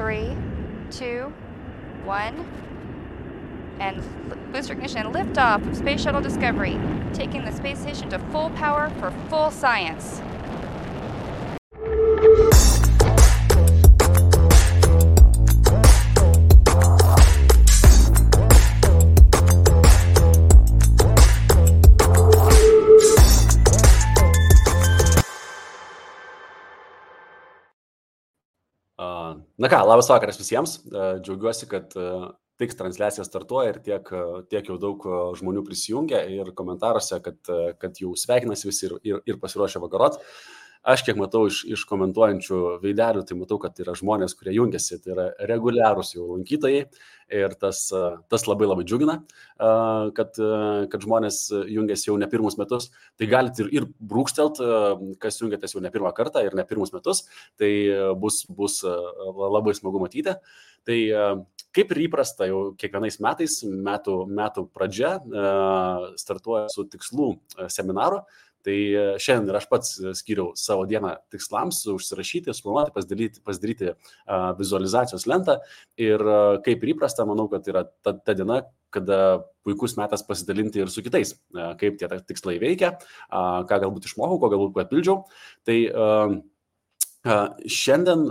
3, 2, 1, and booster ignition and liftoff of Space Shuttle Discovery, taking the space station to full power for full science. Na ką, labas vakaras visiems. Džiaugiuosi, kad tiks transliacija startuoja ir tiek jau daug žmonių prisijungia ir komentaruose, kad jau sveikinasi visi ir pasiruošia vakarot. Aš kiek matau iš komentuojančių veidelių, tai matau, kad yra žmonės, kurie jungiasi, tai yra reguliarūs jau lankytojai ir tas labai labai džiugina, kad žmonės jungiasi jau ne pirmus metus. Tai galite ir brūkštelt, kas jungiatės jau ne pirmą kartą ir ne pirmus metus, tai bus labai smagu matyti. Tai kaip ir įprasta jau kiekvienais metais, metų pradžia startuoja su tikslų seminaru. Tai šiandien ir aš pats skyriau savo dieną tikslams, užsirašyti, suplanuoti, pasidaryti vizualizacijos lentą ir kaip ir įprasta, manau, kad yra ta diena, kada puikus metas pasidalinti ir su kitais, kaip tie tikslai veikia, ką galbūt išmokau, ko galbūt papildžiau. Tai šiandien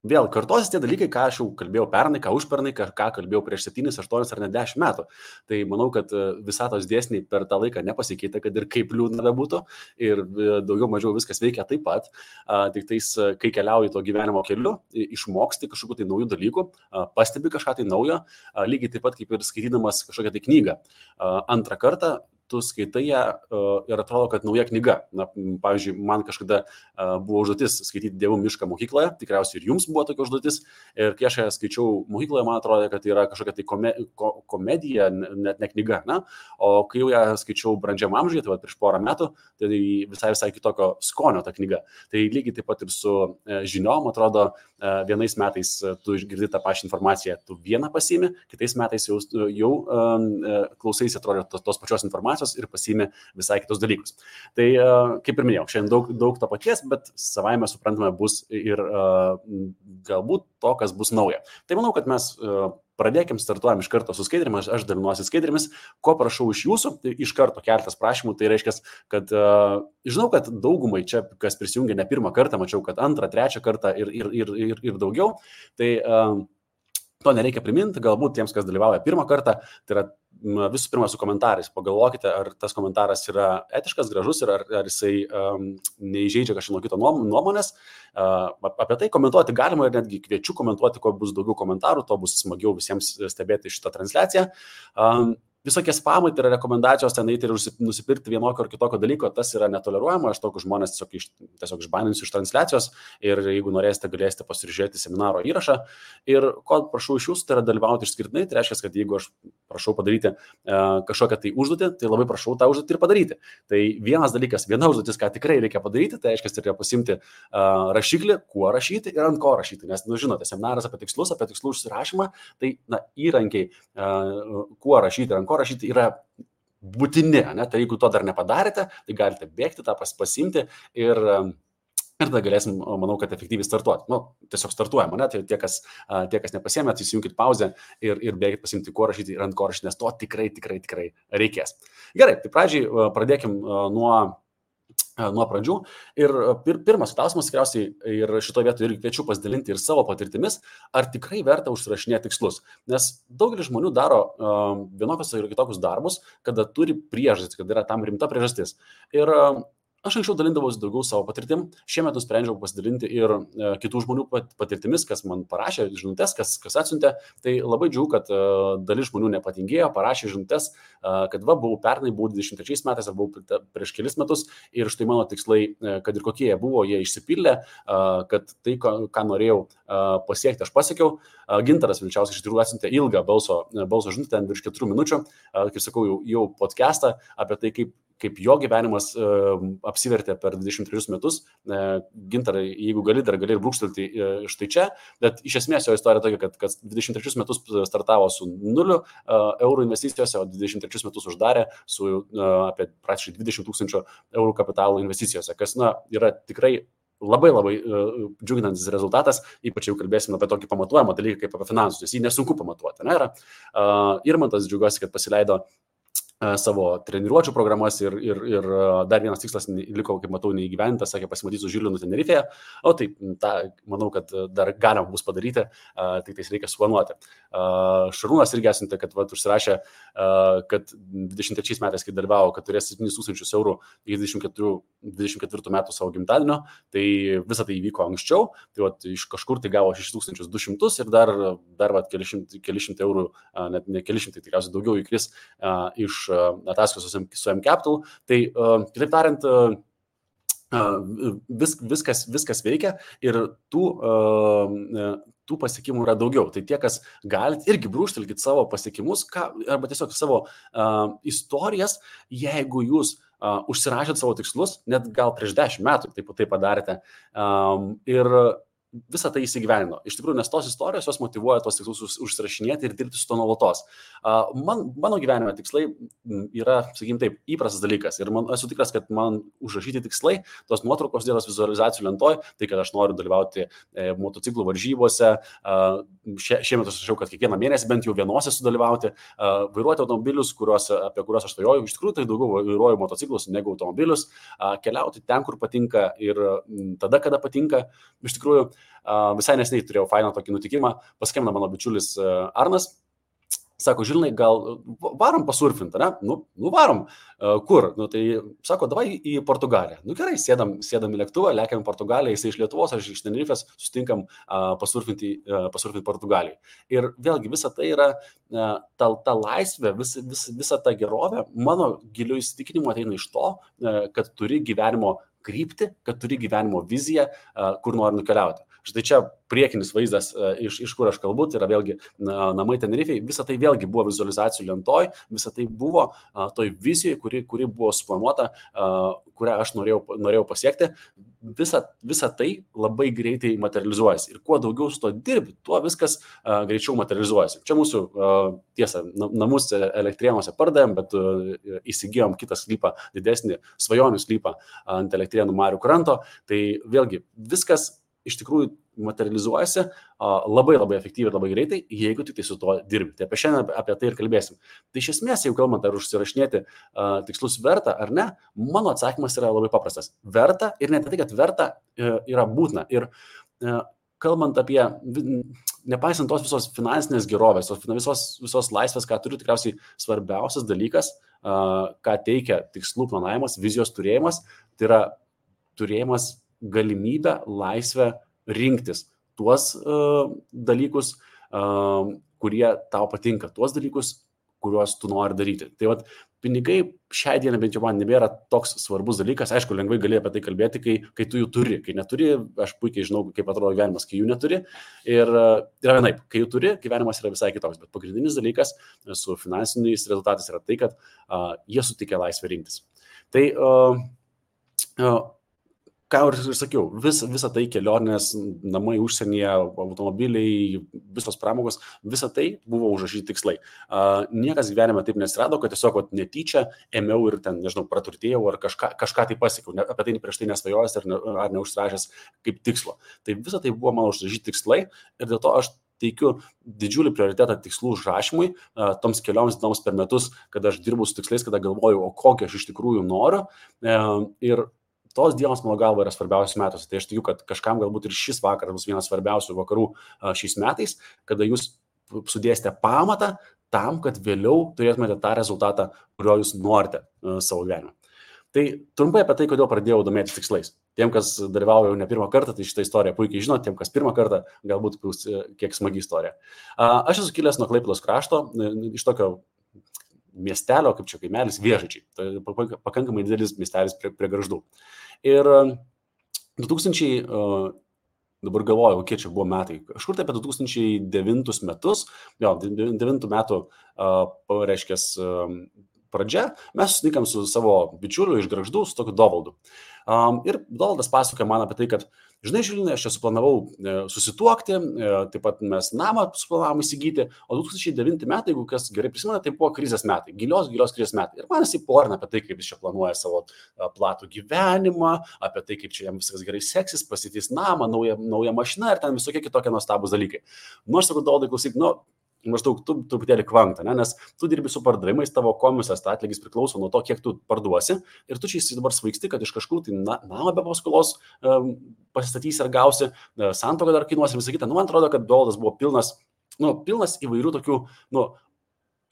vėl kartosis tie dalykai, ką aš jau kalbėjau pernai, ką užpernai, ką kalbėjau prieš 7, 8 ar net 10 metų. Tai manau, kad visatos dėsniai per tą laiką nepasikeitė, kad ir kaip liūdna bebūtų ir daugiau mažiau viskas veikia taip pat. Tik tais, kai keliauji to gyvenimo keliu, išmoksti kažkokių tai naujų dalykų, pastebi kažką tai naujo, lygiai taip pat kaip ir skaitydamas kažkokią tai knygą. Antrą kartą tu skaitai ją ir atrodo, kad nauja knyga. Na, pavyzdžiui, man kažkada buvo užduotis skaityti Dievų mišką mokykloje, tikriausiai ir jums buvo tokia užduotis. Ir kai aš ją skaičiau mokykloje, man atrodo, kad tai yra kažkokia tai komedija, net ne knyga. Na? O kai jau ją skaičiau brandžiam amžiuje, tai prieš porą metų, tai visai kitokio skonio ta knyga. Tai lygiai taip pat ir su žiniom, atrodo, vienais metais tu išgirdi tą pačią informaciją, tu vieną pasiimi, kitais metais jau klausaisi, atrodo, tos pačios informacijos ir pasiimi visai kitus dalykus. Tai, kaip ir minėjau, šiandien daug to paties, bet savaime suprantame bus ir galbūt to, kas bus nauja. Tai manau, kad mes pradėkim, startuojam iš karto su skaidrėmis, aš dalinuosi skaidrėmis, ko prašau iš jūsų, tai iš karto keletas prašymų, tai reiškia, kad žinau, kad daugumai čia, kas prisijungia ne pirmą kartą, mačiau, kad antrą, trečią kartą ir daugiau, tai to nereikia priminti, galbūt tiems, kas dalyvauja pirmą kartą, tai yra visų pirma su komentarais. Pagalvokite, ar tas komentaras yra etiškas, gražus ir ar jisai neįžeidžia kažkieno kito nuomonės. Apie tai komentuoti galima ir netgi kviečiu komentuoti, kuo bus daugiau komentarų, to bus smagiau visiems stebėti šitą transliaciją. Visokie spamai, tai yra rekomendacijos ten eiti ir nusipirkti vienokio ar kitokio dalyko, tas yra netoleruojama, aš tokius žmonės tiesiog išbaninsiu iš transliacijos ir jeigu norėsite, galėsite pasižiūrėti seminaro įrašą. Ir ko prašau iš jūsų, tai yra dalyvauti išskirtinai, tai reiškia, kad jeigu aš prašau padaryti kažkokią tai užduotį, tai labai prašau tą užduotį ir padaryti. Tai vienas dalykas, viena užduotis, ką tikrai reikia padaryti, tai reiškia, reikia pasimti rašiklį, kuo rašyti ir ant ko rašyti, nes, žinote, seminaras apie tikslų užsirašymą, tai įrankiai, kuo rašyti ir ant ko rašyti yra būtini, ne? Tai jeigu to dar nepadarėte, tai galite bėgti tą pasimti ir tada galėsim, manau, kad efektyviai startuoti. Tiesiog startuojam, ne? Tai tie, kas nepasiėmėt, įsijunkit pauzę ir bėgit pasimti, kuo rašyti ir ant ko rašyti, nes to tikrai reikės. Gerai, tai pradžiai pradėkim nuo pradžių. Ir pirmas klausimas tikriausiai ir šitoje vietoje irgi kviečiu pasidalinti ir savo patirtimis, ar tikrai verta užsirašinėti tikslus. Nes daugelis žmonių daro vienokius ir kitokius darbus, kada turi priežastį, kada yra tam rimta priežastis. Ir aš anksčiau dalindavausi daugiau savo patirtim, šiemet nusprendžiau pasidalinti ir kitų žmonių patirtimis, kas man parašė žinutes, kas atsiuntė. Tai labai džiaugiu, kad dalis žmonių nepatingėjo, parašė žinutes, kad buvau pernai, buvau 23 metais, ar buvau prieš kelis metus ir štai mano tikslai, kad ir kokie jie buvo, jie išsipildė, kad tai, ką norėjau pasiekti, aš pasiekiau. Gintaras Vilčiauskas iš tikrųjų atsiuntė ilgą balso žinutę, ten virš 4 minučių, kaip sakau, jau podcastą apie tai, kaip jo gyvenimas apsivertė per 23 metus. Gintarai, jeigu gali ir brūkštelti štai čia, bet iš esmės jo istorija tokia, kad 23 metus startavo su 0 eurų investicijose, o 23 metus uždarė su apie praktiškai 20 000 eurų kapitalo investicijose, kas yra tikrai labai džiuginantis rezultatas, ypač jau kalbėsime apie tokį pamatuojamą dalyką kaip apie finansus, nes jį nesunku pamatuoti. Ne? Irmantas džiaugiuosi, kad pasileido savo treniruočių programas ir dar vienas tikslas liko, kaip matau, neįgyventas, sakė, pasimatysiu Žilinu Tenerifėje, o tai manau, kad dar galima bus padaryti, tik tais reikia suplanuoti. Šarūnas irgi esate, kad užsirašė, kad 23 metais, kai dalyvavo, kad turės 7,000 eurų iki 24 metų savo gimtadienio, tai visą tai įvyko anksčiau, tai iš kažkur tai gavo 6,200 ir dar keli šimtai eurų, net ne keli šimtai, tikriausiai daugiau įkris iš ataskaitos su M-Capital. Tai, kitaip tariant, viskas veikia ir tų pasiekimų yra daugiau. Tai tie, kas galite, irgi brūžtelkit savo pasiekimus arba tiesiog savo istorijas, jeigu jūs užsirašėt savo tikslus, net gal prieš 10 metų tai padarėte. Ir visą tai įsigyvenino. Iš tikrųjų, nes tos istorijos jos motyvuoja tos tikslus užsirašinėti ir dirbti su to nuolatos. Mano gyvenime tikslai yra, sakykim taip, įprastas dalykas. Ir esu tikras, kad man užrašyti tikslai, tos nuotraukos dėlas vizualizacijų lentoj, tai kad aš noriu dalyvauti motociklų varžybose. Šiemet aš rašiau, kad kiekvieną mėnesį bent jau vienose sudalyvauti, vairuoti automobilius, apie kuriuos aš svajoju. Iš tikrųjų, tai daugiau vairuoju motociklus negu automobilius, keliauti ten, kur patinka ir tada, kada patinka. Iš tikrųjų, visai neseniai turėjau fainą tokį nutikimą, paskambino mano bičiulis Arnas, sako, Žilinai, gal varom pasurfinti, ne? Nu varom. Kur? Tai sako, davai į Portugaliją. Gerai, sėdam į lėktuvą, lekiam į Portugaliją, jisai iš Lietuvos, aš iš Tenerifės, sustinkam pasurfinti Portugalijai. Ir vėlgi visa tai yra ta laisvė, visa ta gerovė, mano giliu įsitikinimu ateina iš to, kad turi gyvenimo kryptį, kad turi gyvenimo viziją, kur nori nukeliauti. Štai čia priekinis vaizdas, iš kur aš kalbu, tai yra vėlgi namai Tenerifėje, visa tai vėlgi buvo vizualizacijų lentoj, visa tai buvo toj vizijoje, kuri buvo suplanuota, kurią aš norėjau pasiekti. Visa tai labai greitai materializuojasi. Ir kuo daugiau su to dirbi, tuo viskas greičiau materializuojasi. Čia mūsų, tiesa, namus Elektrėnuose pardavėm, bet įsigijom kitą sklypą, didesnį svajonių sklypą ant Elektrėnų marių kranto. Tai vėlgi viskas iš tikrųjų materializuojasi labai efektyviai ir labai greitai, jeigu tik tai su to dirbi. Tai šiandien apie tai ir kalbėsim. Tai iš esmės, jeigu kalbant, ar užsirašinėti tikslus verta ar ne, mano atsakymas yra labai paprastas. Verta ir ne tai, kad verta yra būtina. Ir kalbant apie, nepaisant tos visos finansinės gerovės, visos laisvės, ką turiu, tikriausiai svarbiausias dalykas, ką teikia tikslų planavimas, vizijos turėjimas, tai yra turėjimas galimybę, laisvę rinktis tuos dalykus, kurie tau patinka, tuos dalykus, kuriuos tu nori daryti. Tai pinigai šiai dienai bent jau man nebėra toks svarbus dalykas. Aišku, lengvai gali apie tai kalbėti, kai tu jų turi. Kai neturi, aš puikiai žinau, kaip atrodo gyvenimas, kai jų neturi. Ir yra vienaip, kai jų turi, gyvenimas yra visai kitoks. Bet pagrindinis dalykas su finansiniais rezultatais yra tai, kad jie suteikia laisvę rinktis. Tai ką ir sakiau, visa tai kelionės, namai užsienyje, automobiliai, visos pramogos, visa tai buvo užrašyti tikslai. Niekas gyvenime taip nesirado, kad tiesiog netyčia ėmiau ir ten, nežinau, praturtėjau ar kažką tai pasiekiau, apie tai prieš tai nesvajojęs ar neužsirašęs kaip tikslo. Tai visa tai buvo mano užrašyti tikslai ir dėl to aš teikiu didžiulį prioritetą tikslų užrašymui, toms kelioms dienoms per metus, kada aš dirbu su tikslais, kada galvoju, o kokį aš iš tikrųjų noriu. Ir tos dienos, mano galva, yra svarbiausios metuose. Tai aš tikiu, kad kažkam galbūt ir šis vakaras bus vienas svarbiausių vakarų šiais metais, kada jūs sudėsite pamatą tam, kad vėliau turėtumėte tą rezultatą, kurio jūs norite savo gyvenime. Tai trumpai apie tai, kodėl pradėjau domėtis tikslais. Tiem, kas dalyvauja jau ne pirmą kartą, tai šitą istoriją puikiai žino, tiem, kas pirmą kartą, galbūt bus kiek smagi istorija. Aš esu kilęs nuo Klaipėdos krašto, iš tokio miestelio, kaip čia kaimelis, Vėžaičiai. Tai pakankamai didelis miestelis prie Gargždų. Ir 2000, dabar galvoju, kiek čia buvo metai, kažkur tai apie 2009 metus, 2009 metų, reiškės, pradžia, mes susitinkam su savo bičiuliu iš Gargždų, su tokiu Dovaldu. Ir Dovaldas pasakoja man apie tai, kad žinai, Žilinai, aš čia suplanavau susituokti, taip pat mes namą suplanavom įsigyti, o 2009 metai, jeigu kas gerai prisimena, tai buvo krizės metai, gilios krizės metai. Ir man jisai porina apie tai, kaip jis čia planuoja savo platų gyvenimą, apie tai, kaip čia jam viskas gerai seksis, pasitys namą, naują mašiną ir ten visokie kitokie nuostabūs dalykai. Nu, aš sakau, Doldai, klausyk, maždaug tu truputėlį kvanta, nes tu dirbi su pardavimais, tavo komisijos atlygis priklauso nuo to, kiek tu parduosi ir tu čia dabar svaigsti, kad iš kažkur tai namą be paskolos pasistatysi ar gausi, santuoką dar kainuosi ir visą kitą. Man atrodo, kad Doldas buvo pilnas įvairių tokių,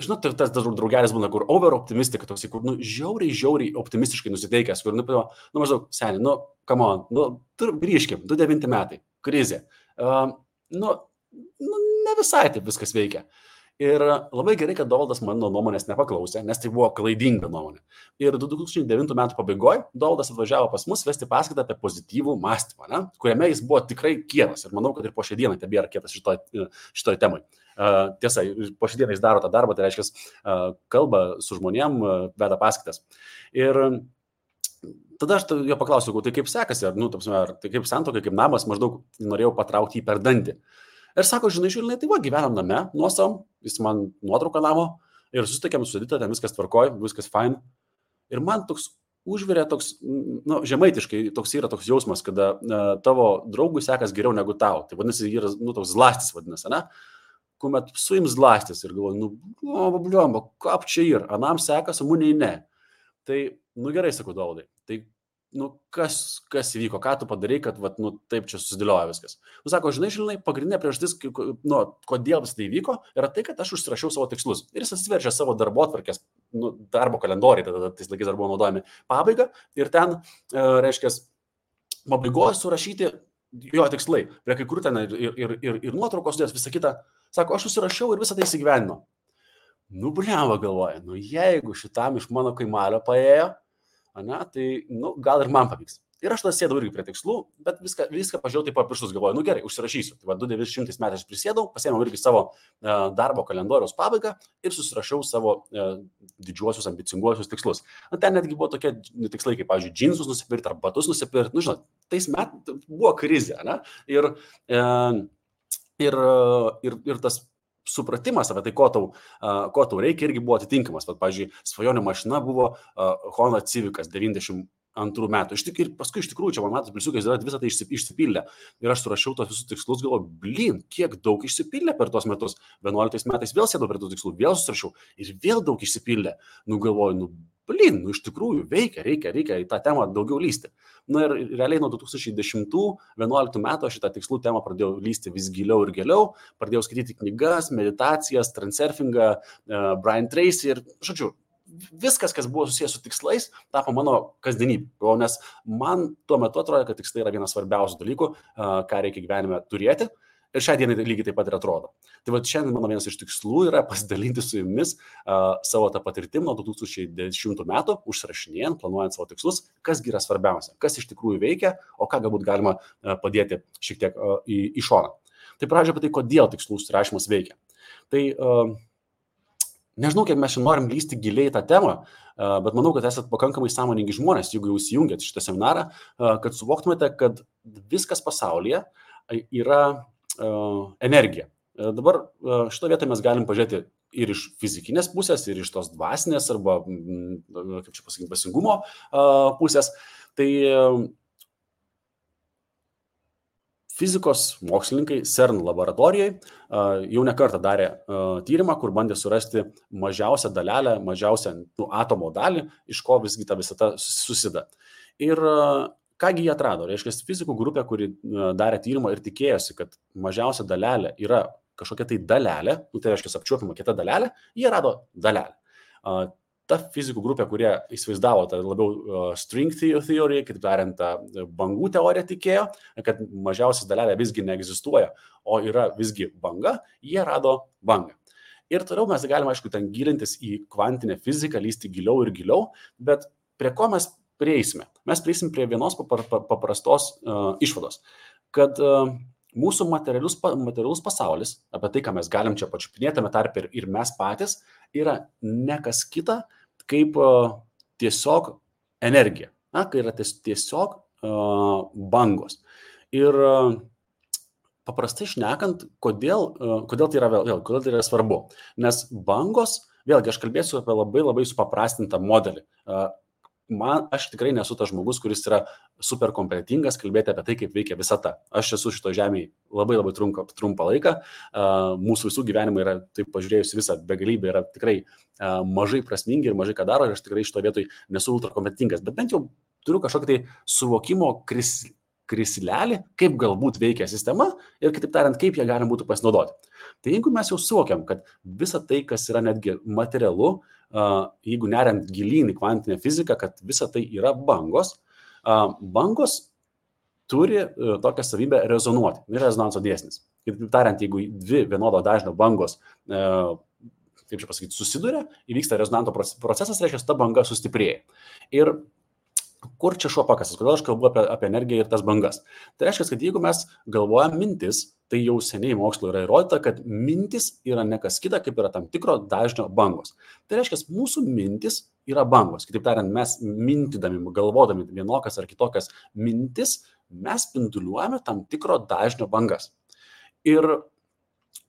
žinot, tas draugelis būna, kur over-optimistika, toks, kur, žiauriai optimistiškai nusiteikęs, kur, maždaug, seniai, come on, grįžkim, 2009 metai, krizė. Ne visai taip viskas veikia. Ir labai gerai, kad Doldas mano nuomonės nepaklausė, nes tai buvo klaidinga nuomonė. Ir 2009 metų pabaigoje Doldas atvažiavo pas mus vesti paskaitą apie pozityvų mąstymą, kuriame jis buvo tikrai kietas. Ir manau, kad ir po šią dieną tebėra kietas šitoj temai. Tiesa, po šią dieną jis daro tą darbą, tai reiškia, kalba su žmonėm, veda paskaitas. Ir tada aš jo paklausiau, tai kaip sekasi, ar tai kaip santuoka, kaip namas, maždaug norėjau patraukti jį per dantį. Ir sako, žinai, Žilinai, tai gyvenam name, nuosavam, jis man nuotrauką namo ir susitikėm su Edita, ten viskas tvarkoj, viskas fine. Ir man toks užvirė toks, žemaitiškai toks yra toks jausmas, kada tavo draugui sekas geriau negu tau. Tai vadinasi, yra, toks zlastis vadinasi, ne? Kuomet suims zlastis ir galvoju, bliomba, kap čia yra, anam sekas, o muniai ne. Tai, gerai, sakau, Doldai, tai kas įvyko, ką tu padarai, kad taip čia susidėlioja viskas. Sako, žinai, Žilinai, pagrindinė priežastis, kodėl vis tai įvyko, yra tai, kad aš užsirašiau savo tikslus. Ir jis atsiverčia savo darbotvarkės, darbo kalendoriai, tada tais laikais dar buvo naudojami, pabaigą, ir ten, reiškia, pabaigoje surašyti jo tikslai. Prie kai kur ten ir nuotraukos dės, visą kitą. Sako, aš užsirašiau ir visą tai įsigyvenimo. Bliamba galvoja, jeigu šitam iš mano kaimelio paėjo, tai gal ir man pavyks. Ir aš tada sėdau irgi prie tikslų, bet viską pažiūrėjau taip pirštus, galvoju, gerai, užsirašysiu. Tai 2009 metais prisėdau, pasėmiau irgi savo darbo kalendoriaus pabaigą ir susirašiau savo didžiuosius, ambicinguosius tikslus. Ten netgi buvo tokie tikslai, kaip, pavyzdžiui, džinsus nusipirkti ar batus nusipirkti. Žinot, tais metais buvo krizė, ne? Ir tas supratimas apie tai, ko tau reikia, irgi buvo atitinkamas. Pavyzdžiui, svajonių mašina buvo Honda Civicas 92 metų. Ir paskui iš tikrųjų čia man matos pliusiukais yra visą tai išsipildė. Ir aš surašiau tos visus tikslus, galvoju, kiek daug išsipildė per tuos metus. 11 metais vėl sėdau prie tų tikslų, vėl susirašiau ir vėl daug išsipildė. Galvoju, iš tikrųjų veikia, reikia į tą temą daugiau lysti. Ir realiai nuo 2010-2011 metų aš šitą tikslų temą pradėjau lysti vis giliau ir giliau, pradėjau skaityti knygas, meditacijas, transurfingą, Brian Tracy ir, žodžiu, viskas, kas buvo susijęs su tikslais, tapo mano kasdienybė. Nes man tuo metu atrodo, kad tikslai yra vienas svarbiausių dalykų, ką reikia gyvenime turėti. Ir šią dieną lygiai taip pat ir atrodo. Tai šiandien mano vienas iš tikslų yra pasidalinti su jumis savo tą patirtim nuo 2010 metų, užsirašinėjant, planuojant savo tikslus, kas yra svarbiausia, kas iš tikrųjų veikia, o ką galbūt galima padėti šiek tiek į šoną. Tai pradžioje apie tai, kodėl tikslų užsirašymas veikia. Tai nežinau, kiek mes šiandien norim lysti giliai tą temą, bet manau, kad esate pakankamai sąmoningi žmonės, jeigu jūs įjungiat šitą seminarą, kad suvoktumėte, kad viskas pasaulyje yra energija. Dabar šito vietoje mes galim pažiūrėti ir iš fizikinės pusės, ir iš tos dvasinės arba, kaip čia pasakyti, dvasingumo pusės. Tai fizikos mokslininkai CERN laboratorijai jau ne kartą darė tyrimą, kur bandė surasti mažiausią dalelę, mažiausią atomo dalį, iš ko visgi ta visata susideda. Ir kągi jie atrado? Reiškia, fizikų grupė, kuri darė tyrimą ir tikėjosi, kad mažiausia dalelė yra kažkokia tai dalelė, tai reiškia apčiuopiama kita dalelė, jie rado dalelę. Ta fizikų grupė, kurie įsivaizdavo tą labiau string theory, kaip tariant, bangų teoriją tikėjo, kad mažiausias dalelė visgi neegzistuoja, o yra visgi banga, jie rado bangą. Ir toliau mes galime, aišku, ten gilintis į kvantinę fiziką, lysti giliau ir giliau, bet prie ko mes prieisime? Mes prieisim prie vienos paprastos išvados, kad mūsų materialus pasaulis, apie tai, ką mes galim čia pačiupinėtame tarpe ir mes patys, yra ne kas kita, kaip tiesiog energija, kai yra tiesiog bangos. Ir paprastai šnekant, kodėl tai yra svarbu. Nes bangos, vėlgi aš kalbėsiu apie labai supaprastintą modelį. Aš tikrai nesu tas žmogus, kuris yra super kompetentingas kalbėti apie tai, kaip veikia visata. Aš esu šito žemėje labai trumpą laiką. Mūsų visų gyvenimai yra, taip pažiūrėjus visą begalybę, yra tikrai mažai prasmingi ir mažai ką daro. Ir aš tikrai šito vietoj nesu ultra kompetentingas. Bet bent jau turiu kažkokį tai suvokimo krislelį, kaip galbūt veikia sistema ir, kitaip tariant, kaip ją galima būtų pasinaudoti. Tai jeigu mes jau suvokiam, kad visa tai, kas yra netgi materialu, jeigu neriant gilyn į kvantinę fiziką, kad visa tai yra bangos, bangos turi tokią savybę rezonuoti. Tai rezonanso dėsnis. Kitaip tariant, jeigu dvi vienodo dažnio bangos, kaip čia pasakyti, susiduria, įvyksta rezonanto procesas, reiškia, ta banga sustiprėja. Ir kur čia šuo pakasas? Kodėl aš kalbu apie energiją ir tas bangas? Tai reiškia, kad jeigu mes galvojam mintis, tai jau seniai mokslo yra įrodyta, kad mintis yra ne kas kita, kaip yra tam tikro dažnio bangos. Tai reiškia, mūsų mintis yra bangos. Kitaip tariant, mes mintydami, galvodami vienokias ar kitokias mintis, mes spinduliuojame tam tikro dažnio bangas. Ir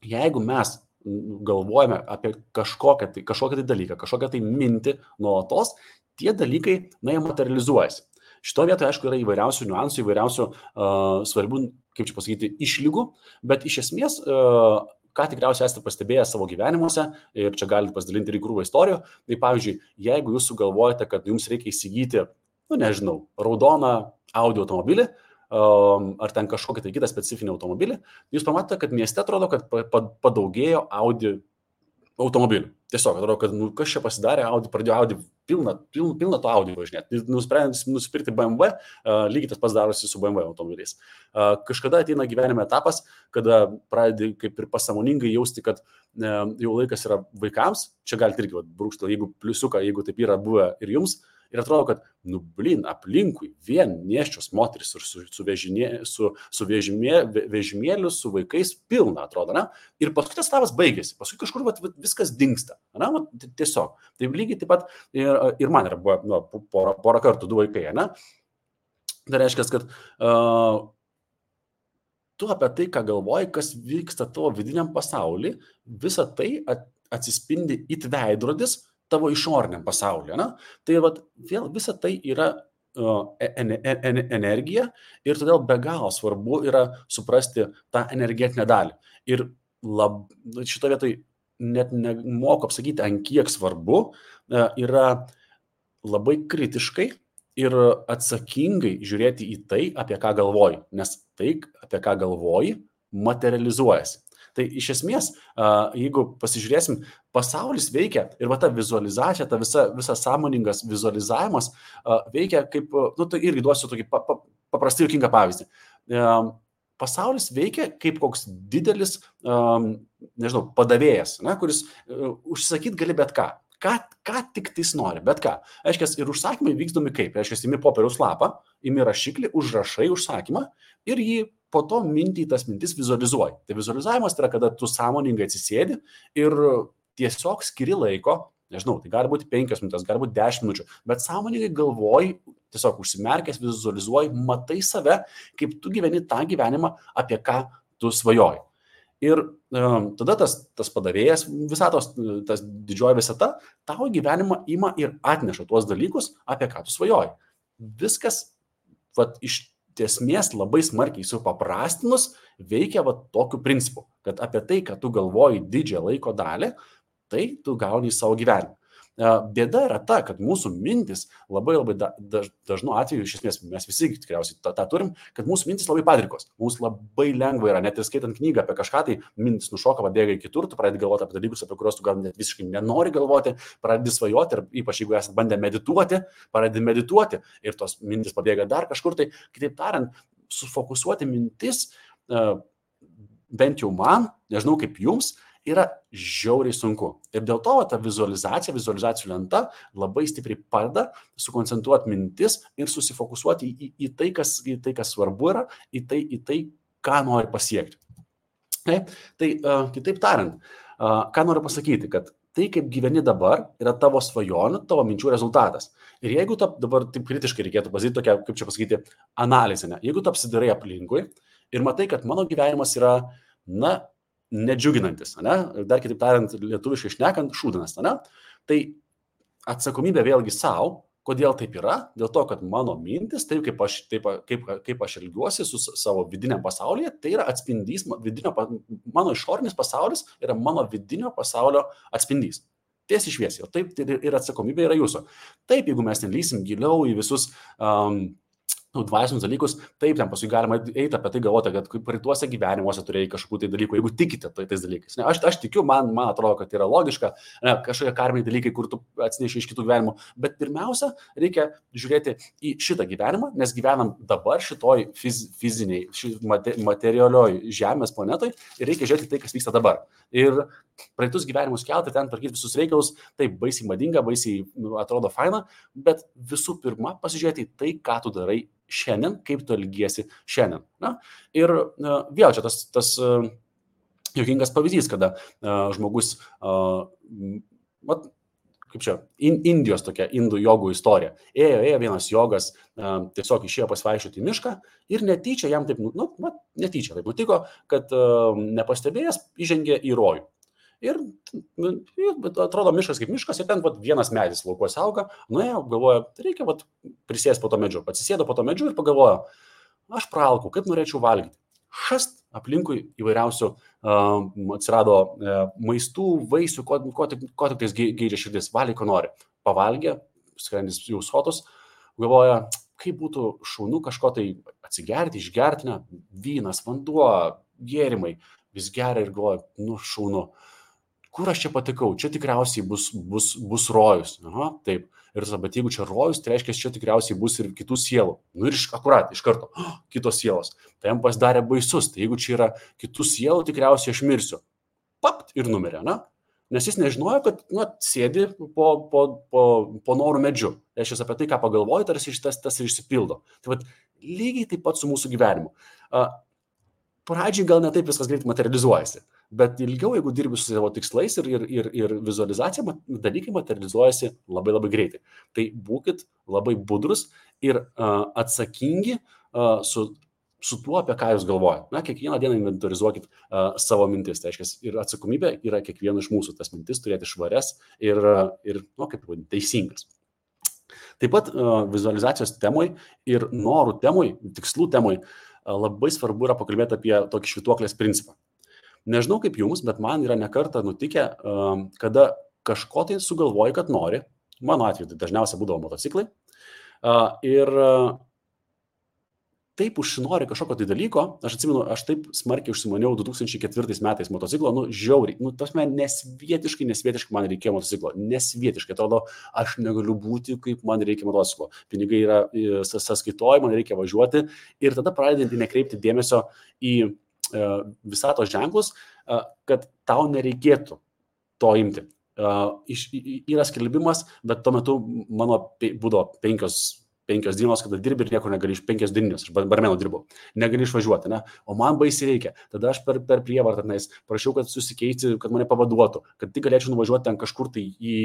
jeigu mes galvojame apie kažkokią tai dalyką, kažkokią tai mintį nuolatos, tie dalykai, jie materializuojasi. Šito vietoje, aišku, yra įvairiausių niuansų, įvairiausių svarbių, kaip čia pasakyti, išlygų, bet iš esmės, ką tikriausiai esate pastebėję savo gyvenimuose, ir čia galite pasidalinti ir į krūvą istorijų, tai pavyzdžiui, jeigu jūs sugalvojate, kad jums reikia įsigyti, raudoną Audi automobilį, ar ten kažkokį tai kitą specifinį automobilį, jūs pamatote, kad mieste atrodo, kad padaugėjo Audi automobilių. Tiesiog atrodo, kad kas čia pasidarė, pradėjo Audi pilną to Audi važinėti. Nusprendė nusipirkti BMW, lygiai tas pats darosi su BMW automobiliais. Kažkada ateina gyvenime etapas, kada pradedi kaip ir pasąmoningai jausti, kad jau laikas yra vaikams. Čia galite irgi brūkštelti, jeigu pliusiuką, jeigu taip yra buvę ir jums. Ir atrodo, kad, aplinkui vien nėščios moteris ir su vežimėliu, su vaikais pilna, atrodo, ne? Ir paskui tas etapas baigėsi, paskui kažkur viskas dingsta, ne? Tiesiog. Tai lygiai taip pat ir man yra buvo porą kartų 2 vaikai, ne? Tai reiškia, kad tu apie tai, ką galvoji, kas vyksta tavo vidiniam pasauly, visa tai atsispindi it veidrodis tavo išoriniam pasaulyje. Ne? Tai vėl visa tai yra energija ir todėl be galo svarbu yra suprasti tą energetinę dalį. Ir šito vietoj net nemoku apsakyti, ant kiek svarbu yra labai kritiškai ir atsakingai žiūrėti į tai, apie ką galvoji, nes tai, apie ką galvoji, materializuojasi. Tai iš esmės, jeigu pasižiūrėsim, pasaulis veikia ir ta vizualizacija, ta visa sąmoningas vizualizavimas veikia kaip, tai irgi duosiu tokį paprastai juokingą pavyzdį. Pasaulis veikia kaip koks didelis, padavėjas, kuris užsisakyti gali bet ką. Ką tik tais nori, bet ką. Aiškiai, ir užsakymai vykdomi kaip? Aiškiai, imi popieriaus lapą, imi rašiklį, užrašai užsakymą ir jį po to tas mintis vizualizuoji. Tai vizualizavimas tai yra, kada tu sąmoningai atsisėdi ir tiesiog skiri laiko, tai gali būti 5 minutės, gali būti 10 minučių, bet sąmoningai galvoji, tiesiog užsimerkęs, vizualizuoji, matai save, kaip tu gyveni tą gyvenimą, apie ką tu svajoji. Ir tada tas padavėjas visatos, tas didžioji visata, tavo gyvenimą ima ir atneša tuos dalykus, apie ką tu svajoji. Viskas iš esmės labai smarkiai supaprastinus veikia tokiu principu, kad apie tai, ką tu galvoji didžiąją laiko dalį, tai tu gauni į savo gyvenimą. Bėda yra ta, kad mūsų mintis labai dažnu atveju, iš esmės mes visi tikriausiai tą turim, kad mūsų mintis labai padrikos. Mums labai lengva yra, net ir skaitant knygą apie kažką, tai mintis nušoka, pabėga į kitur, tu pradedi galvoti apie dalykus, apie kuriuos tu gal net visiškai nenori galvoti, pradedi svajoti ir ypač jeigu esate bandę medituoti, pradedi medituoti ir tos mintis pabėga dar kažkur. Tai kitaip tariant, sufokusuoti mintis, bent jau man, nežinau kaip jums, yra žiauriai sunku. Ir dėl to ta vizualizacijų lenta labai stipriai padeda sukoncentruoti mintis ir susifokusuoti į tai, kas svarbu yra, į tai, ką nori pasiekti. Tai kitaip tariant, ką noriu pasakyti, kad tai, kaip gyveni dabar, yra tavo svajonių, tavo minčių rezultatas. Ir jeigu dabar taip kritiškai reikėtų pasakyti tokią, kaip čia pasakyti, analizę, ne? Jeigu tu apsidairai aplinkui ir matai, kad mano gyvenimas yra, nedžiuginantis, ne? Dar kitaip tariant, lietuviškai šnekant, šūdinas, ne? Tai atsakomybė vėlgi savo. Kodėl taip yra? Dėl to, kad mano mintis, taip kaip aš elgiuosi su savo vidiniam pasaulyje, tai yra atspindys, mano išorinis pasaulis yra mano vidinio pasaulio atspindys. Tiesiai šviesiai. Taip ir atsakomybė yra jūsų. Taip, jeigu mes nelysim giliau į visus dvasinius dalykus, taip, ten paskui galima eiti apie tai galvoti, kad praeituose gyvenimuose turėjai kažkokių tai dalykų, jeigu tikite tais dalykais. Ne, aš tikiu, man atrodo, kad tai yra logiška, kažkokie karminiai dalykai, kur tu atsineši iš kitų gyvenimų, bet pirmiausia, reikia žiūrėti į šitą gyvenimą, nes gyvenam dabar šitoj fiziniai, materialioj žemės planetoj ir reikia žiūrėti tai, kas vyksta dabar. Ir praeitus gyvenimus kelti, ten tvarkyti visus reikalus, taip baisiai madinga, baisiai atrodo faina, bet visų pirma pasižiūrėti į tai, ką tu darai šiandien, kaip tu elgiesi šiandien. Na? Ir vėl čia tas juokingas pavyzdys, kada žmogus, kaip čia, Indijos tokia, indų jogų istorija. Ėjo vienas jogas, tiesiog išėjo pasivaikščioti į mišką ir netyčia jam taip, netyčia taip nutiko, kad nepastebėjęs įžengė į rojų. Ir atrodo miškas kaip miškas ir ten vienas medis laukuose auga, nuėjo, galvoja, reikia prisėsti po to medžiu. Atsisėdo po to medžiu ir pagalvojo, aš praalkau, kaip norėčiau valgyti. Šast aplinkui įvairiausių atsirado maistų, vaisių, ko tik tais geidžia širdis, valiai, ko nori. Pavalgė, skrandis jau sotus, galvoja, kaip būtų šaunu kažko tai atsigerti, išgerti, ne, vynas, vanduo, gėrimai, vis geria ir galvoja, šaunu. Kur aš čia patikau? Čia tikriausiai bus rojus. Aha, taip. Ir bet jeigu čia rojus, tai reiškia, čia tikriausiai bus ir kitų sielų. Ir iš karto, kitos sielos. Tai jam pasidarė baisus. Tai jeigu čia yra kitų sielų, tikriausiai aš mirsiu. Papt ir numirė, ne? Nes jis nežinojo, kad sėdi po norų medžiu. Reiškia, apie tai, ką pagalvoji, tarsi tas ir išsipildo. Tai lygiai taip pat su mūsų gyvenimu. Pradžiai gal ne taip viskas greit materializuojasi, bet ilgiau, jeigu dirbi su savo tikslais ir vizualizacija, dalykai materializuojasi labai labai greitai. Tai būkit labai budrus ir atsakingi su tuo, apie ką jūs galvojate. Kiekvieną dieną inventorizuokit savo mintis. Tai reiškia, ir atsakomybė yra kiekvieno iš mūsų tas mintis turėti švarias ir teisingas. Taip pat vizualizacijos temoj ir norų temoj, tikslų temoj labai svarbu yra pakalbėti apie tokį švytuoklės principą. Nežinau kaip jums, bet man yra nekartą nutikę, kada kažko tai sugalvoji, kad nori. Mano atveju tai dažniausiai būdavo motociklai. Ir taip užsinori kažkokio tai dalyko. Aš atsimenu, aš taip smarkiai užsimaniau 2004 metais motociklo, žiauriai. Tasme, nesvietiškai man reikėjo motociklo. Nesvietiškai, atrodo, aš negaliu būti, kaip man reikia motociklo. Pinigai yra sąskaitoj, man reikia važiuoti. Ir tada pradedant nekreipti dėmesio į visatos ženklus, kad tau nereikėtų to imti. Yra skelbimas, bet tuo metu mano būdavo 5 dienos, kada dirbi ir niekur negali 5 dienos, aš barmenu dirbau, negali išvažiuoti, ne? O man baisiai reikia. Tada aš per prievartą prašiau, kad susikeisti, kad mane pavaduotų, kad tik galėčiau nuvažiuoti ten kažkur tai į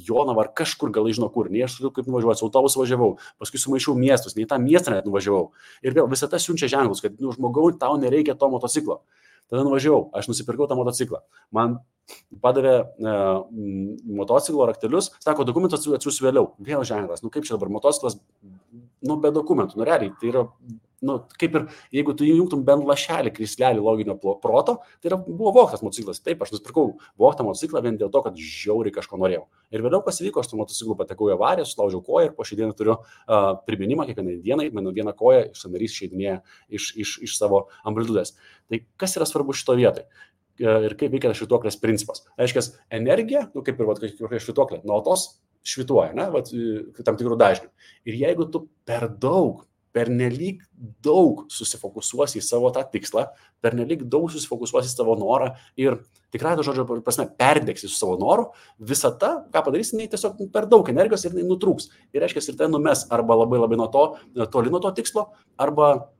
Jonavą ar kažkur, gal žinau kur, nei aš turiu kaip nuvažiuoti, su autobusu važiavau, paskui sumaišiau miestus, nei tą miestą net nuvažiavau. Ir vėl visą tą siunčia ženklus, kad žmogau, tau nereikia to motociklo. Tada nuvažiavau, aš nusipirkau tą motociklą. Man padavė motociklo raktelius, sako, dokumentus atsiųsiu vėliau. Vėl ženklas, kaip čia dabar motociklas, be dokumentų, realiai, tai yra, kaip ir, jeigu tu įjungtum bent lašelį, krislelį loginio proto, tai buvo vogtas motociklas. Taip, aš nusipirkau vogtą motociklą vien dėl to, kad žiauriai kažko norėjau. Ir vėliau kas įvyko, aš su motociklu patekau į avariją, sulaužiau koją ir po šią dieną turiu priminimą kiekvienai dienai, mano viena koja sąnarys išeidinėja iš savo amplitudės. Tai kas yra svarbu šito vietoj? Ir kaip veikia švytuoklės principas. Reiškia, energija, kaip ir švytuoklė, nuolatos švytuoja, tam tikrų dažnių. Ir jeigu tu pernelyg daug susifokusuosi į savo tą tikslą, pernelyg daug susifokusuosi į savo norą ir tikrai to žodžio prasme perdegsi su savo noru, visata, ką padarysi, tiesiog per daug energijos ir nutrūks. Ir reiškia, ir tai numes arba labai labai toli nuo to tikslo, arba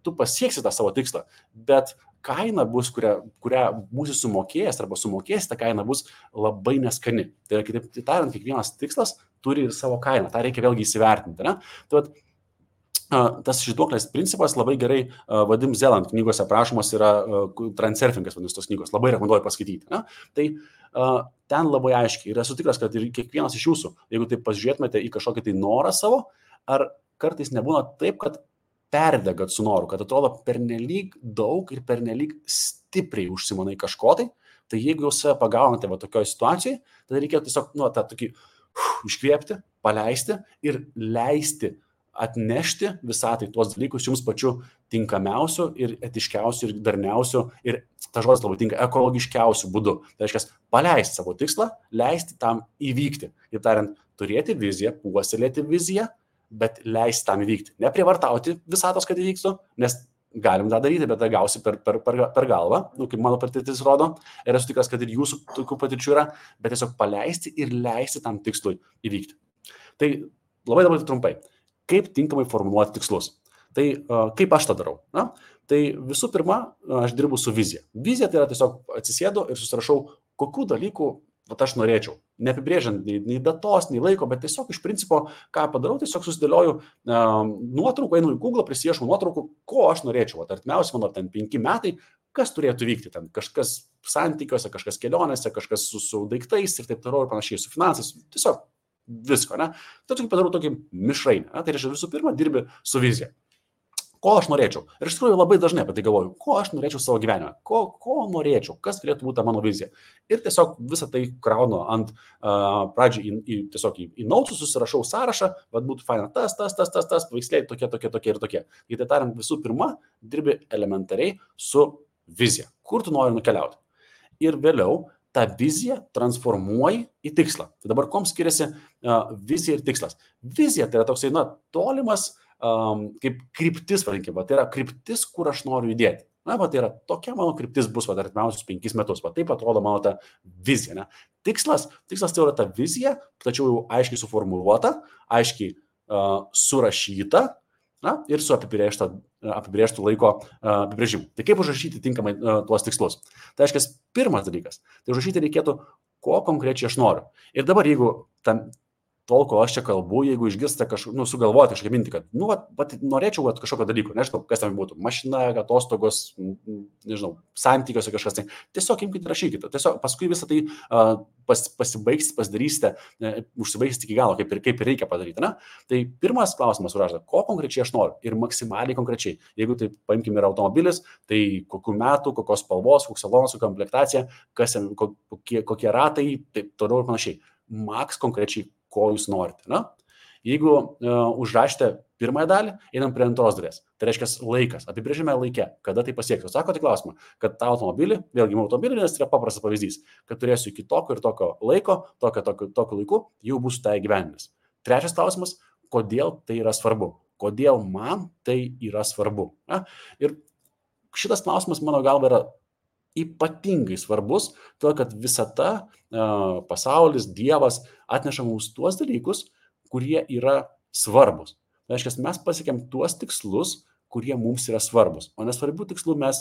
tu pasieksi tą savo tikslą, bet kaina bus, kurią būsi sumokėjęs arba sumokėjęs, ta kaina bus labai neskani. Tai yra, kitaip tariant, kiekvienas tikslas turi ir savo kainą. Ta reikia vėlgi įsivertinti. Ne? Tai tas švytuoklės principas labai gerai Vadim Zeland knygose aprašomas yra Transurfingas, vadinasi tos knygos. Labai rekomenduoju paskaityti. Ne? Tai ten labai aiškiai ir esu tikras, kad ir kiekvienas iš jūsų, jeigu taip pasižiūrėtumėte į kažkokį tai norą savo, ar kartais nebūna taip, kad perdegat su noru, kad atrodo pernelyg daug ir pernelyg stipriai užsimanai kažko tai jeigu jūs save pagaunate va tokioje situacijoje, tada reikėtų tiesiog tą tokį iškvėpti, paleisti ir leisti atnešti visatai tuos dalykus jums pačiu tinkamiausiu ir etiškiausiu ir darniausiu ir ta žodis labai tinka ekologiškiausiu būdu. Tai reiškia, paleisti savo tikslą, leisti tam įvykti. Ir tariant, turėti viziją, puoselėti viziją, bet leisti tam įvykti. Neprievartauti visatos, kad įvyktų, nes galim tą daryti, bet tą gausi per galvą, kaip mano patirtis rodo. Ir esu tikras, kad ir jūsų tokių patirčių yra, bet tiesiog paleisti ir leisti tam tikslui įvykti. Tai labai trumpai. Kaip tinkamai formuluoti tikslus. Tai kaip aš tą darau? Na? Tai visų pirma, aš dirbu su vizija. Vizija tai yra tiesiog atsisėdu ir susirašau, kokių dalykų aš norėčiau. Neapibrėžiant nei datos, nei laiko, bet tiesiog iš principo, ką padarau, tiesiog susidėlioju nuotraukų, einu į Google, prisiešu nuotraukų, ko aš norėčiau. Artimiausiai mano ten 5 metai, kas turėtų vykti ten. Kažkas santykiuose, kažkas kelionėse, kažkas su daiktais ir taip toliau ir panašiai, su finansais. Tiesiog visko, ne? Tai padarau tokį mišrainį. Tai reiškia, visų pirma, dirbi su vizija. Ko aš norėčiau? Ir iš tikrųjų labai dažnai apie tai galvoju, ko aš norėčiau savo gyvenime, ko norėčiau, kas turėtų būti mano vizija. Ir tiesiog visą tai kraunu ant pradžiai į nautus, susirašau sąrašą, vad būtų faina tas, paveiksliai tokie ir tokie. Tai tariant, visų pirma, dirbi elementariai su vizija. Kur tu nori nukeliauti? Ir vėliau tą viziją transformuoji į tikslą. Tai dabar kom skiriasi vizija ir tikslas? Vizija tai yra toksai, tolimas kaip kryptis, vadinkime, tai yra kryptis, kur aš noriu judėti. Tai yra tokia mano kryptis bus artimiausius 5 metus. Taip atrodo mano ta vizija. Ne? Tikslas tai yra ta vizija, tačiau jau aiškiai suformuluota, aiškiai surašyta ir su apibrėžtų laiko apibrėžimu. Tai kaip užrašyti tinkamai tuos tikslus? Tai aiškiai, pirmas dalykas, tai užrašyti reikėtų, ko konkrečiai aš noriu. Ir dabar, jeigu tol, kol aš čia kalbu, jeigu išgirstate kažkokį, sugalvoti kažkokią mintį, kad norėčiau kažkokio dalyko, nežinau, kas tam būtų, mašina, atostogos, nežinau, santykiuose kažkas, tai tiesiog imkite, rašykite, tiesiog paskui visą tai pasibaigsite, pasidarysite, užsibaigsite iki galo, kaip ir reikia padaryti. Ne? Tai pirmas klausimas užrašyta, ko konkrečiai aš noriu ir maksimaliai konkrečiai. Jeigu tai paimkime ir automobilis, tai kokių metų, kokios spalvos, koks salonas, kokia komplektacija, kokie ratai, taip toliau ir panašiai. Maks konkrečiai, ko jūs norite. Na? Jeigu užrašite pirmąją dalį, einam prie antros dalies. Tai reiškia laikas. Apibrėžime laike, kada tai pasieksiu. Sakote klausimą, kad tą automobilį, vėlgi automobilį, nes tai yra paprastas pavyzdys, kad turėsiu iki tokio ir tokio laiko, tokio laiku, jau bus tai gyvenimas. Trečias klausimas, kodėl tai yra svarbu. Kodėl man tai yra svarbu. Na? Ir šitas klausimas, mano galva, yra ypatingai svarbus, todėl kad visata, pasaulis, Dievas atneša mums tuos dalykus, kurie yra svarbus. Tai reiškia, mes pasiekėm tuos tikslus, kurie mums yra svarbus, o nesvarbių tikslų mes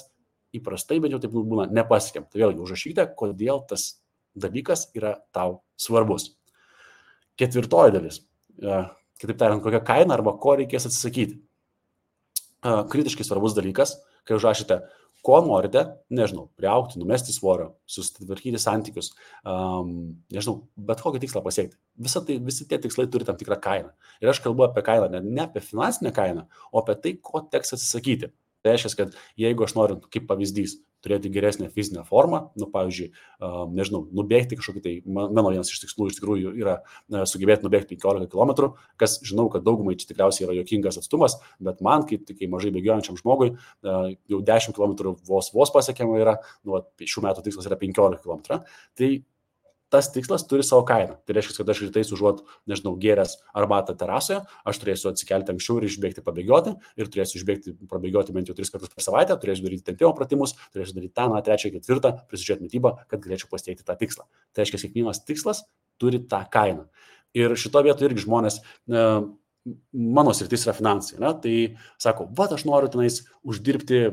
įprastai, bet jau taip būna, nepasiekėm. Tai vėlgi užrašykite, kodėl tas dalykas yra tau svarbus. Ketvirtoji dalis, kitaip tariant, kokia kaina arba ko reikės atsisakyti. Kritiškai svarbus dalykas, kai užrašyte, ko norite, nežinau, priaugti, numesti svorio, susitvarkyti santykius, nežinau, bet kokį tikslą pasiekti. Visi tie tikslai turi tam tikrą kainą. Ir aš kalbu apie kainą, ne apie finansinę kainą, o apie tai, ko teks atsisakyti. Tai reiškia, kad jeigu aš noriu, kaip pavyzdys, turėti geresnę fizinę formą, pavyzdžiui, nežinau, nubėgti kažkokį tai, mano vienas iš tikslų iš tikrųjų yra sugebėti nubėgti 15 km, kas žinau, kad daugumai čia tikriausiai yra juokingas atstumas, bet man, kaip mažai bėgiojančiam žmogui, jau 10 km vos pasiekiama yra, šių metų tikslas yra 15 km. Tai tas tikslas turi savo kainą. Tai reiškia, kad aš rytais užuot, nežinau, gėręs arbatą terasoje, aš turėsiu atsikelti anksčiau ir išbėgti pabėgioti, ir turėsiu prabėgioti bent jau 3 kartus per savaitę, turėsiu daryti tempimo pratimus, turėsiu daryti tą, 3, 4, prisižiūrėti mitybą, kad galėčiau pasiekti tą tikslą. Tai reiškia, kiekvienas tikslas turi tą kainą. Ir šito vietoje irgi žmonės, mano sritis yra finansai, ne? Tai sako, aš noriu tenais uždirbti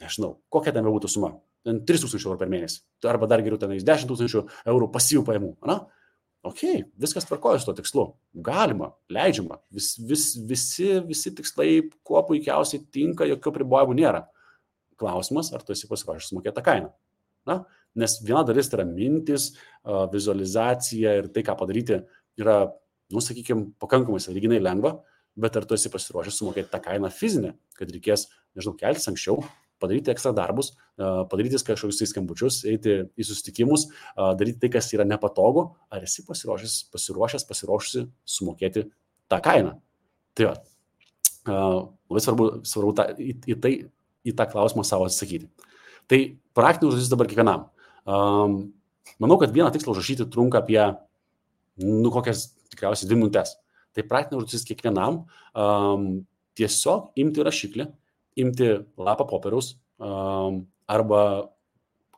nežinau, kokia ten būtų suma, 3000 eurų per mėnesį, arba dar geriau tenais 10 000 eurų pasyvių pajamų, na? Ok, viskas tvarkoja su to tikslu, galima, leidžiama, visi tikslai kuo puikiausiai tinka, jokių pribojimų nėra. Klausimas, ar tu esi pasiruošęs sumokėti tą kainą. Na? Nes viena dalis tai yra mintis, vizualizacija ir tai, ką padaryti, yra, sakykime, pakankamai sąlyginai lengva, bet ar tu esi pasiruošęs sumokėti tą kainą fizinę, kad reikės, nežinau, keltis anksčiau, padaryti ekstra darbus, padaryti kažkokius skambučius, eiti į susitikimus, daryti tai, kas yra nepatogu, ar esi pasiruošusi sumokėti tą kainą. Tai va, labai svarbu į tą klausimą savo atsakyti. Tai praktinė užduotis dabar kiekvienam. Manau, kad vieną tikslą užrašyti trunka apie, kokias tikriausiai 2 minutės. Tai praktinė užduotis kiekvienam tiesiog imti rašiklį, imti lapą popieriaus arba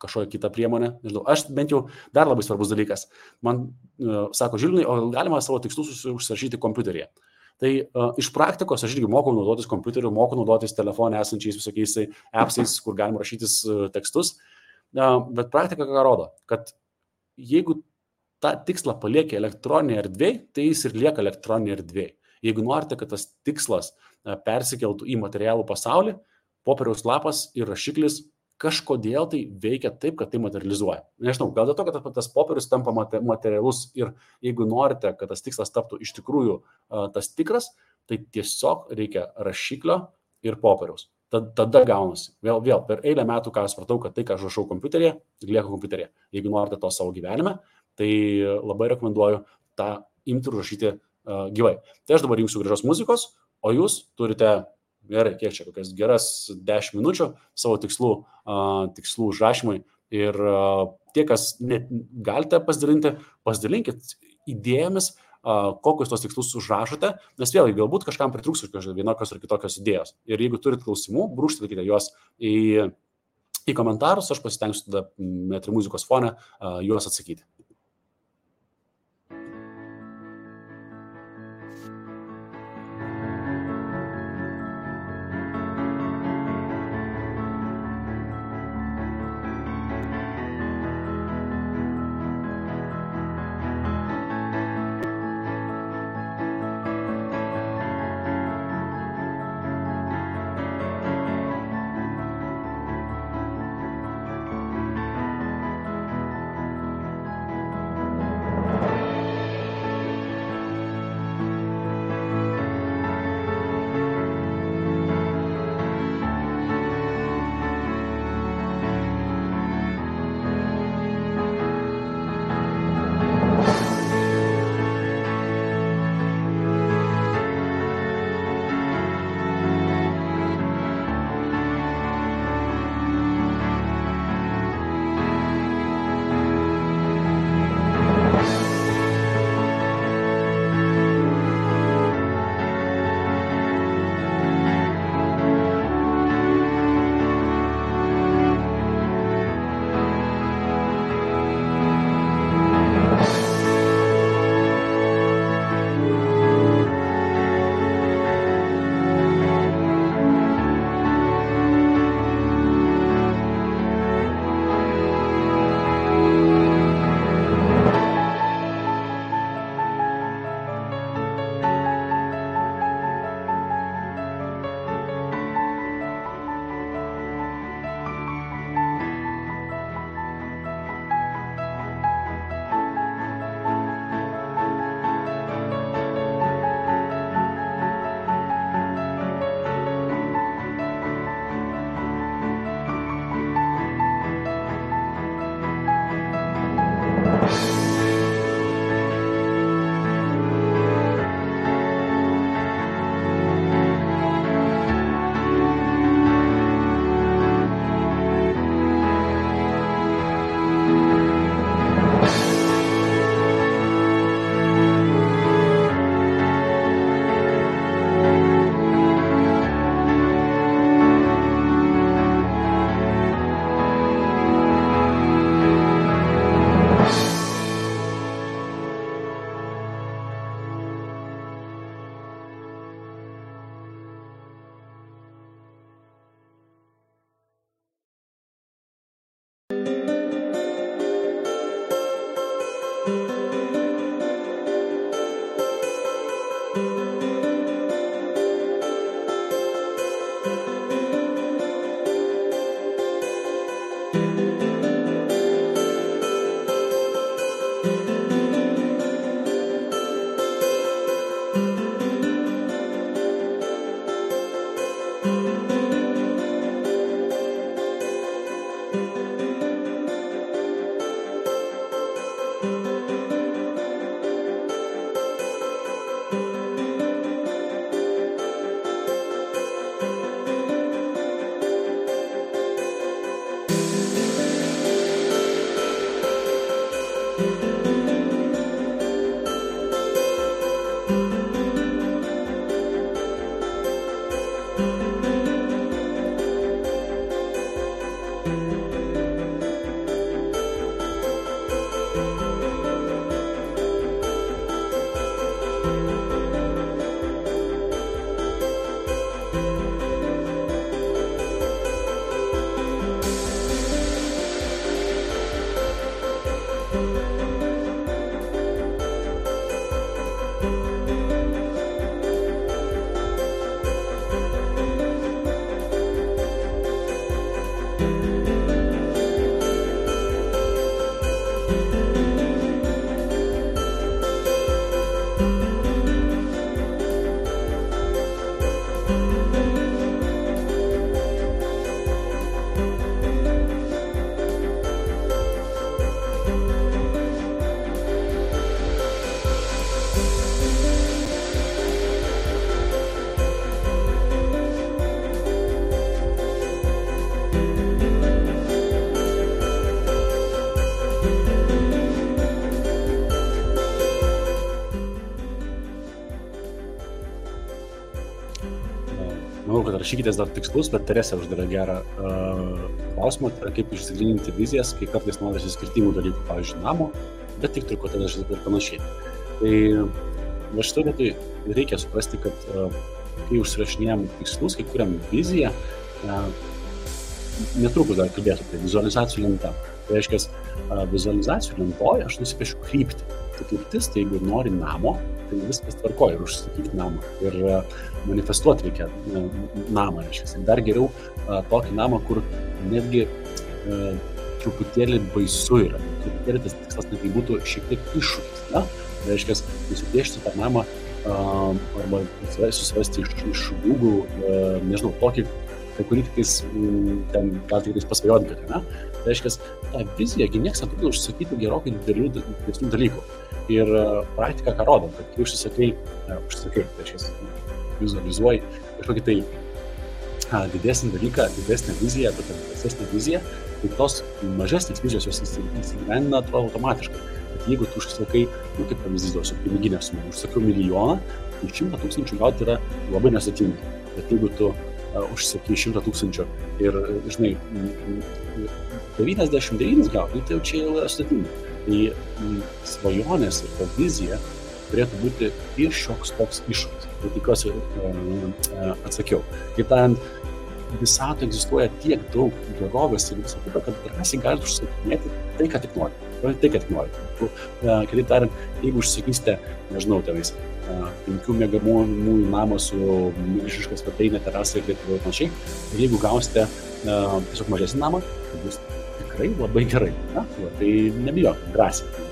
kažkokią kitą priemonę. Nežinau, aš bent jau dar labai svarbus dalykas. Man sako, Žilvinai, o galima savo tikslus užsirašyti kompiuteryje. Tai iš praktikos aš irgi mokau naudotis kompiuteriu, mokau naudotis telefone esančiais visokiais appsais, kur galima rašytis tekstus. Bet praktika ką rodo, kad jeigu tą tikslą palieka elektroninėje erdvėje, tai jis ir lieka elektroninėje erdvėje. Jeigu norite, kad tas tikslas persikeltų į materialų pasaulį, popieriaus lapas ir rašiklis kažkodėl tai veikia taip, kad tai materializuoja. Nežinau, gal dėl to, kad tas popierius tampa materialus ir jeigu norite, kad tas tikslas taptų iš tikrųjų tas tikras, tai tiesiog reikia rašiklio ir popieriaus. Tada gaunasi. Vėl per eilę metų, ką aš supratau, kad tai, ką aš rašau kompiuteryje, lieka kompiuteryje. Jeigu norite to savo gyvenime, tai labai rekomenduoju tą imti ir rašyti gyvai. Tai aš dabar jungsiu gražios muzikos, o jūs turite, gerai, kiek čia, kokias geras 10 minučių savo tikslų užrašymui ir tie, kas galite pasidalinkit idėjomis, kokius tos tikslus užrašote, nes vėlgi galbūt kažkam pritrūks vienokios ar kitokios idėjos. Ir jeigu turit klausimų, brūkštelkite juos į komentarus, aš pasitengsiu tada metri muzikos fone juos atsakyti. Manau, kad rašykitės dar tikslus, bet Teresė uždavė gerą klausimą, tai kaip išsigryninti vizijas, kai kartais norisi skirtingų dalykų, pavyzdžiui, namo, bet tik trikotažas ir panašiai. Tai va šitoj vietoj reikia suprasti, kad kai užsirašinėjom tikslus, kai kuriam viziją, netrukus dar kalbėsiu, tai vizualizacijų lenta. Tai reiškia, vizualizacijų lentoje aš nusipiešiu kryptį. Tai kryptis, tai jeigu nori namo, tai viskas tvarkoja ir užsakyti namą. Ir manifestuoti reikia namą, reiškia. Dar geriau tokį namą, kur netgi truputėlį baisu yra. Truputėlį tas tikslas netgi būtų šiek tiek iššūkis. Tai reiškia, nusipiešti tą namą arba susirasti iš Google, nežinau, tokį, kurį tiktais ten gal tiktais pasvajoti gali, ne? Tai reiškia, tą viziją nieks netrukdo užsakyti gerokai didesnių dalykų. Ir praktika ką rodo, kad kai užsisakai, tai reiškia, vizualizuoji kažkokį tai didesnį dalyką, didesnę viziją, tokią didesnę viziją, tai tos mažesnės vizijos jos įsigyvendina automatiškai. Bet jeigu tu užsisakai, kaip pavyzdys duosiu, piniginę sumą, užsakiau 1 milijoną, tai 100 000 gauti yra labai nesudėtinga. Bet jeigu tu užsakai 100 000 ir, žinai, 99 gauti, tai jau čia jau yra sudėtinga. Tai svajonės ir ta vizija turėtų būti ir šioks toks iššūkis. Tai tikiuosi atsakiau. Kaip tariant, visatoje egzistuoja tiek daug gerovės ir viso kito, kad drąsiai galite užsakinėti tai, ką tik nori. Tai, ką tik nori. Kitaip tariant, jeigu užsakysite, nežinau, tenais 5 miegamųjų namą su milžiniška svetainė, terasa ir taip panašiai, ir jeigu gausite tiesiog mažesnį namą, tai bus tikrai labai gerai. Tai nebijok, drąsiai.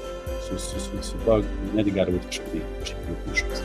Su to netgi gali būti kažkaip iššūkis.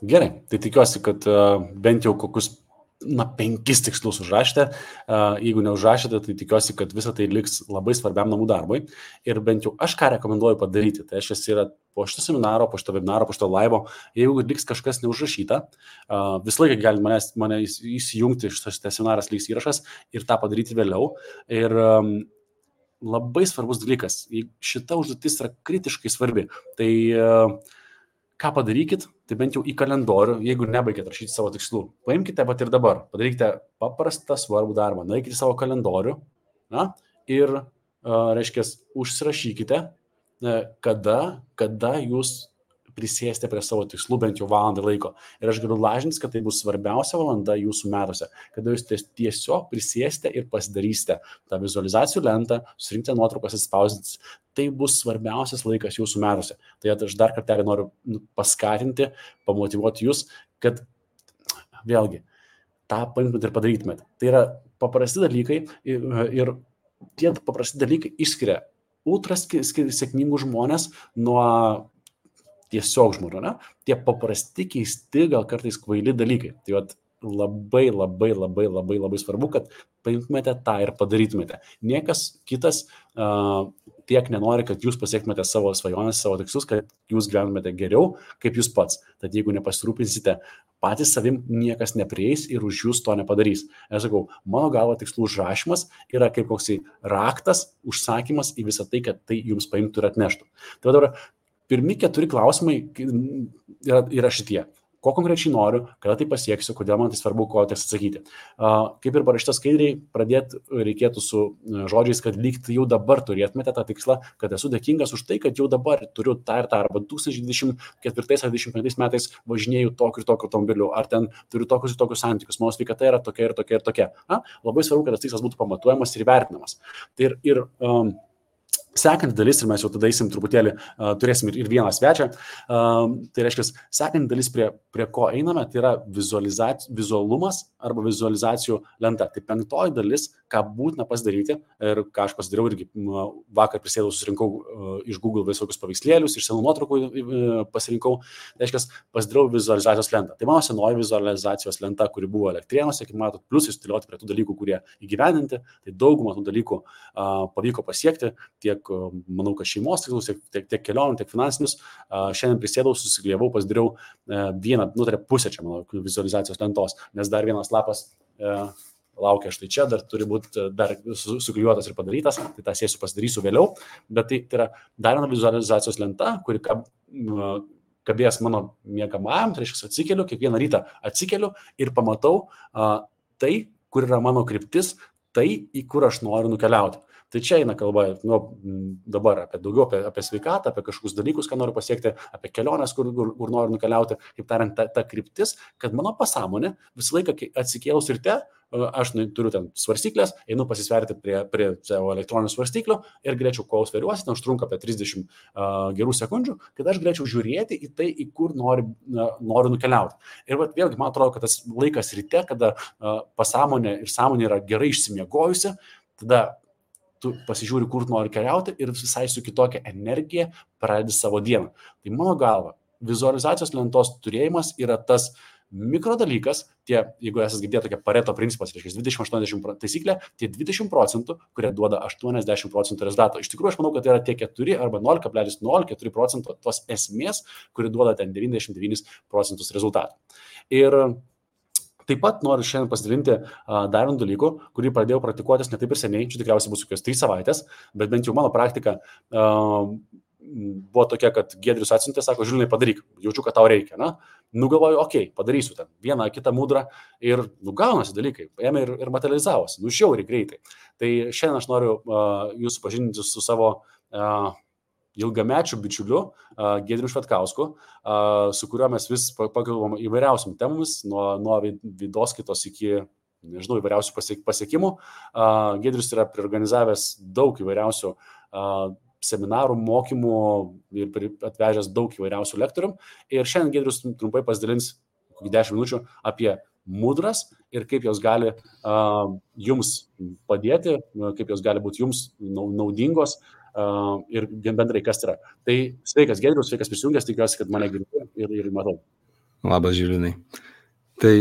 Gerai, tai tikiuosi, kad bent jau kokius 5 tikslus užrašėte. Jeigu neužrašėte, tai tikiuosi, kad visa tai liks labai svarbiam namų darbui. Ir bent jau aš ką rekomenduoju padaryti, tai aš esu po šito seminaro, po šito webinaro, po šito laivo, jeigu liks kažkas neužrašyta, visą laiką gali mane įsijungti, šitas seminaras liks įrašas ir tą padaryti vėliau. Ir labai svarbus dalykas, šita užduotis yra kritiškai svarbi. Tai ką padarykit, tai bent jau į kalendorių, jeigu nebaigėt rašyti savo tikslų, paimkite pat ir dabar, padarykite paprastą svarbų darbą, nueikite į savo kalendorių ir, reiškia, užsirašykite, kada jūs prisėsite prie savo tikslų bent jau valandą laiko. Ir aš galiu lažintis, kad tai bus svarbiausia valanda jūsų metuose, kada jūs tiesiog prisėsite ir pasidarysite tą vizualizacijų lentą, surinkite nuotraukas, atspausdinti. Tai bus svarbiausias laikas jūsų metuose. Tai aš dar kartelį noriu paskatinti, pamotyvuoti jūs, kad vėlgi tą paimtumėt ir padarytumėt. Tai yra paprasti dalykai ir tie paprasti dalykai išskiria ultra sėkmingų žmonės nuo tiesiog žmonių, ne? Tie paprasti, keisti, gal kartais kvaili dalykai. Tai labai svarbu, kad paimtumėte tą ir padarytumėte. Niekas kitas tiek nenori, kad jūs pasiektumėte savo svajonės, savo tikslus, kad jūs gyventumėte geriau, kaip jūs pats. Tad jeigu nepasirūpinsite patys savim, niekas neprieis ir už jūs to nepadarys. Aš sakau, mano galva tikslų užrašymas yra kaip koksai raktas, užsakymas į visą tai, kad tai jums paimtų ir atneštų. Tai dabar pirmi 4 klausimai yra šitie. Ko konkrečiai noriu, kada tai pasieksiu, kodėl man tai svarbu, ko teks atsakyti. Kaip ir parašyta skaidriai, pradėti reikėtų su žodžiais, kad lyg tai jau dabar turėtumėte tą tikslą, kad esu dėkingas už tai, kad jau dabar turiu tą ir tą, arba 2024 ar 2025 metais važinėju tokiu ir tokiu automobiliu, ar ten turiu tokius ir tokius santykius, mano sveikata yra tokia ir tokia ir tokia. Labai svarbu, kad tas tikslas būtų pamatuojamas ir vertinamas. Sekanti dalis, ir mes jau tada eisim truputėlį, turėsim ir vieną svečią, tai reiškia, sekanti dalis, prie ko einame, tai yra vizualumas arba vizualizacijų lenta. Tai 5 dalis, ką būtina pasidaryti ir ką aš pasidariau irgi vakar prisėdau, susirinkau iš Google visokius paveikslėlius, iš senų nuotraukų pasirinkau, tai reiškia, pasidariau vizualizacijos lentą. Tai mano senoji vizualizacijos lenta, kuri buvo Elektrėnuose, kaip matot, plus įstiliuoti prie tų dalykų, kurie įgyvendinti, tai daugumą tų dalykų pavyko pasiekti, tiek manau, kad šeimos tikslus, tiek kelionių, tiek finansinius. Šiandien prisėdau, susigrievau, pasidariau vieną, pusę čia mano vizualizacijos lentos, nes dar vienas lapas laukia štai čia, dar turi būti dar suklijuotas ir padarytas, tai tą sėsiu pasidarysiu vėliau, bet tai yra dar viena vizualizacijos lenta, kuri kabės mano miegamajam, tai reiškia atsikeliu, kiekvieną rytą atsikeliu ir pamatau tai, kur yra mano kryptis, tai, į kur aš noriu nukeliauti. Tai čia eina kalba dabar daugiau apie sveikatą, apie kažkokius dalykus, ką noriu pasiekti, apie keliones, kur noriu nukeliauti, kaip tariant, ta kryptis, kad mano pasąmonė visą laiką atsikėlus ryte, aš turiu ten svarstyklės, einu pasisverti prie savo elektroninių svarstyklių ir galėčiau, kol sveriuosi, ten užtrunka apie 30 gerų sekundžių, kad aš galėčiau žiūrėti į tai, į kur noriu nukeliauti. Ir vėlgi, man atrodo, kad tas laikas ryte, kada pasąmonė ir sąmonė yra gerai išsimiegojusi, tada tu pasižiūri, kur nori keliauti ir visai su kitokia energija pradedi savo dieną. Tai mano galva, vizualizacijos lentos turėjimas yra tas mikrodalykas, jeigu esate girdėję tokia Pareto principas, reiškia 20-80 taisyklė, tie 20%, kurie duoda 80% rezultato. Iš tikrųjų, aš manau, kad tai yra tie 4 arba 0,04% tos esmės, kuri duoda ten 99% rezultatų. Ir taip pat noriu šiandien pasidalinti dar vieną dalykų, kurį pradėjau praktikuotis ne taip ir seniai, čia tikriausiai bus kokios 3 savaitės, bet bent jau mano praktika buvo tokia, kad Giedrius atsiuntė, sako, Žilinai, padaryk, jaučiu, kad tau reikia. Nugalvoju, okei, padarysiu ten vieną, kitą mudrą ir gaunasi dalykai, ėmė ir materializavosi, žiauriai greitai. Tai šiandien aš noriu jūs supažindinti su savo ilgamečių bičiuliu Giedriu Švetkausku, su kuriuo mes vis pakalbam įvairiausiam temomis, nuo vidoskaitos iki, nežinau, įvairiausių pasiekimų. Giedrius yra priorganizavęs daug įvairiausių seminarų, mokymų ir atvežęs daug įvairiausių lektorių. Ir šiandien Giedrius trumpai pasidalins 10 minučių apie mudras ir kaip jos gali jums padėti, kaip jos gali būti jums naudingos ir bendrai kas yra. Tai sveikas Giedrius, sveikas prisijungęs, tikiuosi, kad mane girdi ir matau. Labas, Žilinai. Tai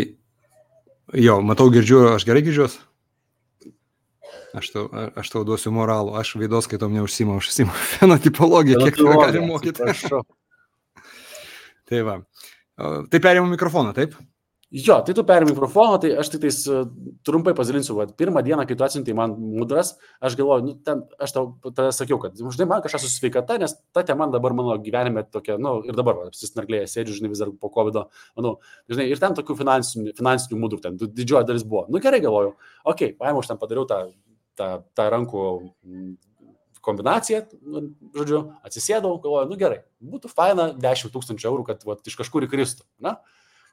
jo, matau, girdžiu, aš gerai girdžiuos? Aš tau duosiu moralų, aš veidos skaitom neužsimu, aš užsimu fenotipologiją, kiek tave gali mokyti. Tai va. Tai perėmų mikrofoną, taip? Jo, tai tu perėmė mikrofoną, tai aš tik tais trumpai pasidalinsiu. Pirmą dieną, kai tu atsiuntei man mudras, aš galvoju, aš tau tada sakiau, kad žinai, man kažkas su sveikata, nes ta tema dabar mano gyvenime tokia, ir dabar apsisnarglėje sėdžiu, žinai, vis dar po COVID-o, žinai, ir ten tokių finansinių mudrų, ten didžioji dalis buvo. Gerai galvoju, paėmiau, aš ten padariau tą rankų kombinaciją, žodžiu, atsisėdau, galvoju, gerai, būtų faina 10 000 eurų, kad iš kažkur įkristų, na?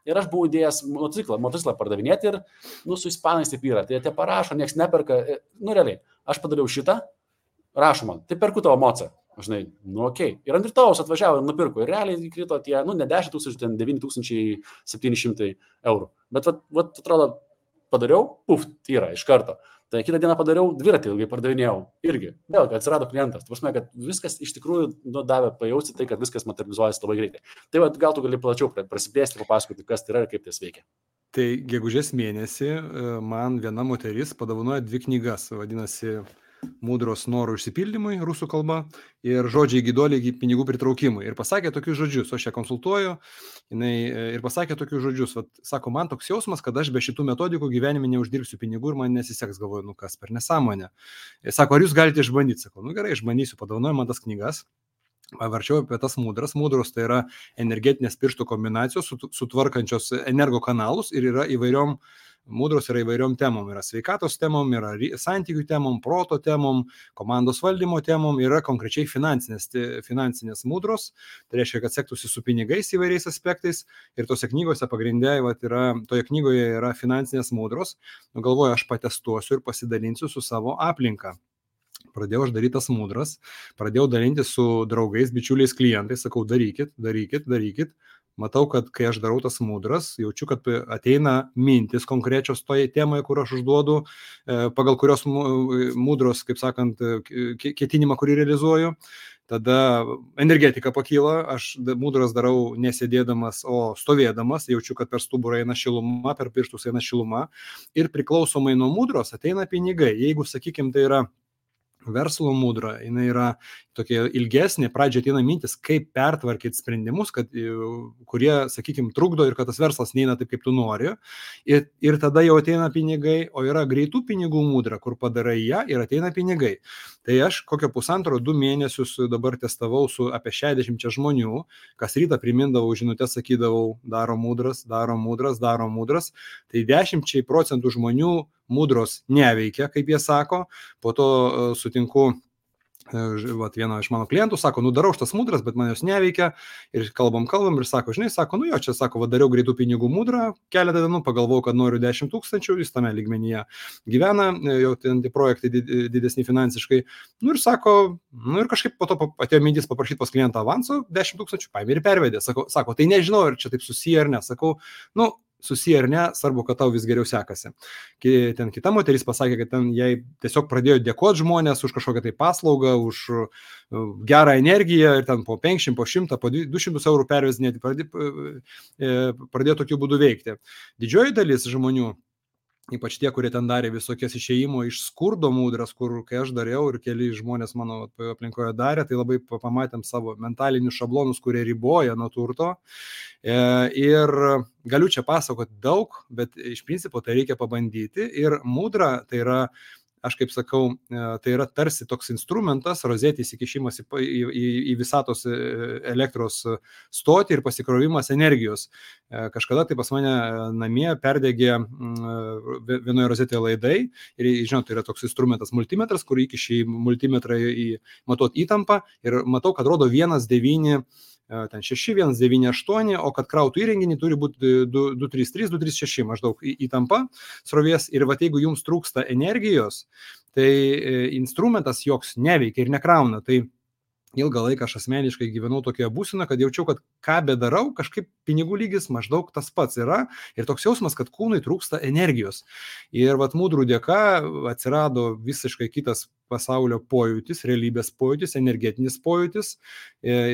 Ir aš buvau įdėjęs motociklą pardavinėti ir, su ispanais taip yra, tai jie parašo, nieks neperka, realiai, aš padariau šitą, rašo man, tai perku tavo mocą, žinai, okei. Ir ant rytojaus atvažiavo ir nupirko, ir realiai įkrito tie, ne 10 000, ten 9700 eurų. Bet, atrodo, padariau, yra iš karto. Tai kitą dieną padariau, dviratį ilgai pardavinėjau irgi. Vėl, kad atsirado klientas. Tai prasme, kad viskas iš tikrųjų davė pajausti tai, kad viskas materializuojasi labai greitai. Tai gal tu gali plačiau prasiplėsti, papasakoti, kas tai yra ir kaip tai veikia. Tai gegužės mėnesį man viena moteris padovanojo 2 knygas, vadinasi Mudros norų išsipildymui, rusų kalba, ir žodžiai gydoliai pinigų pritraukimui. Ir pasakė tokius žodžius, aš ją konsultuoju, ir pasakė tokius žodžius, sako, man toks jausmas, kad aš be šitų metodikų gyvenime neuždirbsiu pinigų ir man nesiseks, galvoju, kas per nesąmonę. Sako, ar jūs galite išbandyti? Sako, gerai, išbandysiu, padovanoju man tas knygas. Pavarčiau apie tas mudras. Mudros tai yra energetinės pirštų kombinacijos, sutvarkančios energo kanalus ir yra įvairiom. Mudros yra įvairiom temom, yra sveikatos temom, yra santykių temom, proto temom, komandos valdymo temom, yra konkrečiai finansinės mudros, tai reiškia, kad sektųsi su pinigais įvairiais aspektais ir tose knygose pagrindė, toje knygoje yra finansinės mudros, galvoju, aš patestuosiu ir pasidalinsiu su savo aplinka. Pradėjau aš daryti tas mudras, pradėjau dalinti su draugais, bičiuliais, klientais, sakau, darykit. Matau, kad kai aš darau tas mudras, jaučiu, kad ateina mintis konkrečios toje temoje, kur aš užduodu, pagal kurios mudros, kaip sakant, ketinimą, kurį realizuoju. Tada energetika pakyla, aš mudras darau nesėdėdamas, o stovėdamas, jaučiu, kad per stuburą eina šiluma, per pirštus eina šiluma ir priklausomai nuo mudros ateina pinigai. Jeigu, sakykime, tai yra verslo mudra, jinai yra tokia ilgesnė, pradžioje ateina mintis, kaip pertvarkyti sprendimus, kurie, sakykime, trukdo ir kad tas verslas neina taip, kaip tu nori. Ir tada jau ateina pinigai, o yra greitų pinigų mudra, kur padarai ją ir ateina pinigai. Tai aš kokio 1,5-2 mėnesius dabar testavau su apie 60 žmonių, kas rytą primindavau žinutės, sakydavau, darom mudras. Tai 10% žmonių mudros neveikia, kaip jie sako, po to sutinku vieno iš mano klientų, sako, darau šitas mudras, bet man jos neveikia ir kalbam ir sako, žinai, sako, čia, sako, dariau greitų pinigų mudrą, keletą dienų pagalvojau, kad noriu 10 000, jis tame lygmenyje gyvena, jau ten tie projektai didesni finansiškai, ir sako, ir kažkaip po to atėjo mintis paprašyti pas klientą avanso 10 000, paėmė ir pervedė, sako, tai nežinau, ar čia taip susiję ar ne, sakau, susiję ar ne, svarbu, kad tau vis geriau sekasi. Ten kita moteris pasakė, kad ten jai tiesiog pradėjo dėkoti žmonės už kažkokią tai paslaugą, už gerą energiją ir ten po 500, po 100, po 200 eurų pervezinėti, pradėjo tokiu būdu veikti. Didžioji dalis žmonių, ypač tie, kurie ten darė visokias išėjimo iš skurdo mudras, kur kai aš dariau ir keli žmonės mano aplinkoje darė, tai labai pamatėm savo mentalinius šablonus, kurie riboja nuo turto. Ir galiu čia pasakoti daug, bet iš principo tai reikia pabandyti. Ir mudra tai yra, aš kaip sakau, tai yra tarsi toks instrumentas, rozetės įkišimas į visatos elektros stotį ir pasikrovimas energijos. Kažkada tai pas mane namie perdegė vienoje rozetėje laidai ir, žinot, tai yra toks instrumentas multimetras, kur įkiši multimetrą matuot įtampą ir matau, kad rodo 1,9 ten 6, 1,98, o kad krautų įrenginį turi būti 2,33, 2,36 maždaug įtampa srovės. Ir jeigu jums trūksta energijos, tai instrumentas joks neveikia ir nekrauna. Tai ilgą laiką aš asmeniškai gyvenau tokioje būsenoje, kad jaučiau, kad ką bedarau, kažkaip pinigų lygis maždaug tas pats yra ir toks jausmas, kad kūnui trūksta energijos. Ir mudrų dėka atsirado visiškai kitas pasaulio pojūtis, realybės pojūtis, energetinis pojūtis,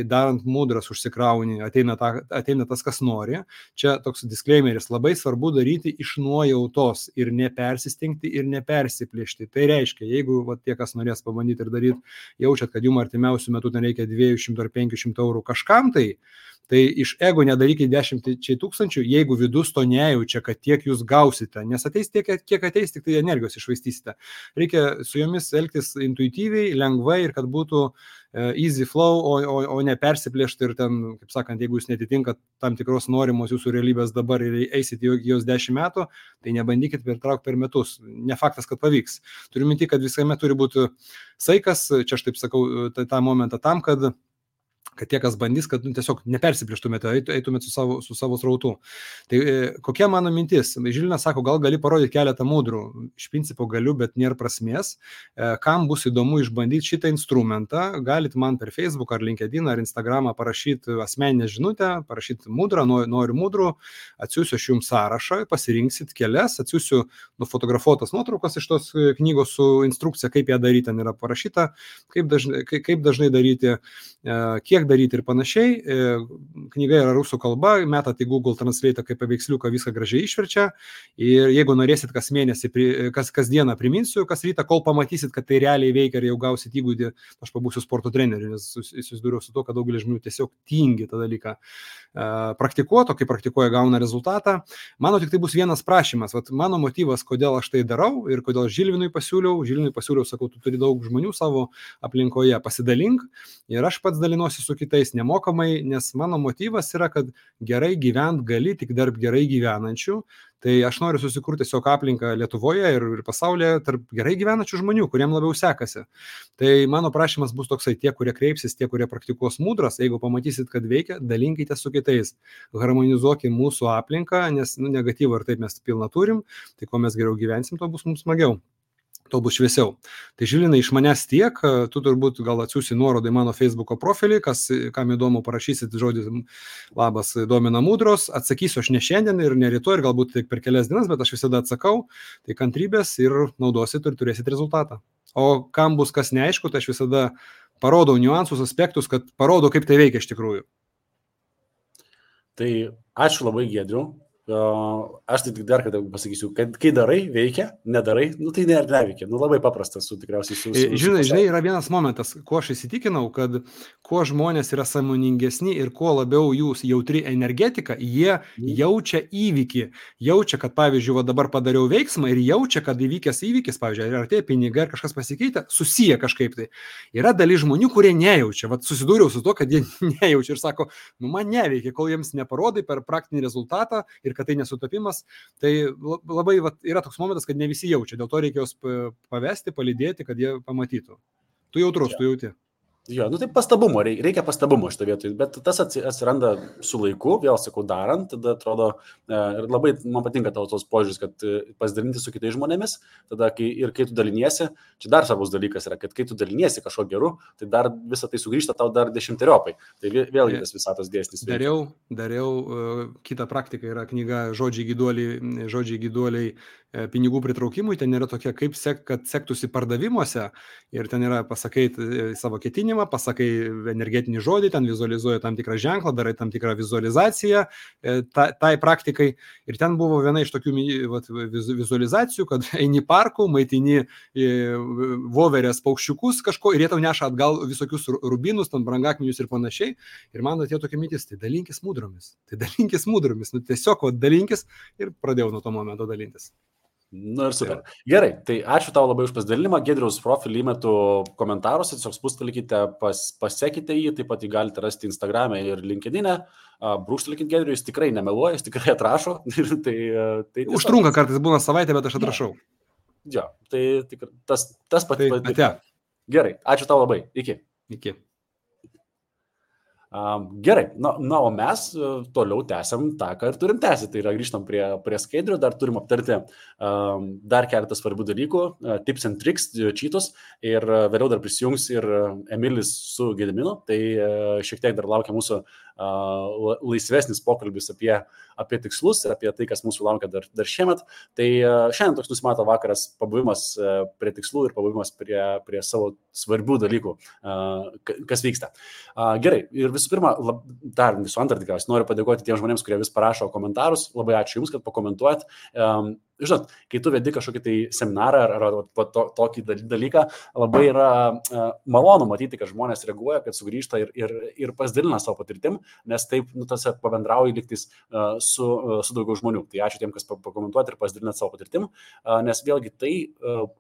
darant mudras užsikrauni, ateina tas, kas nori. Čia toks disclaimeris, labai svarbu daryti iš nuojautos ir nepersistengti ir nepersiplėšti. Tai reiškia, jeigu tie, kas norės pabandyti ir daryti, jaučiat, kad jums artimiausių metų ten reikia 200 ar 500 eurų kažkam, tai iš ego nedarykite 10 tūkstančių, jeigu vidus to nejaučia, kad tiek jūs gausite, nes ateis tiek, kiek ateis, tik tai energijos išvaistysite. Reikia su jomis elgtis intuityviai, lengvai ir kad būtų easy flow, o ne persiplėšti ir ten, kaip sakant, jeigu jūs netitinkat tam tikros norimos jūsų realybės dabar ir eisite jos 10 metų, tai nebandykit pertraukti per metus. Ne faktas, kad pavyks. Turiu minti, kad visame turi būti saikas, čia aš taip sakau tą momentą tam, kad tie, kas bandys, kad tiesiog nepersiplėštumėte, eitumėte su savo srautu. Tai kokia mano mintis? Žilinas sako, gal gali parodyti keletą mudrų. Iš principo galiu, bet nėra prasmės. Kam bus įdomu išbandyti šitą instrumentą, galit man per Facebook ar LinkedIn ar Instagramą parašyti asmeninę žinutę, parašyti mudrą, noriu mudrų, atsiųsiu aš jums sąrašą, pasirinksit kelias, atsiųsiu nufotografuotas nuotraukas iš tos knygos su instrukcija, kaip ją daryti, ten yra parašyta, kaip dažnai daryti, kiek daryti ir panašiai. Knyga yra rusų kalba, metat į Google Translate kaip paveiksliuką, viską gražiai išverčia. Ir jeigu norėsit kas mėnesį, kas dieną priminsiu, kas rytą, kol pamatysit, kad tai realiai veikia ir jau gausit įgūdį, aš pabūsiu sporto treneriu, nes susidūriau su to, kad daugelis žmonių tiesiog tingi tą dalyką praktikuoti, o kai praktikuoja gauna rezultatą. Mano tik tai bus vienas prašymas. Vat mano motyvas, kodėl aš tai darau ir kodėl Žilvinui pasiūliau, sakau, tu turi daug žmonių savo aplinkoje, pasidalink ir aš pats dalinuosi su kitais nemokamai, nes mano motyvas yra, kad gerai gyvent gali tik tarp gerai gyvenančių. Tai aš noriu susikurti tiesiog aplinką Lietuvoje ir pasaulyje tarp gerai gyvenančių žmonių, kuriem labiau sekasi. Tai mano prašymas bus toksai, tie, kurie kreipsis, tie, kurie praktikuos mudras, jeigu pamatysit, kad veikia, dalinkite su kitais. Harmonizuokime mūsų aplinką, nes negatyvą ir taip mes pilną turim, tai kuo mes geriau gyvensim, to bus mums smagiau. To bus šviesiau. Tai Žilinai, iš manęs tiek, tu turbūt gal atsiųsi nuorodą į mano Facebooko profilį, kam įdomu parašysit žodį labas domina mudros, atsakysiu aš ne šiandien ir ne rytoj ir galbūt tik per kelias dienas, bet aš visada atsakau, tai kantrybės ir naudosit ir turėsit rezultatą. O kam bus kas neaišku, tai aš visada parodau niuansus, aspektus, kad parodau, kaip tai veikia iš tikrųjų. Tai ačiū labai, Giedriau. Aš tai tik dar kartą pasakysiu, kad kai darai, veikia, nedarai, tai neveikia. Labai paprastas, tikriausiai. Žinai, yra vienas momentas, kuo aš įsitikinau, kad kuo žmonės yra sąmoningesni ir kuo labiau jūs jautri energetika, jie jaučia įvykį. Jaučia, kad pavyzdžiui, dabar padariau veiksmą ir jaučia, kad įvykęs įvykis, pavyzdžiui, ar tie pinigai, ar kažkas pasikeitė, susiję kažkaip tai. Yra dalis žmonių, kurie nejaučia. Susidūriau su to, kad jie nejaučia ir sako, man neveikia, kol jiems neparodai per praktinį rezultatą ir kad tai nesutapimas, tai labai yra toks momentas, kad ne visi jaučia, dėl to reikia juos pavesti, palydėti, kad jie pamatytų. Tu jautrus, tu jauti. Jo, tai pastabumo, reikia pastabumo šitą vietą, bet tas atsiranda su laiku, vėl sakau, darant, tada atrodo, ir labai man patinka tavo tos požiūris, kad pasidalinti su kitais žmonėmis, tada kai tu daliniesi, čia dar svarbus dalykas yra, kad kai tu daliniesi kažko geru, tai dar visą tai sugrįžta tau dar 10-eriopai. Tai vėlgi tas visatos dėsnis. Dariau, kita praktika yra knyga Žodžiai gyduoliai pinigų pritraukimui, ten yra tokia, kad sektųsi pardavimuose ir ten yra pasakai savo ketinimą, pasakai energetinį žodį, ten vizualizuoji tam tikrą ženklą, darai tam tikrą vizualizaciją tai praktikai ir ten buvo viena iš tokių vizualizacijų, kad eini parku, maitini voverės paukščiukus kažko ir jie tau neša atgal visokius rubinus, ten brangakmenius ir panašiai ir man atėjo tokia mintis, tai dalinkis mudromis, tiesiog dalinkis ir pradėjau nuo to momento dalintis. Ir super. Gerai, tai ačiū tau labai už pasidalinimą. Giedriaus profilį įmetu komentaruose, tiesiog spustelkite, pasekite jį, taip pat jį galite rasti Instagram'e ir LinkedIn'e. Brūkštelkit Giedriui, jis tikrai nemeluoja, jis tikrai atrašo. Tai užtrunka kartais būna savaitę, bet aš atrašau. Jo, tai tas pat. Gerai, ačiū tau labai. Iki. Gerai, o mes toliau tęsiam tą, ką ir turim tęsti, tai yra grįžtam prie skaidrių, dar turim aptarti dar keletą svarbių dalykų, tips and tricks, cheatus ir vėliau dar prisijungs ir Emilis su Gediminu, tai šiek tiek dar laukia mūsų laisvesnis pokalbis apie tikslus ir apie tai, kas mūsų laukia dar šiemet. Tai šiandien toks nusimato vakaras pabuvimas prie tikslų ir pabuvimas prie savo svarbių dalykų, kas vyksta. Gerai, ir visų pirma, dar visų antrą tikriausiai noriu padėkoti tiems žmonėms, kurie vis parašo komentarus. Labai ačiū Jums, kad pakomentuojat. Žinot, kai tu vedi kažkokį tai seminarą ar tokį dalyką, labai yra malonu matyti, kad žmonės reaguoja, kad sugrįžta ir pasidalina savo patirtim, nes taip pabendrauja lygtis su daugiau žmonių. Tai ačiū tiem, kas pakomentuojat ir pasidalinat savo patirtim, nes vėlgi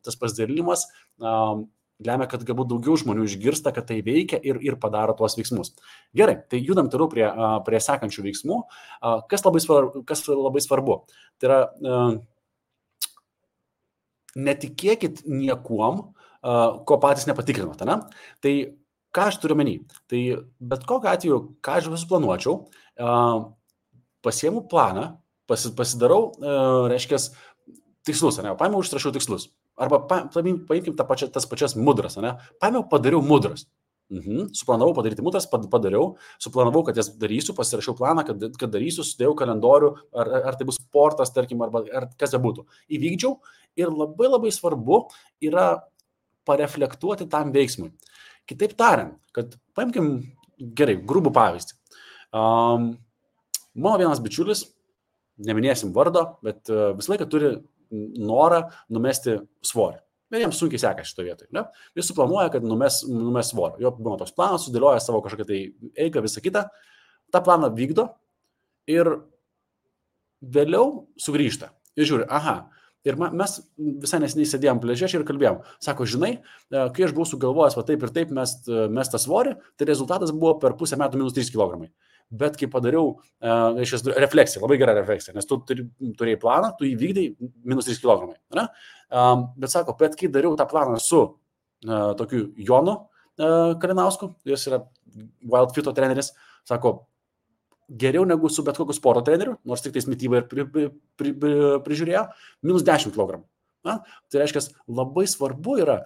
tas pasidalinimas lemia, kad galbūt daugiau žmonių išgirsta, kad tai veikia ir padaro tuos veiksmus. Gerai, tai judam toliau prie sekančių veiksmų. Kas labai svarbu? Tai yra, netikėkit niekuom, ko patys nepatikrinote. Ne? Tai ką aš turiu menį? Tai bet kokiu atveju, ką aš visų planuočiau, pasiemu planą, pasidarau, reiškia, tikslus, ne? Paėmiau, užsirašiau tikslus. Arba paimkim tas pačias mudras, ne? Paėmiau, padariau mudras. Suplanavau padaryti mudras, padariau, suplanavau, kad jas darysiu, pasirašiau planą, kad darysiu, sudėjau kalendorių, ar tai bus sportas, tarkim, ar kas be būtų. Įvykdžiau ir labai labai svarbu yra pareflektuoti tam veiksmui. Kitaip tariant, kad paimkim gerai, grubų pavyzdį. Mano vienas bičiulis, neminėsim vardo, bet visą laiką turi norą numesti svorį. Ir jiems sunkiai sekasi šito vietoj. Ne? Jis suplanuoja, kad numes svorį. Jo būna toks planas, sudėlioja savo kažkokią tai eigą, visą kitą. Ta planą vykdo ir vėliau sugrįžta. Ir žiūri, aha. Ir mes visai neseniai sėdėjom pliaže ir kalbėjom. Sako, žinai, kai aš buvau sugalvojęs, va taip ir taip mes tą svorį, tai rezultatas buvo per pusę metų minus 3 kg. Bet kai padariau refleksiją, labai gerą refleksiją, nes tu turėjai planą, tu įvykdai minus 3 kg. Ne? Bet sako, bet kai dariau tą planą su tokiu Jonu Kalinausku, jis yra Wild Fito treneris, sako, geriau negu su bet kokiu sporto treneriu, nors tik tais mitybą ir prižiūrėjo, minus 10 kg. Na? Tai reiškia, labai svarbu yra,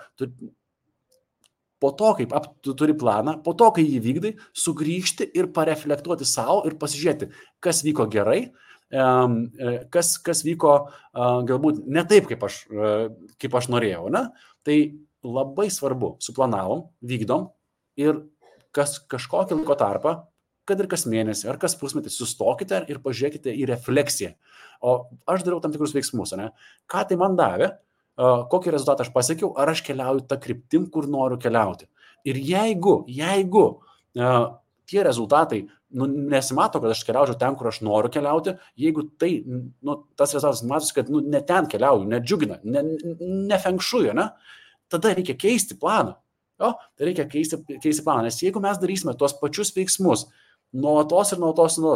po to, kaip tu turi planą, po to, kai jį vykdai, sugrįžti ir pareflektuoti savo ir pasižiūrėti, kas vyko gerai, kas vyko galbūt ne taip, kaip aš norėjau. Ne? Tai labai svarbu, suplanavom, vykdom ir kažkokį laiko tarpą, kad ir kas mėnesį ar kas pusmetį sustokite ir pažiūrėkite į refleksiją. O aš dariau tam tikrus veiksmus, ne? Ką tai man davė? Kokį rezultatą aš pasiekiau, ar aš keliauju tą kryptim, kur noriu keliauti. Ir jeigu tie rezultatai nesimato, kad aš keliaučiau ten, kur aš noriu keliauti, jeigu tai, tas rezultatas matosi, kad ne ten keliauju, nedžiugina, nefengšuju, ne? Tada reikia keisti planą. Tai reikia keisti planą, nes jeigu mes darysime tuos pačius veiksmus, nuolatos,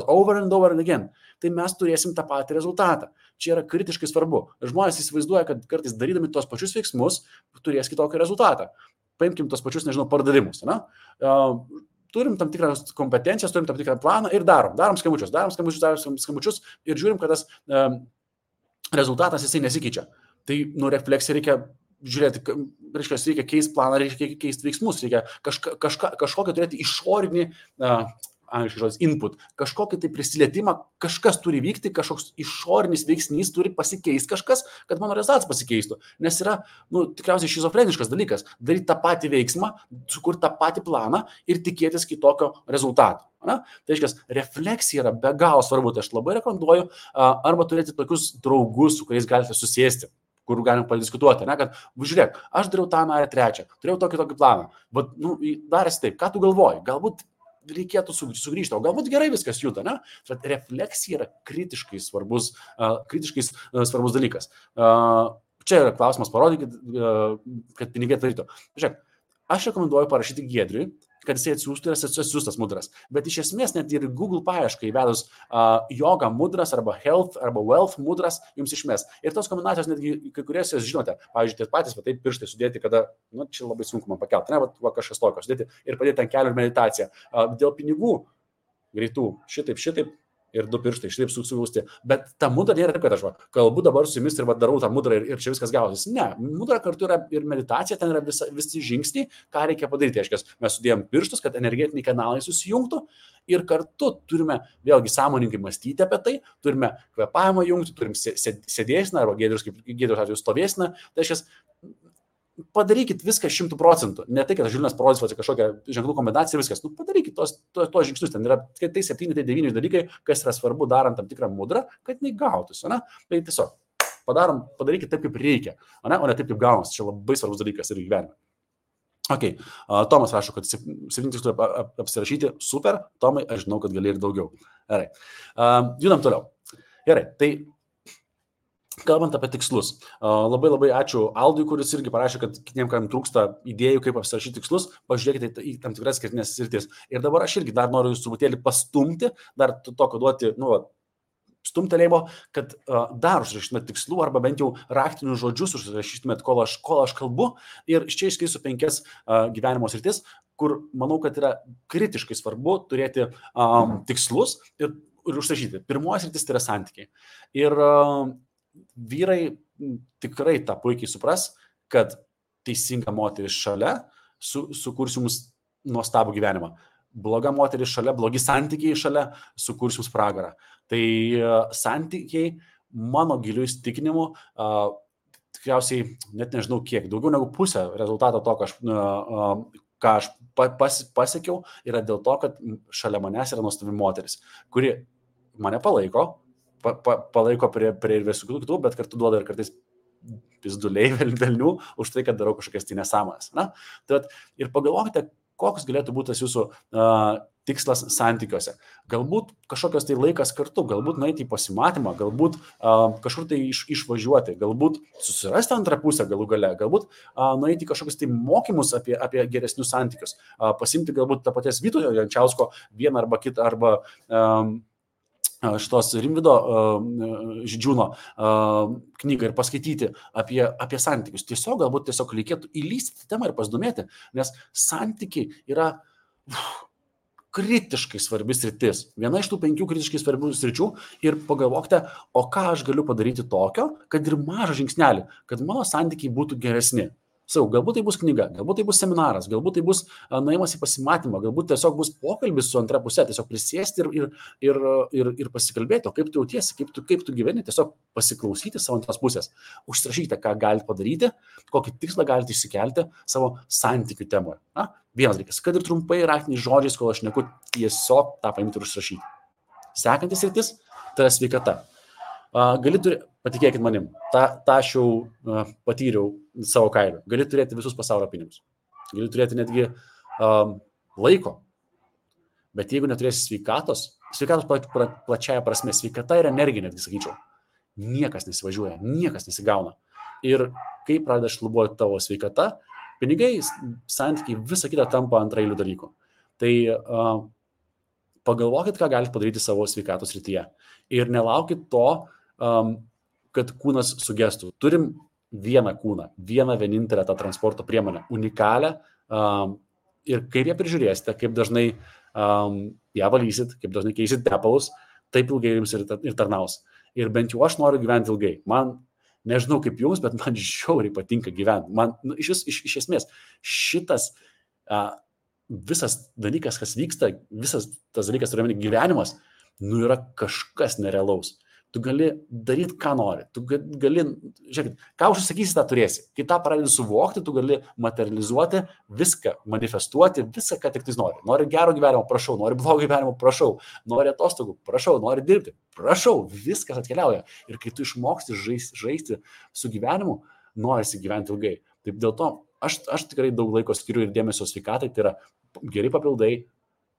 over and over and again, tai mes turėsim tą patį rezultatą. Čia yra kritiškai svarbu. Žmonės įsivaizduoja, kad kartais darydami tuos pačius veiksmus, turės kitokį rezultatą. Paimkim tuos pačius, pardavimus. Ne? Turim tam tikrą kompetencijas, turim tam tikrą planą ir darom skambučius ir žiūrim, kad tas rezultatas jisai nesikeičia. Tai refleksija reikia žiūrėti, reikia keisti planą, reikia keisti veiksmus, reikia kažkokią turėti išorinį input, kažkokį tai prisilietimą, kažkas turi vykti, kažkoks išorinis veiksnys turi pasikeisti kažkas, kad mano rezultatas pasikeistų. Nes yra, tikriausiai šizofreniškas dalykas, daryti tą patį veiksmą, sukurti tą patį planą ir tikėtis kitokio rezultato. Na? Tai reiškia, refleksija yra be galo svarbu, tai aš labai rekomenduoju arba turėti tokius draugus, su kuriais galite susėsti, kur galim padiskutuoti, ne, kad, žiūrėk, aš dariau tą, trečią, turėjau tokį planą, bet, darėsi taip, ką tu galvoji, galbūt reikėtų sugrįžti, o galbūt gerai viskas juda, ne? Bet refleksija yra kritiškai svarbus dalykas. Čia yra klausimas, parodykit, kad pinigai darytų. Žiūrėk, aš rekomenduoju parašyti Giedriui, kad jisai atsiųstų ir atsiųstas mudras. Bet iš esmės net ir Google paiešką įvedus yoga mudras arba health arba wealth mudras jums išmes. Ir tos kombinacijos netgi kai kurias jūs žinote. Pavyzdžiui, tie patys, taip pirštai sudėti, kada, čia labai sunku man pakelti, ne, kažkas tokio sudėti ir padėti ant kelių ir meditaciją. Dėl pinigų greitų, šitaip, ir 2 pirštai šitaip sugausti. Bet ta mudra nėra taip, kad aš kalbu dabar su jumis ir darau tą mudrą ir čia viskas gausis. Ne, mudra kartu yra ir meditacija, ten yra visi žingsniai, ką reikia padaryti. Aiškiai, mes sudėjom pirštus, kad energetiniai kanalai susijungtų ir kartu turime vėlgi sąmoningai mąstyti apie tai, turime kvėpavimą jungti, turim sėdėsną arba Giedrius atveju stovėsną. Tai aiškiai, padarykit viską 100%. Ne tai, kad Žilinas parodys kažkokią ženklų kombinaciją, viskas. Padarykit tos žingsnius. Ten yra tai 7, tai 9 dalykai, kas yra svarbu darant tam tikrą mudrą, kad jinai gautųsi. Tai tiesiog padarykit taip, kaip reikia, o ne taip, kaip gaunasi. Čia labai svarbus dalykas ir gyvenime. Ok, Tomas rašo, kad 7 tikslų apsirašyti. Super, Tomai, aš žinau, kad gali ir daugiau. Gerai. Judam toliau. Gerai, tai kalbant apie tikslus, labai ačiū Aldui, kuris irgi parašė, kad kitiem, kam trūksta idėjų, kaip apsirašyti tikslus, pažiūrėkite į tam tikras skirtinės sritis. Ir dabar aš irgi dar noriu jūs truputėlį pastumti, dar tokio duoti, stumtelėjimo, kad dar užrašytumėt tikslų arba bent jau raktinius žodžius užrašytumėt, kol aš kalbu. Ir čia išskirsiu 5 gyvenimo sritis, kur manau, kad yra kritiškai svarbu turėti tikslus ir užrašyti. Pirmoji sritis tai yra santykiai. Ir vyrai tikrai tą puikiai supras, kad teisinga moteris šalia sukurs jums nuostabų gyvenimą. Bloga moteris šalia, blogi santykiai šalia sukurs jums pragarą. Tai santykiai, mano giliu įsitikinimu, tikriausiai, net nežinau kiek, daugiau negu pusę rezultato to, ką aš pasiekiau, yra dėl to, kad šalia manęs yra nuostabi moteris, kuri mane palaiko prie ir visų kitų, bet kartu duoda ir kartais pizduliai velnių už tai, kad darau kažkokias tai nesąmonės. Ir pagalvokite, koks galėtų būti tas jūsų tikslas santykiuose. Galbūt kažkokios tai laikas kartu, galbūt nueiti į pasimatymą, galbūt kažkur tai išvažiuoti, galbūt susirasti antrą pusę galų gale, galbūt nueiti į kažkokius tai mokymus apie geresnius santykius, pasimti galbūt tą paties Vytauto Jančiausko vieną arba kitą, arba šitos Rimvydo Žydžiūno knygą ir paskaityti apie santykius. Galbūt reikėtų įlysti į temą ir pasidomėti, nes santykiai yra kritiškai svarbi sritis. Viena iš tų 5 kritiškai svarbių sričių ir pagalvokite, o ką aš galiu padaryti tokio, kad ir mažą žingsnelį, kad mano santykiai būtų geresni. Galbūt tai bus knyga, galbūt tai bus seminaras, galbūt tai bus nuėjimas į pasimatymą, galbūt tiesiog bus pokalbis su antra pusė, tiesiog prisėsti ir pasikalbėti, o kaip tu jautiesi, kaip tu gyveni, tiesiog pasiklausyti savo antros pusės, užsirašykite, ką galite padaryti, kokį tikslą galite išsikelti savo santykių temoje. Vienas dalykas, kad ir trumpai raktiniais žodžiais, kol aš šneku, tiesiog tą paimti ir užsirašyti. Sekantis sritis, tai yra sveikata. Patikėkit manim, tą aš jau patyriau savo kailiu. Gali turėti visus pasaulio pinigus. Gali turėti netgi laiko. Bet jeigu neturėsi sveikatos plačiaja prasme, sveikata ir energija, netgi sakyčiau, niekas nesivažiuoja, niekas nesigauna. Ir kai pradeda šlubuoti tavo sveikata, pinigai, santykiai, visa kita tampa antraeilių dalykų. Tai pagalvokit, ką galite padaryti savo sveikatos srityje. Ir nelaukit to, kad kūnas sugestų. Turim vieną kūną, vieną vienintelę tą transporto priemonę, unikalią, ir kaip ją prižiūrėsite, kaip dažnai ją valysit, kaip dažnai keisit tepalus, taip ilgai jums ir tarnaus. Ir bent jau aš noriu gyventi ilgai. Man, nežinau kaip jums, bet man žiauriai patinka gyventi. Man, iš esmės, šitas visas dalykas, kas vyksta, visas tas dalykas, turiuomenį gyvenimas, yra kažkas nerealaus. Tu gali daryti, ką nori. Tu gali, žiūrėkit, ką užsakysi, tą turėsi. Kai tą pradedi suvokti, tu gali materializuoti viską, manifestuoti visą, ką tik tai nori. Nori gero gyvenimo, prašau. Nori blogo gyvenimo, prašau. Nori atostogų, prašau. Nori dirbti, prašau. Viskas atkeliauja. Ir kai tu išmoksti žaisti su gyvenimu, norisi gyventi ilgai. Taip dėl to aš tikrai daug laiko skiriu ir dėmesio sveikatai. Tai yra geri papildai,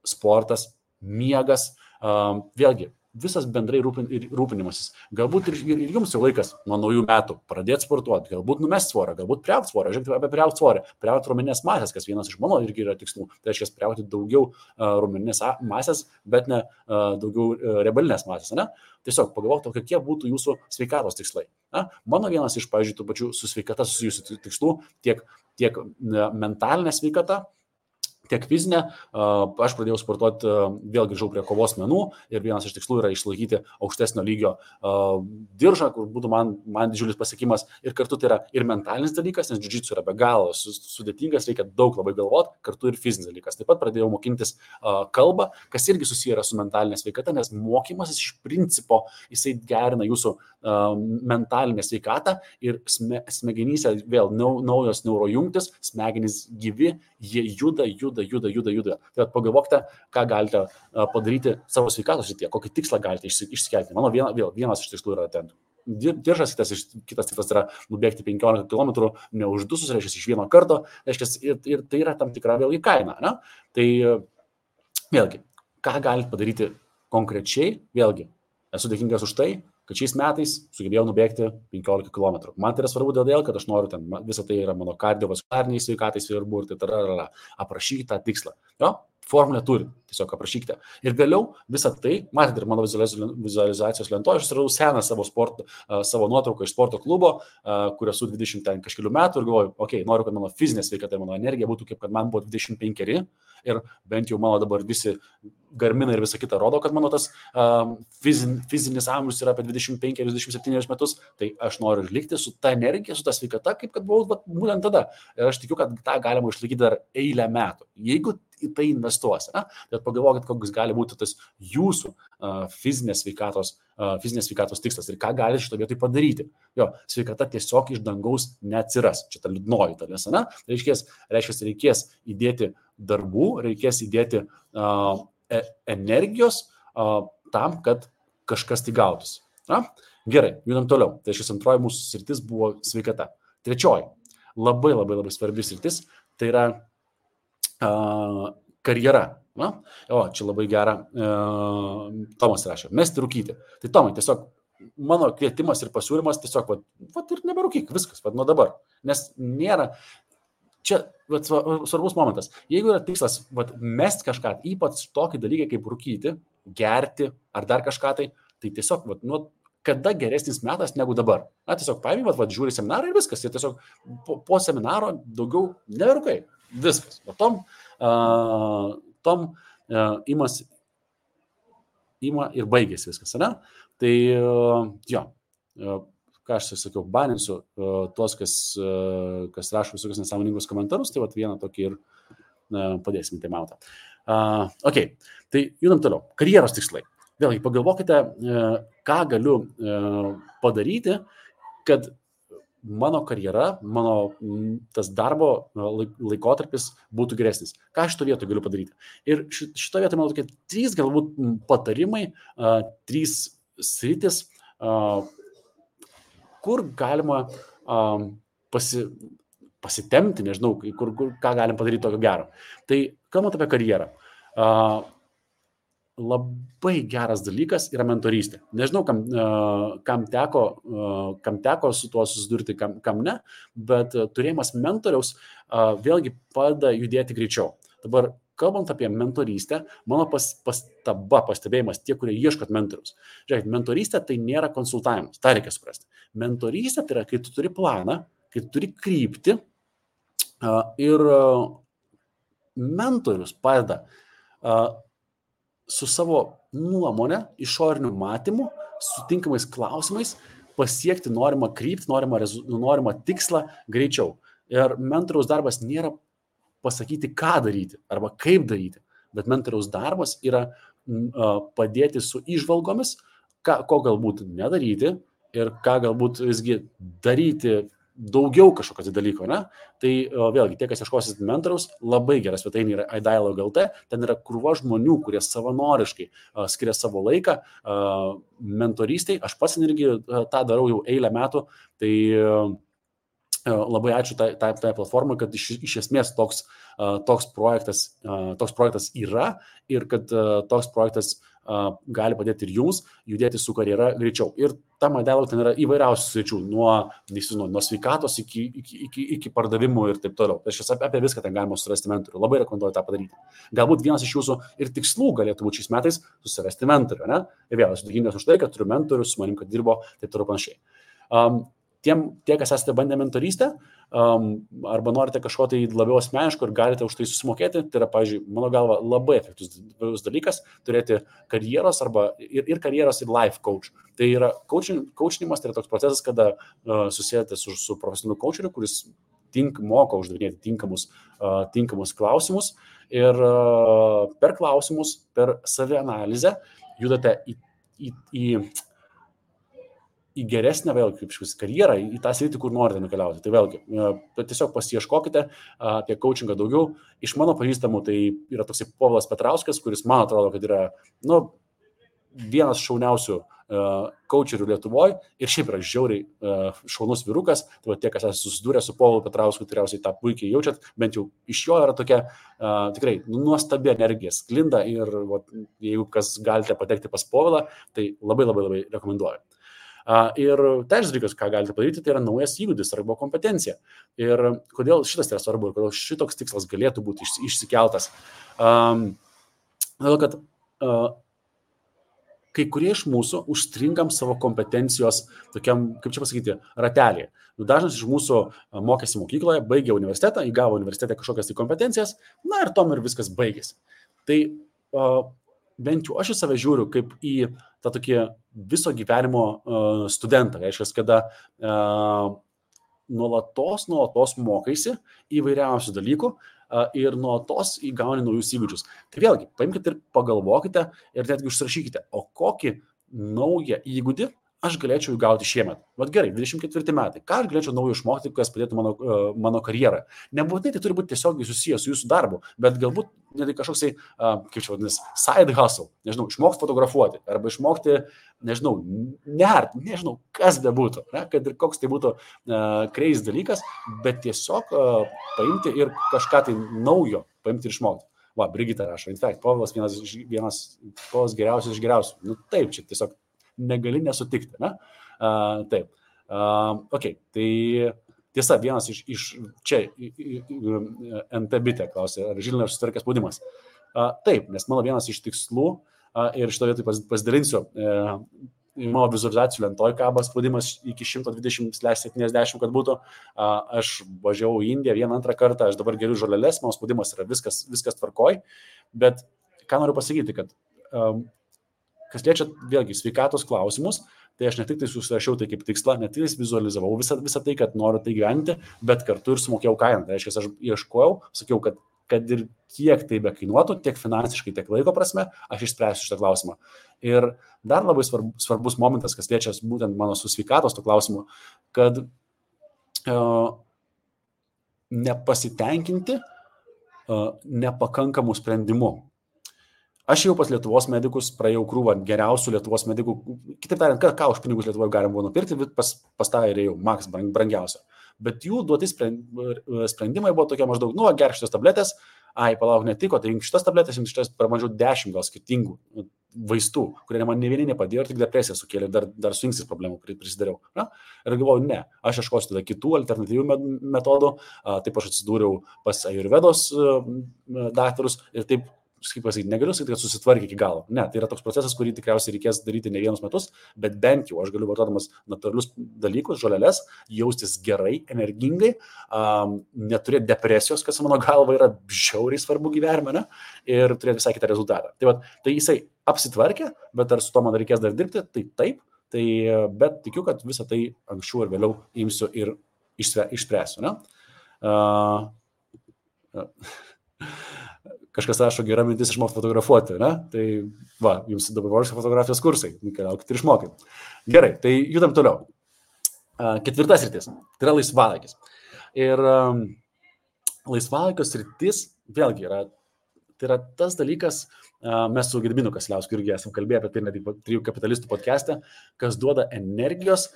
sportas, miegas, vėlgi, visas bendrai rūpinimasis. Galbūt ir jums jau laikas nuo naujų metų pradėti sportuoti, galbūt numesti svorą, galbūt priaugti svorą. Žiūrėkite apie priaugti svorį, priaugti raumeninės masės, kas vienas iš mano irgi yra tikslų. Tai reiškia priaugti daugiau raumeninės masės, bet ne daugiau riebalinės masės. Ne? Tiesiog pagalvokite, kokie būtų jūsų sveikatos tikslai. Mano vienas iš, pavyzdžiui, tų pačių su sveikata susijusių tikslų, tiek mentalinė sveikata, tiek fizinė, aš pradėjau sportuoti, vėl grįžau prie kovos menų ir vienas iš tikslų yra išlaikyti aukštesnio lygio diržą, kur būtų man didžiulis pasiekimas ir kartu tai yra ir mentalinis dalykas, nes jiu-jitsu yra be galo sudėtingas, reikia daug labai galvoti, kartu ir fizinis dalykas. Taip pat pradėjau mokintis kalbą, kas irgi susiję yra su mentalinė sveikata, nes mokymasis iš principo jisai gerina jūsų mentalinę sveikatą ir smegenyse vėl naujos neurojungtis, smegenys gyvi, jie juda. Tai pagalvokite, ką galite padaryti savo sveikatos srityje, kokį tikslą galite išsikelti. Mano vienas iš tikslų yra ten diržas, kitas tikslas yra nubėgti 15 km, neuždusus, reiškia iš vieno karto, reiškia ir tai yra tam tikra vėlgi kaina. Ne? Tai vėlgi, ką galite padaryti konkrečiai, vėlgi, esu dėkingas už tai, kad šiais metais sugebėjau nubėgti 15 km. Man tai yra svarbu dėl, kad aš noriu ten, visą tai yra mano kardiovaskulariniai sveikatai svarbu ir tai aprašykite tą tikslą. Jo? Formulę turi, tiesiog aprašykite. Ir vėliau visą tai, matėte ir mano vizualizacijos lentoje, aš suradau seną savo nuotrauką iš sporto klubo, kur esu 20 kažkelių metų ir galvoju, noriu, kad mano fizinė sveikata ir mano energija būtų kaip kad man buvo 25 ir bent jau mano dabar visi Garminai ir visa kita rodo, kad mano tas fizinis amžius yra apie 25-27 metus, tai aš noriu likti su ta energija, su ta sveikata, kaip kad buvau būtent tada. Ir aš tikiu, kad tą galima išlaikyti dar eilę metų. Jeigu į tai investuosi, tai pagalvokit, koks gali būti tas jūsų fizinės sveikatos tikslas ir ką gali šito vietoj padaryti. Jo, sveikata tiesiog iš dangaus neatsiras. Čia ta liūdnoji dalis, reiškia, reikės įdėti darbų, reikės įdėti energijos tam, kad kažkas tai gautųsi. Gerai, judam toliau. Tai šis antroji mūsų sritis buvo sveikata. Trečioji, labai svarbi sritis, tai yra karjera. Čia labai gera. Tomas rašė, mesti rūkyti. Tai Tomai, tiesiog mano kvietimas ir pasiūlymas tiesiog, ir neberūkyk, viskas, nuo dabar. Nes nėra, čia svarbus momentas. Jeigu yra tikslas mesti kažką, ypač tokį dalyką kaip rūkyti, gerti ar dar kažką, tai tiesiog, kada geresnis metas negu dabar. Tiesiog paėmė, žiūri seminarą ir viskas. Ir tiesiog po seminaro daugiau neberūkai. Viskas. Tom ima ir baigėsi viskas. Tai jo, ką aš sakiau, baninsiu tuos, kas rašo visokius nesąmoningus komentarus, tai vieną tokį ir padėsim tai mautą. Tai judam toliau. Karjeros tikslai. Vėlgi, pagalvokite, ką galiu padaryti, kad mano karjera, mano tas darbo laikotarpis būtų geresnis. Ką šito vietoj galiu padaryti? Ir šito vietoj, manau, tokie 3 galbūt patarimai, 3 sritis, kur galima pasitemti, nežinau, ką galim padaryti tokio gero. Tai kalbant apie karjerą, labai geras dalykas yra mentorystė. Nežinau, kam teko su tuo susidurti, kam ne, bet turėjimas mentoriaus vėlgi padeda judėti greičiau. Dabar, kalbant apie mentorystę, mano pastebėjimas tie, kurie ieškot mentoriaus. Žiūrėkit, mentorystė tai nėra konsultavimas, tą reikia suprasti. Mentorystė tai yra, kai tu turi planą, kai tu turi kryptį ir mentorius padeda su savo nuomonę, išoriniu matymu, sutinkamais klausimais pasiekti norimą kryptį, norimą tikslą greičiau. Ir mentoriaus darbas nėra pasakyti, ką daryti arba kaip daryti, bet mentoriaus darbas yra padėti su įžvalgomis, ko galbūt nedaryti ir ką galbūt visgi daryti daugiau kažkokios dalyko. Tai vėlgi, tie, kas ieškosit mentoriaus, labai geras svetainė yra iDialogue.lt, ten yra krūva žmonių, kurie savanoriškai skiria savo laiką mentorystiai. Aš pats irgi tą darau jau eilę metų, tai labai ačiū tai platformai, kad iš esmės toks projektas yra ir kad toks projektas gali padėti ir jums judėti su karjera greičiau. Ir tam iDialogue ten yra įvairiausių sričių, nuo sveikatos iki pardavimų ir taip toliau. Tai apie viską ten galima susirasti mentorių. Labai rekomenduoju tą padaryti. Galbūt vienas iš jūsų ir tikslų galėtų būti šiais metais susirasti mentorių. Ir vėl, esu dėkingas už tai, kad turiu mentorių, su manim, kad dirbo, taip toliau panašiai. tie, kas esate bandę mentorystę, arba norite kažko tai labiau asmeniško ir galite už tai susimokėti, tai yra, pavyzdžiui, mano galva, labai efektyvus dalykas turėti karjeros ir karjeros ir life coach. Tai yra coachinimas, tai yra toks procesas, kada susijęte su profesionaliu coacheriu, kuris moka uždavinėti tinkamus klausimus ir per klausimus, per savianalizę judate į geresnę vėlgi kaip karjerą, į tą sritį, kur norite nukeliauti. Tai vėlgi, tiesiog pasiieškokite apie coachingą daugiau. Iš mano pažįstamų tai yra toksai Povilas Petrauskas, kuris man atrodo, kad yra vienas šauniausių coacherių Lietuvoje ir šiaip yra žiauriai šaunus vyrukas. Tai va, tie, kas esate susidūrę su Povilu Petrausku, tikriausiai tą puikiai jaučiat, bent jau iš jo yra tokia tikrai nuostabi energija sklinda ir va, jeigu kas galite patekti pas Povilą, tai labai rekomenduoju. Ir trečias dalykas, ką galite padaryti, tai yra naujas įgūdis arba kompetencija. Ir kodėl šitas yra svarbu ir kodėl šitoks tikslas galėtų būti išsikeltas. Todėl, kad kai kurie iš mūsų užstringam savo kompetencijos tokiam, kaip čia pasakyti, ratelį. Dažnas iš mūsų mokėsi mokykloje, baigė universitetą, įgavo universitete kažkokias tai kompetencijas, na ir tom ir viskas baigėsi. Tai bent jau aš į save žiūriu kaip į tą tokį viso gyvenimo studentą. Reiškia, kada nuolatos mokaisi įvairiausių dalykų ir nuolatos įgauni naujus įgūdžius. Tai vėlgi, paimkite ir pagalvokite ir netgi užsirašykite, o kokį naują įgūdį aš galėčiau įgauti šiemet. Vat gerai, 24 metai. Ką aš galėčiau naujo išmokti, kas padėtų mano karjerą? Nebūtinai tai turi būti tiesiogiai susijęs su jūsų darbu, bet galbūt net kažkoksai, kaip čia vadinasi, side hustle. Nežinau, išmokti fotografuoti arba išmokti, nežinau, kas bebūtų, kad ir koks tai būtų crazy dalykas, bet tiesiog paimti ir kažką tai naujo paimti ir išmokti. Va, Brigita rašo, in fact, Povilas vienas Povilas geriausias iš geriausių. Nu taip, čia tiesiog negali nesutikti, ne? Taip. Okay, tai tiesa, vienas iš čia NT bitė klausė, ar Žilinė susitvarkė spaudimas. Taip, nes mano vienas iš tikslų, ir šito vietoj pasidalinsiu, mano vizualizacijų lentoj kaba spaudimas iki 120/70, kad būtų. Aš važiavau į Indiją antrą kartą, aš dabar geriu žoleles, mano spaudimas yra viskas tvarkoj, bet ką noriu pasakyti, kad kas liečia vėlgi sveikatos klausimus, tai aš ne tik tai susirašiau tai kaip tikslą, ne tik tai vizualizavau visą tai, kad noriu tai gyventi, bet kartu ir sumokėjau kainą. Tai reiškia, aš ieškojau, sakiau, kad ir kiek tai bekainuotų, tiek finansiškai, tiek laiko prasme, aš išspręsiu šitą klausimą. Ir dar labai svarbus momentas, kas liečia būtent mano su sveikatos to klausimu, kad nepasitenkinti nepakankamų sprendimų. Aš jau pas Lietuvos medikus praėjau krūvą geriausių Lietuvos medikų. Kitaip tariant, ką už pinigus Lietuvoje galim buvo nupirkti, pas tą ir jau maks brangiausia. Bet jų duoti sprendimai buvo tokie maždaug, gerk šitas tabletės, palauk netiko, tai šitas tabletės, šitas pramažiau 10 gal skirtingų vaistų, kurie man ne vieni nepadėjo ir tik depresiją sukėlė, dar su inkstais problemų prisidariau. Na? Ir galvoju, ne, aš ieškosiu tada kitų alternatyvių metodų, taip aš atsidūriau pas Ajurvedos daktarus ir taip, kaip pasakyti, negaliu sakyti, kad susitvarkė iki galo. Ne, tai yra toks procesas, kurį tikriausiai reikės daryti ne vienus metus, bet bent jau aš galiu vartodamas natūralius dalykus, žoleles, jaustis gerai, energingai, neturėti depresijos, kas mano galva yra žiauriai svarbu gyvenime, ne? Ir turėti visai kitą rezultatą. Tai jisai apsitvarkė, bet ar su to man reikės dar dirbti, tai taip, bet tikiu, kad visą tai anksčiau ir vėliau imsiu ir išspręsiu. Ne? Kažkas rašo, gera mintis išmokti fotografuoti, ne? Tai va, jums dabar fotografijos kursai, keliaukite ir išmokit. Gerai, tai judam toliau. Ketvirtas sritis, tai yra laisvalaikis. Ir laisvalaikio sritis, vėlgi, tai yra tas dalykas, mes su Gediminu Kasiliausku irgi esam kalbėję apie tai net Trijų kapitalistų podcast'e, kas duoda energijos,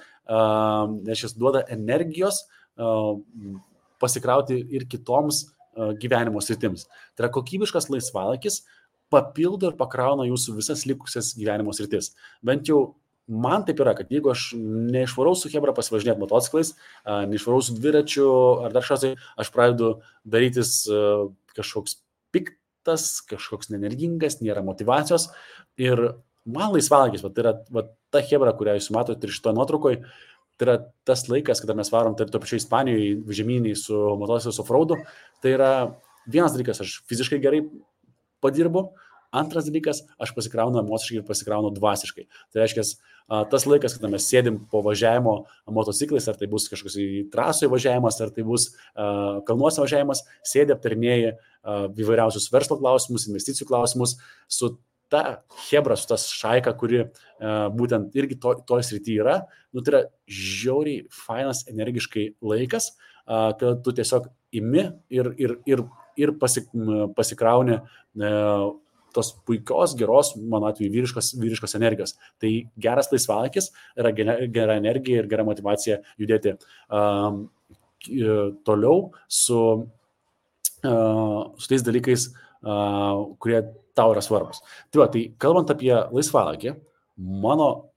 pasikrauti ir kitoms gyvenimo sritims. Tai yra kokybiškas laisvalaikis papildo ir pakrauna jūsų visas likusias gyvenimo sritis. Bent jau man taip yra, kad jeigu aš neišvarau su chebra pasivažinėti motociklais, neišvarau su dviračiu ar dar kažkas, aš pradedu darytis kažkoks piktas, kažkoks nenergingas, nėra motyvacijos. Ir man laisvalaikis, tai yra ta chebra, kurią jūs matote ir šitoje nuotraukoje, Tai yra tas laikas, kada mes varom to pačiu Ispanijoje žemyniai su motociklais offroadu, tai yra vienas dalykas, aš fiziškai gerai padirbu, antras dalykas, aš pasikraunu emociškai ir pasikraunu dvasiškai. Tai reiškia, tas laikas, kada mes sėdim po važiavimo motociklais, ar tai bus kažkoks į trasoje važiavimas, ar tai bus kalnuose važiavimas, sėdė aptarinėja įvairiausius verslo klausimus, investicijų klausimus su ta hebra, su tas šaika, kuri būtent irgi toj srity yra, tai yra žiauriai fainas, energiškai laikas, kad tu tiesiog imi ir pasikrauni tos puikios, geros, mano atveju, vyriškos energijos. Tai geras laisvalaikis yra gera energija ir gera motivacija judėti toliau su tais dalykais, kurie tau yra svarbus. Tai kalbant apie laisvalaikį, mano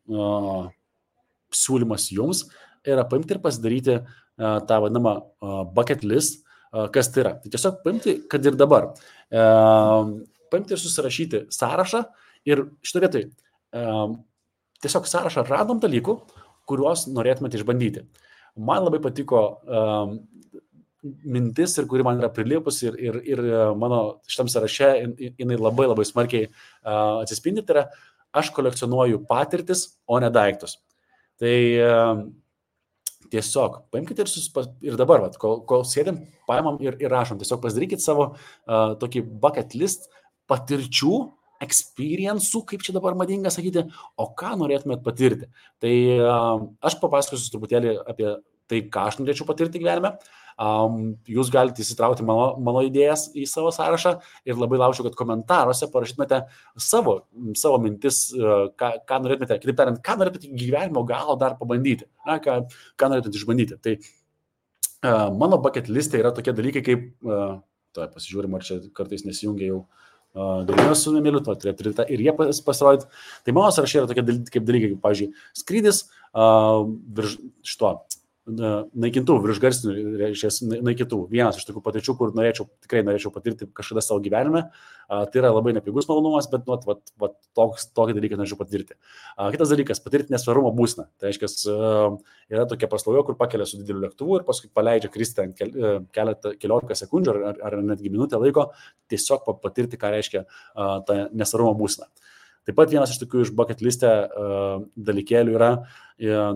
siūlymas jums yra paimti ir pasidaryti tą vadinamą bucket list, kas tai yra. Tai tiesiog paimti, kad ir dabar. Paimti ir susirašyti sąrašą ir šitą vietoj tiesiog sąrašą random dalykų, kuriuos norėtumėte išbandyti. Man labai patiko mintis ir kuri man yra prilipus ir mano šitam sąraše jinai labai labai smarkiai atsispindi, tai yra aš kolekcionuoju patirtis, o ne daiktus. Tai tiesiog paimkite ir dabar, kol sėdėm, paimam ir rašom, tiesiog pasidarykit savo tokį bucket list patirčių, experience'ų, kaip čia dabar madinga sakyti, o ką norėtumėt patirti. Tai aš papasakosiu truputėlį apie tai, ką aš norėčiau patirti gyvenime. Jūs galite įsitraukti mano idėjas į savo sąrašą ir labai lauksiu, kad komentaruose parašytumėte savo mintis, ką norėtumėte, kitaip tariant, ką norėtumėte gyvenimo galo dar pabandyti, ką norėtumėte išbandyti. Tai mano bucket liste yra tokie dalykai, kaip, pasižiūrim, ar čia kartais nesijungia jau galimės su Emiliu, ir jie pasirodyti. Tai mano sąrašai yra tokie dalykai, kaip, pavyzdžiui, skrydis virš šito naikintuvų, virš garsinių naikintuvų. Vienas iš tokių patirčių, kur tikrai norėčiau patirti kažkada savo gyvenime. Tai yra labai nepigus malonumas, bet tokį dalyką norėčiau patirti. Kitas dalykas, patirti nesvarumo būseną. Tai reiškia, yra tokia paslauga, kur pakelia su dideliu lėktuvu ir paskui paleidžia kristi keliolika sekundžių ar netgi minutę laiko, tiesiog patirti, ką reiškia ta nesvarumo būsena. Taip pat vienas iš tokių iš bucket liste dalykėlių yra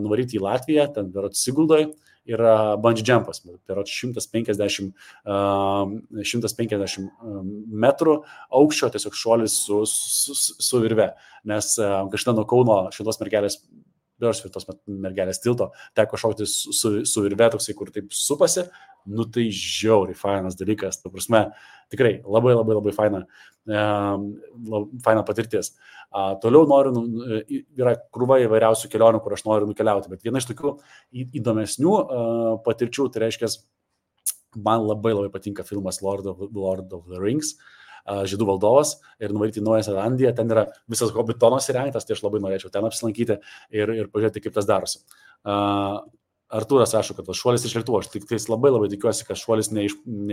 nuvaryti į Latviją, ten berods Siguldoje, yra bungee jumpas, berods 150 metrų aukščio, tiesiog šuolis su virve, nes kažkada nuo Kauno šitos mergelės tilto teko šaukti su virve toksai, kur taip supasi, tai žiauriai fainas dalykas, ta prasme, tikrai labai labai labai faina patirtis. Toliau yra krūva įvairiausių kelionių, kur aš noriu nukeliauti, bet viena iš tokių įdomesnių patirčių, tai reiškia, man labai labai patinka filmas Lord of the Rings, Žydų valdovas, ir nuvaryti į Naująją Zelandiją, ten yra visas Hobbitonas įrengtas, tai aš labai norėčiau ten apsilankyti ir pažiūrėti, kaip tas darosi. Artūras rašo, kad šuolis iš lėktuvo, aš tik labai labai tikiuosi, kad šuolis ne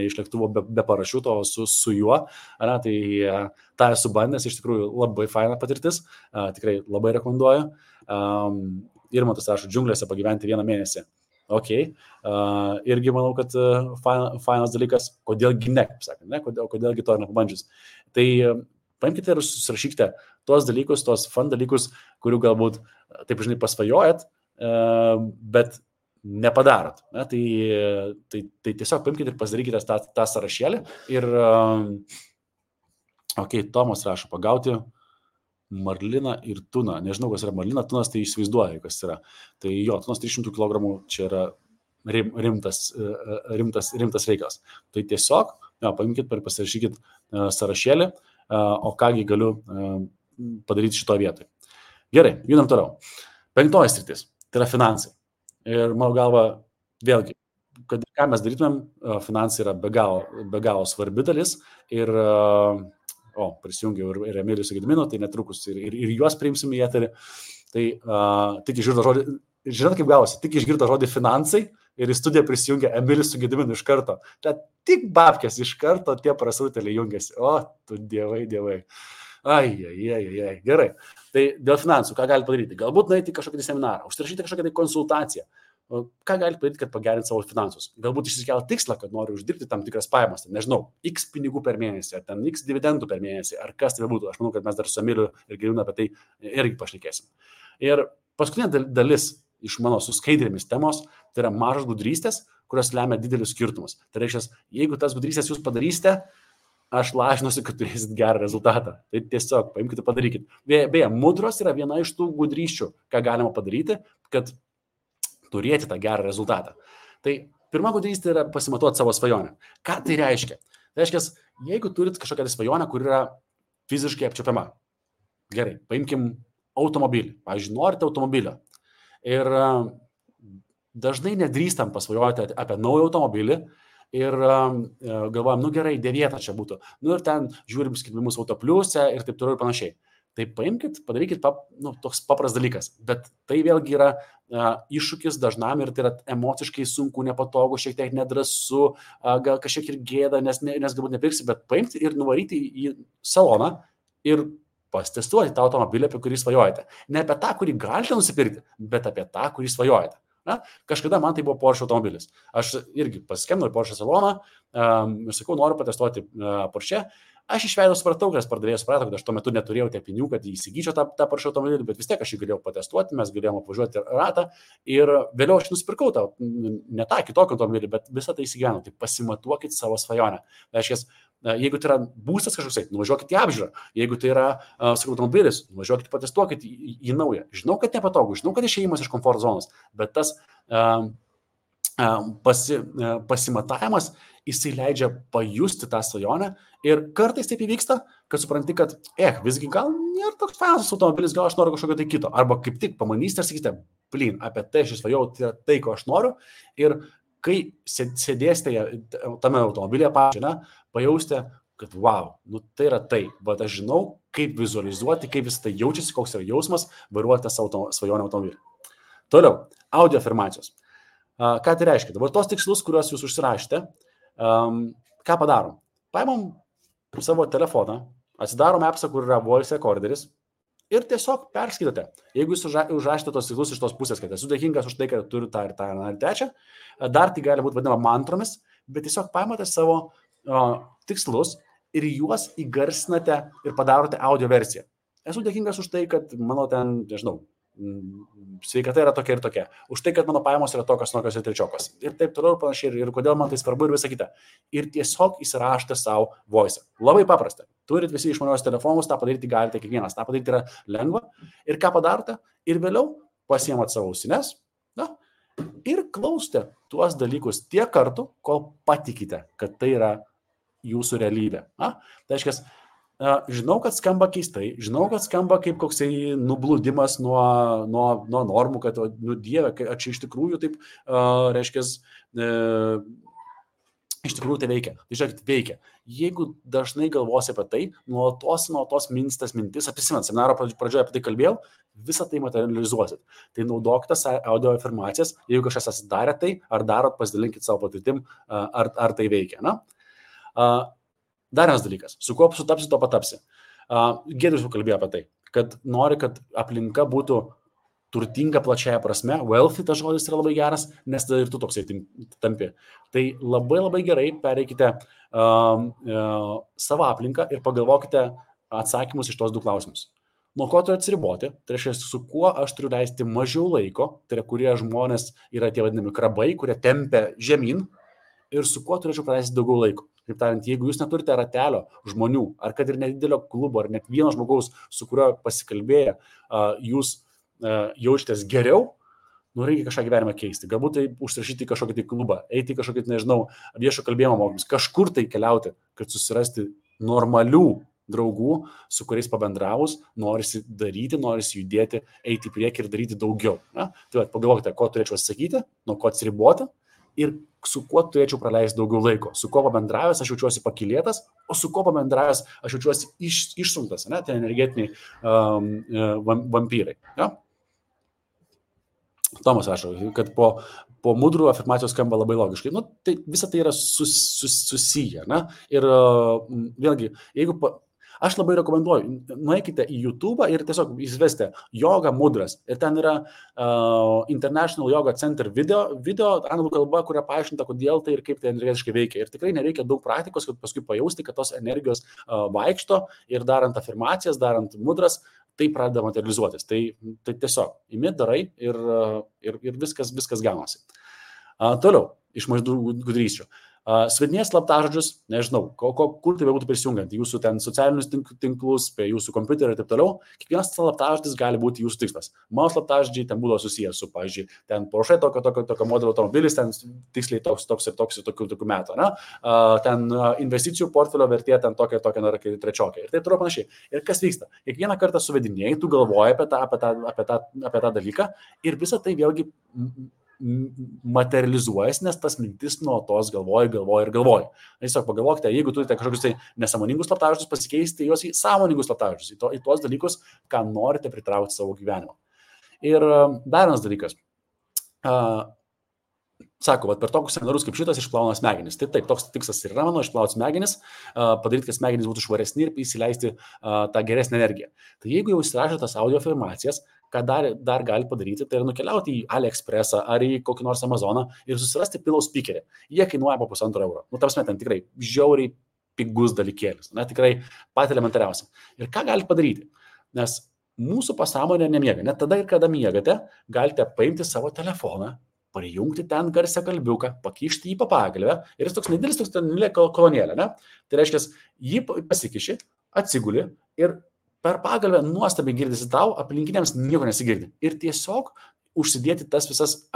iš lėktuvo be parašiuto, o su juo, tai tą esu bandęs, iš tikrųjų labai faina patirtis, tikrai labai rekomenduoju. Irmantas rašo, džiunglėse pagyventi 1 mėnesį. Ok, irgi manau, kad fainas dalykas, kodėlgi ne, kaip sakant, kodėlgi to nepabandžius. Tai paimkite ir susirašykite tuos dalykus, tuos fun dalykus, kurių galbūt, taip žinai, pasvajojat, bet nepadarot. Tai tiesiog paimkite ir pasidarykite tą sąrašėlį ir, ok, Tomas rašo, pagauti marliną ir tuną. Nežinau, kas yra marlina, tunas, tai įsivaizduoju, kas yra. Tai jo, tunas 300 kg čia yra rimtas reikalas. Tai tiesiog, paimkite ir pasirašykit sąrašėlį, o kągi galiu padaryti šito vietoj. Gerai, judam toliau. 5 sritis, tai yra finansai. Ir mano galva, vėlgi, kad ką mes darytumėm, finansai yra be galo svarbi dalis ir prisijungiau ir Emilių su Gediminu, tai netrukus ir juos priimsim į eterį. Tai tik išgirdo žodį, žinot kaip gavosi, tik išgirdo žodį finansai ir į studiją prisijungia Emilius su Gediminu iš karto. Tai tik babkės iš karto tie prasrutėliai jungiasi. O, tu dievai. Ai. Gerai. Tai dėl finansų, ką gali padaryti? Galbūt nueiti į kažkokį seminarą, užsirašyti kažkokią tai konsultaciją. Ką gali padaryti, kad pagerinti savo finansus? Galbūt išsikelti tikslą, kad nori uždirbti tam tikras pajamas, nežinau, X pinigų per mėnesį, ar ten X dividendų per mėnesį, ar kas tai būtų. Aš manau, kad mes dar su Emiliu ir Geriūnu apie tai irgi pašnekėsim. Ir paskutinė dalis iš mano su skaidrėmis temos, tai yra mažas gudrystės, kurios lemia didelius skirtumus. Tai reiškia, jeigu tas gudrystės jūs padarysite, aš lažinuosi, kad turėsit gerą rezultatą. Tai tiesiog paimkite, padarykit. Beje, mudros yra viena iš tų gudryščių, ką galima padaryti, kad turėti tą gerą rezultatą. Tai pirma gudrystė yra pasimatuoti savo svajonę. Ką tai reiškia? Tai reiškia, jeigu turit kažkokią svajonę, kur yra fiziškai apčiuopiama. Gerai, paimkim automobilį. Pavyzdžiui, norite automobilio. Ir dažnai nedrįstam pasvajoti apie naują automobilį ir galvojam, gerai, 9 čia būtų. Ir ten žiūrim skelbimus Autopliuse ir taip toliau ir panašiai. Tai paimkit, padarykit toks papras dalykas. Bet tai vėlgi yra iššūkis dažnam ir tai yra emociškai sunku, nepatogu, šiek tiek nedrąsu, gal kažkiek ir gėda, nes galbūt nepirksi, bet paimti ir nuvaryti į saloną ir pasitestuoti tą automobilį, apie kurį svajojate. Ne apie tą, kurį galite nusipirkti, bet apie tą, kurį svajojate. Na, kažkada man tai buvo Porsche automobilis. Aš irgi paskambinau į Porsche saloną ir sakau, noriu patestuoti Porsche. Aš iš veido supratau, kad pardavėjas suprato, kad aš tuo metu neturėjau tiek pinigų, kad įsigyčiau tą Porsche automobilį, bet vis tiek aš jį galėjau patestuoti, mes galėjome apvažiuoti ratą ir vėliau aš nusipirkau ne tą kitokį automobilį, bet visą tai įsigyvenau. Tai pasimatuokit savo svajonę. Tai reiškia, jeigu tai yra būstas kažkoks, nuvažiuokit į apžiūrą. Jeigu tai yra automobilis, nuvažiuokit patestuokit į naują. Žinau, kad nepatogu, žinau, kad išėjimas iš komforto zonos, bet tas pasimatavimas, jisai leidžia pajusti tą svajonę ir kartais taip įvyksta, kad supranti, kad visgi gal nėra toks fainas automobilis, gal aš noriu kažkokio tai kito. Arba kaip tik pamanysite ir sakysite, apie tai aš svajojau, tai yra tai, ko aš noriu. Ir kai sėdėsite tame automobilyje pajausite, kad wow, tai yra tai. Bet aš žinau, kaip vizualizuoti, kaip vis tai jaučiasi, koks yra jausmas vairuoti savo svajonę automobilį. Toliau, audio afirmacijos. Ką tai reiškia? Dabar tos tikslus, kuriuos jūs užsirašėte, ką padarom? Paimam savo telefoną, atsidarom appsą, kur yra voice recorderis ir tiesiog perskaitote. Jeigu jūs užrašėte tos tikslus iš tos pusės, kad esu dėkingas už tai, kad turiu tą ir tą ir trečią, dar tai gali būti vadinama mantromis, bet tiesiog paimate savo tikslus ir juos įgarsinate ir padarote audio versiją. Esu dėkingas už tai, kad mano ten, nežinau, sveikata yra tokia ir tokia. Už tai, kad mano pajamos yra tokios ir trečiokos. Ir taip toliau ir panašiai. Ir kodėl man tai svarbu ir visa kita. Ir tiesiog įsirašote savo voice. Labai paprasta. Turit visi išmaniuosius telefonus, tą padaryti galite kiekvienas. Ta padaryti yra lengva. Ir ką padarote? Ir vėliau pasiemat savo ausines ir klausote tuos dalykus tiek kartų, kol patikite, kad tai yra jūsų realybė. Tai reiškia, žinau, kad skamba keistai, žinau, kad skamba kaip koksai nublūdimas nuo normų, kad, Dieve, ar čia iš tikrųjų taip, reiškia, iš tikrųjų tai veikia. Tai žiūrėkit, veikia. Jeigu dažnai galvosi apie tai, nuolatos mintis, apsimenat, seminaro pradžioje apie tai kalbėjau, visą tai materializuosit. Tai naudokite audio afirmacijas, jeigu kažkas atsidarė tai, ar darot, pasidalinkit savo patirtim, ar tai veikia. Dar vienas dalykas, su kuo sutapsi, to patapsi. Giedrius jau kalbėjo apie tai, kad nori, kad aplinka būtų turtinga plačiaja prasme, wealthy tas žodis yra labai geras, nes ir tu toksai tampi. Tai labai labai gerai pereikite savo aplinką ir pagalvokite atsakymus iš tos 2 klausimus. Nuo ko turiu atsiriboti, tai reiškia, su kuo aš turiu leisti mažiau laiko, tai yra, kurie žmonės yra tie vadinami krabai, kurie tempia žemyn, ir su kuo turėčiau praleisti daugiau laiko. Kaip tariant, jeigu jūs neturite ratelio žmonių, ar kad ir nedidelio klubo, ar net vieno žmogaus, su kuriuo pasikalbėję, jūs jaučiatės geriau, reikia kažką gyvenimą keisti. Galbūt tai užsirašyti kažkokį tai klubą, eiti į kažkokį, nežinau, viešo kalbėjimo mokymus, kažkur tai keliauti, kad susirasti normalių draugų, su kuriais pabendravus, norisi daryti, norisi judėti, eiti į priekį ir daryti daugiau. Tai pagalvokite, ko turėčiau atsakyti, nuo ko atsiriboti ir su kuo turėčiau praleisti daugiau laiko. Su kuo pabendravęs aš jaučiuosi pakylėtas, o su kuo pabendravęs aš jaučiuosi išsunktas, tai energetiniai vampyrai. Tomas rašo, kad po mudrų afirmacijos skamba labai logiškai. Tai visa tai yra susiję. Ir vėlgi, jeigu Aš labai rekomenduoju, nueikite į YouTube ir tiesiog įsivesti Yoga Mudras. Ir ten yra International Yoga Center video anglų kalba, kuria paaiškinta, kodėl tai ir kaip tai energetiškai veikia. Ir tikrai nereikia daug praktikos, kad paskui pajausti, kad tos energijos vaikšto ir darant afirmacijas, darant mudras, tai pradeda materializuotis. Tai tiesiog imi, darai ir viskas gaunasi. Toliau, iš mažų gudrysčių. Svedinės slaptažodžius, nežinau, kur tai būtų prisijungiant, jūsų ten socialinius tinklus, prie jūsų kompiuterio ir taip toliau, kiekvienas slaptažodis gali būti jūsų tikslas. Mano slaptažodžiai ten būdavo susijęs su, pavyzdžiui, ten Porsche tokio modelio automobilis, ten tiksliai toks ir tokių metų, ne? Ten investicijų portfelio vertė ten tokia, trečiokia ir taip toliau panašiai. Ir kas vyksta? Kiekvieną kartą suvedinėjai, tu galvoji apie tą dalyką ir visą tai vėlgi materializuojas, nes tas mintis nuolatos galvoji. Tiesiog pagalvokite, jeigu turite kažkokius tai nesąmoningus slaptažodžius, pasikeisti juos į sąmoningus slaptažodžius, į tuos dalykus, ką norite pritraukti savo gyvenimą. Ir dar vienas dalykas. Sako, per tokius seminarus kaip šitas išplauna smegenis. Taip, toks tikslas ir yra mano, išplauti smegenis, padaryti, kad smegenys būtų švaresni ir įsileisti tą geresnę energiją. Tai jeigu jau įsirašė tas audio afirmacijas, ką dar gali padaryti, tai yra nukeliauti į AliExpressą ar į kokį nors Amazoną ir susirasti pillow speakerį. Jie kainuoja po €1,5. Tarpsme, ten tikrai žiauriai pigus dalykėlis, tikrai pat elementariausia. Ir ką galite padaryti? Nes mūsų pasąmonė nemiega. Net tada ir kada miegate, galite paimti savo telefoną, prijungti ten garsią kalbiuką, pakišti jį pagalvę ir jis toks nedidelis, toks ten kolonėlė, ne? Tai reiškia, jį pasikiši, atsiguli ir per pagalvę nuostabiai girdisi tau, aplinkiniams nieko nesigirdi. Ir tiesiog užsidėti tas visas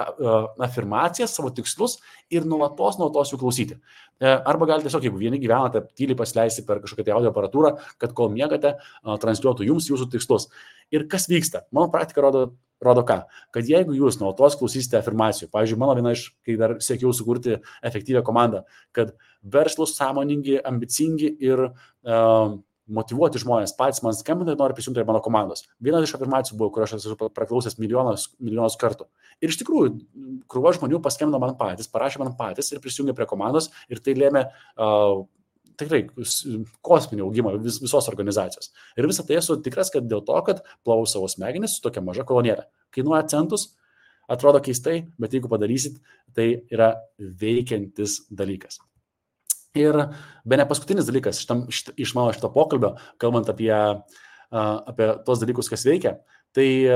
afirmacijas, savo tikslus ir nuolatos jų klausyti. Arba galite tiesiog, jeigu vieni gyvenate, tyliai pasileisti per kažkokią tai audio aparatūrą, kad kol miegate, transliuotų jums jūsų tikslus. Ir kas vyksta? Mano praktika rodo ką? Kad jeigu jūs nuolatos klausysite afirmacijų, pavyzdžiui, mano viena iš, kai dar siekiau sukurti efektyvią komandą, kad verslus, sąmoningi, ambicingi ir motyvuoti žmonės patys man skambina ir nori prisijungti prie mano komandos. Viena iš afirmacijų buvo, kur aš esu praklausęs milijonus kartų. Ir iš tikrųjų, krūva žmonių paskambino man patys, parašė man patys ir prisijungė prie komandos ir tai lėmė tikrai kosminį augimą visos organizacijos. Ir visą tai esu tikras, kad dėl to, kad plovau savo smegenis su tokia maža kolonėlė. Kainuoja centus, atrodo keistai, bet jeigu padarysit, tai yra veikiantis dalykas. Ir bene paskutinis dalykas iš mano šito pokalbio, kalbant apie tos dalykus, kas veikia, tai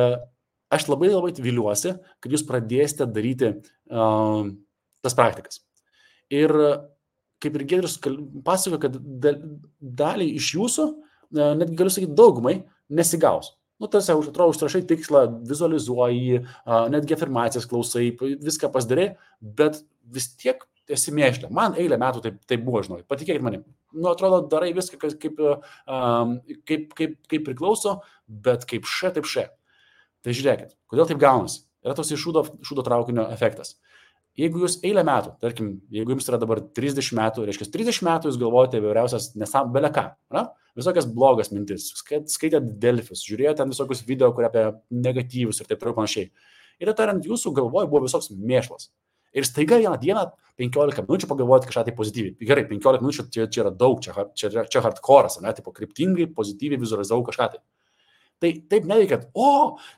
aš labai viliuosi, kad jūs pradėsite daryti tas praktikas. Ir kaip ir Giedrius pasakojo, kad dalį iš jūsų, netgi galiu sakyti daugumai, nesigaus. Tarsi atrodo, užrašai tikslą, vizualizuoji, netgi afirmacijas klausai, viską pasidarai, bet vis tiek esi mėšlė. Man eilę metų taip buvo, žinau, patikėkit manim. Atrodo, darai viską, kaip priklauso, bet kaip taip. Tai žiūrėkit, kodėl taip gaunasi? Yra toks šūdo traukinio efektas. Jeigu jūs eilę metų, tarkim, jeigu jums yra dabar 30 metų, reiškia 30 metų jūs galvojate įvairiausias beleką, visokias blogas mintis, skaitėt Delfius, žiūrėjote ten visokius video, kurie apie negatyvus ir taip toliau panašiai. Ir tariant, jūsų galvoj buvo visoks mėšlas. Ir staiga vieną dieną 15 minučių pagalvoti kažką tai pozityviai. Gerai, 15 minučių čia yra daug, čia hardcore'as, tipo kryptingai, pozityviai vizualizavau kažką tai. Tai taip neveikia,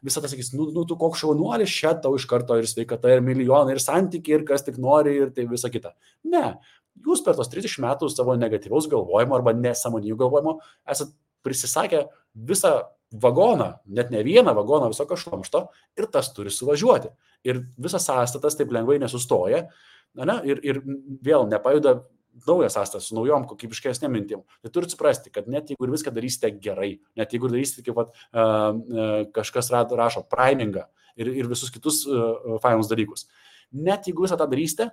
visą tai sakys, tu koks šaunuolis, čia tau iš karto ir sveikata, ir milijonai, ir santykiai, ir kas tik nori, ir tai visa kita. Ne, jūs per tos 30 metų savo negatyvaus galvojimo arba nesąmoningų galvojimo esat prisisakę visą vagoną, net ne vieną vagoną visokio šlamšto ir tas turi suvažiuoti. Ir visas sąstatas taip lengvai nesustoja, ir vėl nepajuda naujas sąstatas su naujom kokybiškesnėm mintim. Tai turite suprasti, kad net jeigu ir viską darysite gerai, net jeigu darysite, kaip kažkas rašo, primingą ir visus kitus fainus dalykus, net jeigu visą tą darysite,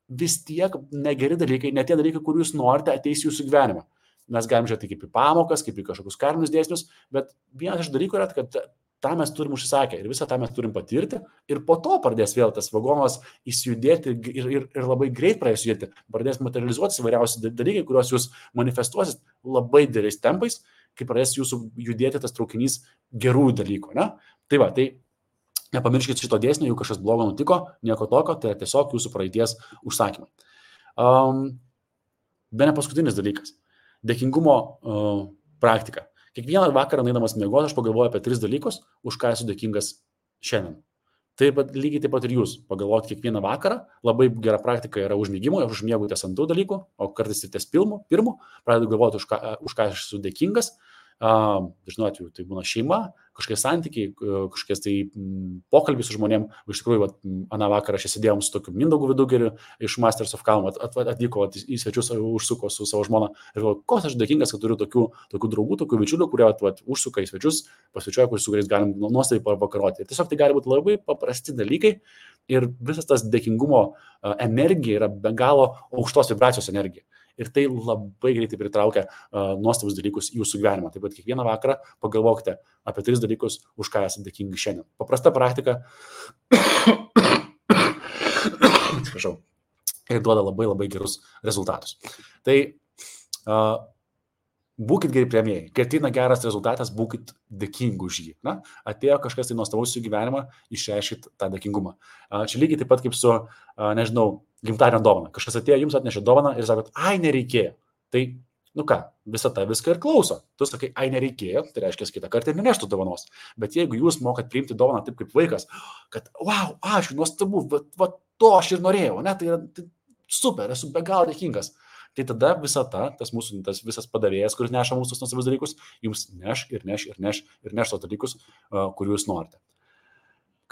vis tiek negeri dalykai, net tie dalykai, kur jūs norite, ateis jūsų gyvenimą. Mes galim žiūrėti kaip į pamokas, kaip į kažkokius karinius dėsnius, bet vienas iš dalykų yra, kad tą mes turim užsisakę ir visą tą mes turim patirti ir po to pradės vėl tas vagonas įsijudėti ir labai greit pradės judėti, pradės materializuotis įvairiausi dalykai, kuriuos jūs manifestuosit labai dideliais tempais, kai pradės jūsų judėti tas traukinys gerų dalykų. Ne? Tai va, tai nepamirškit šito dėsnio, jeigu kažkas blogo nutiko, nieko tokio, tai tiesiog jūsų praeities užsakymai. Bene paskutinis dalykas. Dėkingumo praktika. Kiekvieną vakarą eidamas miegoti, aš pagalvoju apie 3 dalykus, už ką esu dėkingas šiandien. Taip pat lygiai taip pat ir jūs pagalvoti kiekvieną vakarą, labai gera praktika yra užmigimo, aš užmiegu ties ant tų dalykų, o kartais ir ties pirmu, pradedu galvoti, už ką aš esu dėkingas. Dažnu atveju tai būna šeima, kažkokie santykiai, kažkokie tai pokalbiai su žmonėm. Iš tikrųjų, aną vakarą aš sėdėjom su tokiu Mindaugu Vidugeriu iš Masters of Calm, atvyko į svečius, užsuko su savo žmona ir galvoju, koks aš dėkingas, kad turiu tokių draugų, tokių bičiulių, kurie užsuka į svečius, pasvečiuoja, su kuriais galim nuostabiai pavakaroti. Ir tiesiog tai gali būti labai paprasti dalykai ir visas tas dėkingumo energija yra be galo aukštos vibracijos energija. Ir tai labai greitai pritraukia nuostabus dalykus į jūsų gyvenimą. Taip pat kiekvieną vakarą pagalvokite apie 3 dalykus, už ką esate dėkingi šiandien. Paprasta praktika ir duoda labai gerus rezultatus. Tai būkit geri priėmėjai. Kai ateina geras rezultatas, būkit dėkingi už jį. Na, atėjo kažkas tai nuostabaus į gyvenimą, išreiškit tą dėkingumą. Čia lygiai taip pat kaip su, nežinau, gimtadienio dovana. Kažkas atėjo, jums atnešė dovaną ir sakot, ai, nereikėjo. Tai, visą viską ir klauso. Tu sakai, ai, nereikėjo, tai reiškia, kitą kartą ir neneštų dovanos. Bet jeigu jūs mokat priimti dovaną taip kaip vaikas, kad, wow, aš nuostabu, va to aš ir norėjau, ne, tai super, esu be galo dėkingas. Tai tada tas visas padavėjas, kuris neša mūsų nuostabius dalykus, jums neš tos dalykus, kurių jūs norite.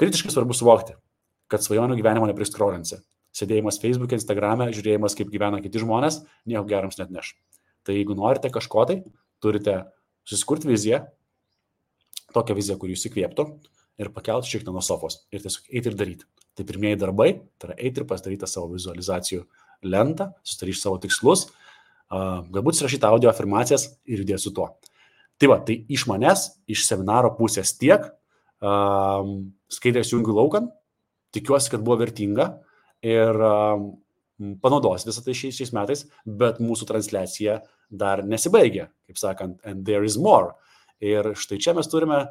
Kritiškai svarbu suvokti, kad svajonių gyvenimo nepriskrolinsi. Sėdėjimas Facebook'e, Instagram'e, žiūrėjimas, kaip gyvena kiti žmonės, nieko gerams net neš. Tai jeigu norite kažko tai, turite susikurti viziją, tokią viziją, kuri jūs įkvėptų ir pakelti šiek tiek nuo sofos ir tiesiog eiti ir daryti. Tai pirmieji darbai, tai yra eiti ir pasidaryti savo vizualizacijų lentą, susidaryti savo tikslus, galbūt surašyti audio afirmacijas ir judėti su tuo. Tai iš manęs, iš seminaro pusės tiek, skaidrės jungiu laukan, tikiuosi, kad buvo vertinga ir panaudos visą tai šiais metais, bet mūsų transliacija dar nesibaigė, kaip sakant, and there is more. Ir štai čia mes turime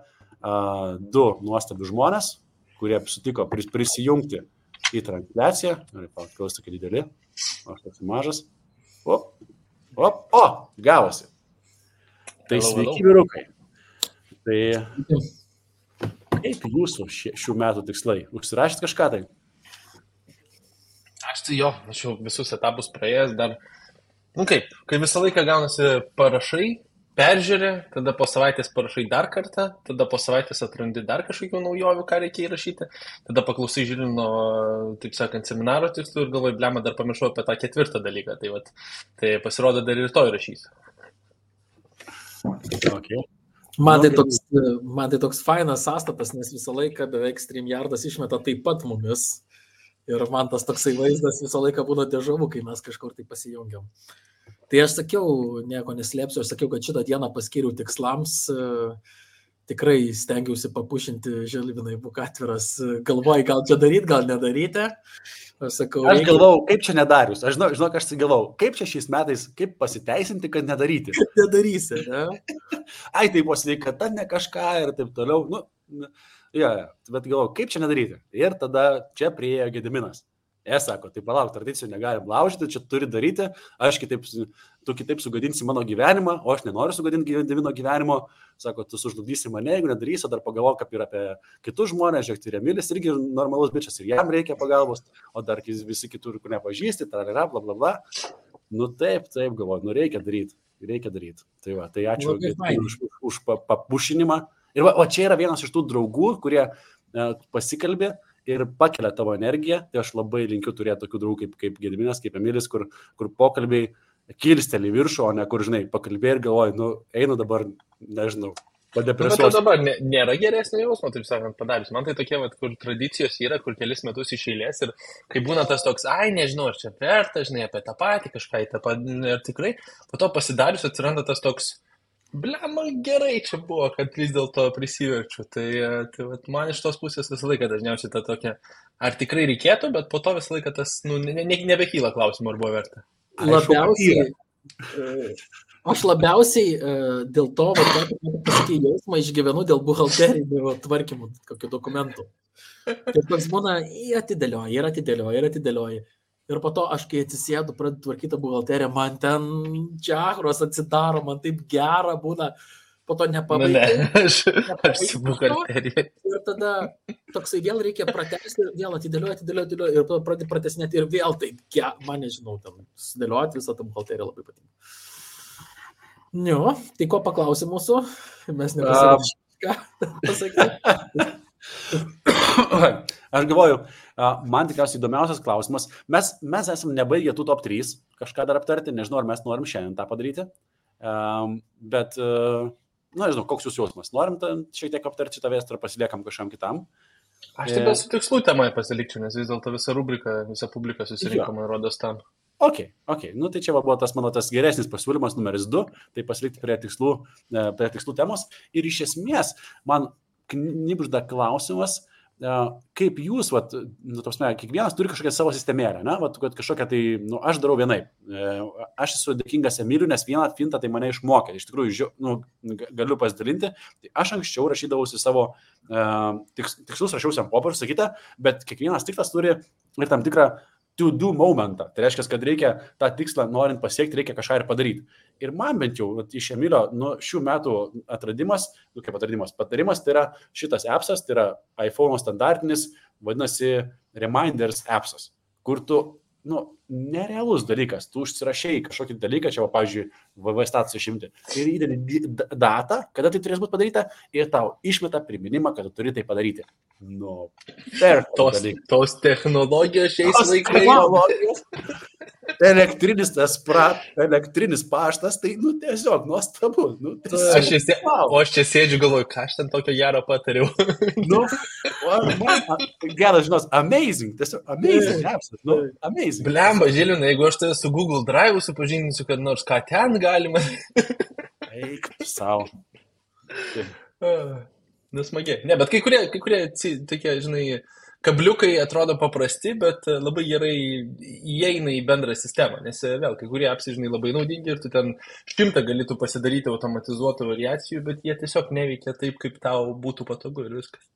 2 nuostabius žmonės, kurie sutiko prisijungti į transliaciją. Klausiu tokie dideli, aš toks mažas. Gavosi. Tai sveiki, vyrukai. Tai kaip jūsų šių metų tikslai? Užsirašėt kažką tai? Aš tai aš jau visus etapus praėjęs dar, kai visą laiką gaunasi parašai, peržiūrė, tada po savaitės parašai dar kartą, tada po savaitės atrandi dar kažkokių naujovių, ką reikia įrašyti, tada paklausai žiūri nuo, taip sakant, seminaro tikslų ir galvoju, blema, dar pamiršau apie tą 4 dalyką, tai pasirodo dar ir to įrašysiu. Okay. Man tai toks fainas sąstatas, nes visą laiką beveik StreamYardas išmeta taip pat mumis. Ir man tas toksai vaizdas visą laiką būna dežavu, kai mes kažkur tai pasijungiam. Tai aš sakiau, nieko neslėpsiu, aš sakiau, kad šitą dieną paskiriau tikslams. Tikrai stengiausi papušinti, Žilvinai, būk atviras. Galvoju, gal čia daryti, gal nedaryti. Aš galvau, kaip čia nedarius. Aš žinau, aš galvau, kaip čia šiais metais, kaip pasiteisinti, kad nedaryti. Nedarysi, ne? Ai, tai buvo sveikata, ne kažką ir taip toliau. Bet galvau, kaip čia nedaryti. Ir tada čia priėjo Gediminas. Sako, tai palauk, tradicijų negalim laužyti, čia turi daryti, tu kitaip sugadinsi mano gyvenimą, o aš nenoriu sugadinti Gedimino gyvenimo. Sako, tu sužlugdysi mane, jeigu nedarysi, dar pagalvok apie kitus žmonės, žiūrėk, tai Remilis irgi normalus bičias ir jam reikia pagalbos, o dar visi kitur, kur nepažįsti, bla bla bla. Taip, galvoju, reikia daryti. Tai ačiū už papušinimą. Ir čia yra vienas iš tų draugų, kurie pasikalbė ir pakelia tavo energiją. Tai aš labai linkiu turėti tokių draugų kaip Gediminas, kaip Emilis, kur pokalbiai kilsteli viršų, o ne kur, pakalbėjai ir galvoju, einu dabar, nežinau, padepresuosiu. Bet dabar nėra geresnio jausmo, taip sakant, padarius. Man tai tokie, kur tradicijos yra, kur kelis metus iš eilės ir kai būna tas toks, nežinau, ar čia verta, apie tą patį, kažką ir tikrai, po to pasidarius atsiranda tas toks, blema, gerai čia buvo, kad vis dėlto prisiverčiu. Tai man iš tos pusės visą laiką dažniausiai ta tokia, ar tikrai reikėtų, bet po to visą laiką tas, nebekyla klausimų, ar buvo verta. Aš labiausiai dėl to, pasakyti, jausmą išgyvenu dėl buhalterinių tvarkymų, kokių dokumentų. Tai toks būna, atidėlioji. Ir po to aš, kai atsisėdu, pradedu tvarkyti buhalteriją, man ten džiahros atsidaro, man taip gera būna, po to nepabaigai. Aš su buhalterija. Ir tada toksai vėl reikia pratesti, vėl atidėliuoti, ir po to pradėti pratesnėti ir vėl taip, man nežinau, tam sudėlioti visą tą buhalteriją labai patinka. Jo, tai ko paklausė mūsų? Mes nepasakėme, ką pasakyti. Aš galvoju, man tikriausiai įdomiausias klausimas. Mes esame nebaigę tų top 3 kažką dar aptarti, nežinau, ar mes norim šiandien tą padaryti, bet, nežinau, koks jūsų jausmas. Norim šiek tiek aptarti šitą vėstrą, pasiliekam kažkam kitam. Aš tik su tikslų temai pasilikčiau, nes vis dėlto visa rubrika, visa publika susirinko, man rodos tam. Ok. Nu tai čia buvo tas mano tas geresnis pasiūlymas numeris 2, tai pasilikti prie tikslų temos. Ir iš esmės man knibžda klausimas, kaip jūs, kiekvienas turi kažkokią savo sistemėlę, kad kažkokią tai, aš darau vienaip. Aš esu dėkingas Emiliui, nes vieną fintą tai mane išmokė. Iš tikrųjų, galiu pasidalinti. Tai aš anksčiau rašydavausi savo tikslus, rašiausi ant popieriaus, sakyta, bet kiekvienas tikslas turi ir tam tikrą to-do momentą. Tai reiškia, kad reikia tą tikslą, norint pasiekti, reikia kažką ir padaryti. Ir man bent jau iš Emilio šių metų patarimas, tai yra šitas appsas, tai yra iPhone standartinis, vadinasi Reminders appsas, kur tu, nerealus dalykas, tu užsirašai kažkokį dalyką, čia, pavyzdžiui, VV statusą išimti, ir įdedi datą, kada tai turės būti padaryta, ir tau išmeta priminimą, kad tu turi tai padaryti. Tos technologijos šiais laikais. Elektrinis paštas, tai, tiesiog nuostabu. Aš čia sėdžiu, galvoju, ką aš ten tokio gero patariau. Geras, žinos, amazing, tiesiog amazing appsas, amazing. Blemba, Žilvinai, jeigu aš tai su Google Drive supažindinsiu, kad nors ką ten galima. Eik, savo. Smagiai. Ne, bet kai kurie tokie, žinai, kabliukai atrodo paprasti, bet labai gerai įeina į bendrą sistemą, nes vėl, kai kurie apsai, žinai, labai naudingi ir tu ten 100 galėtų pasidaryti automatizuotų variacijų, bet jie tiesiog neveikia taip, kaip tau būtų patogu ir viskas.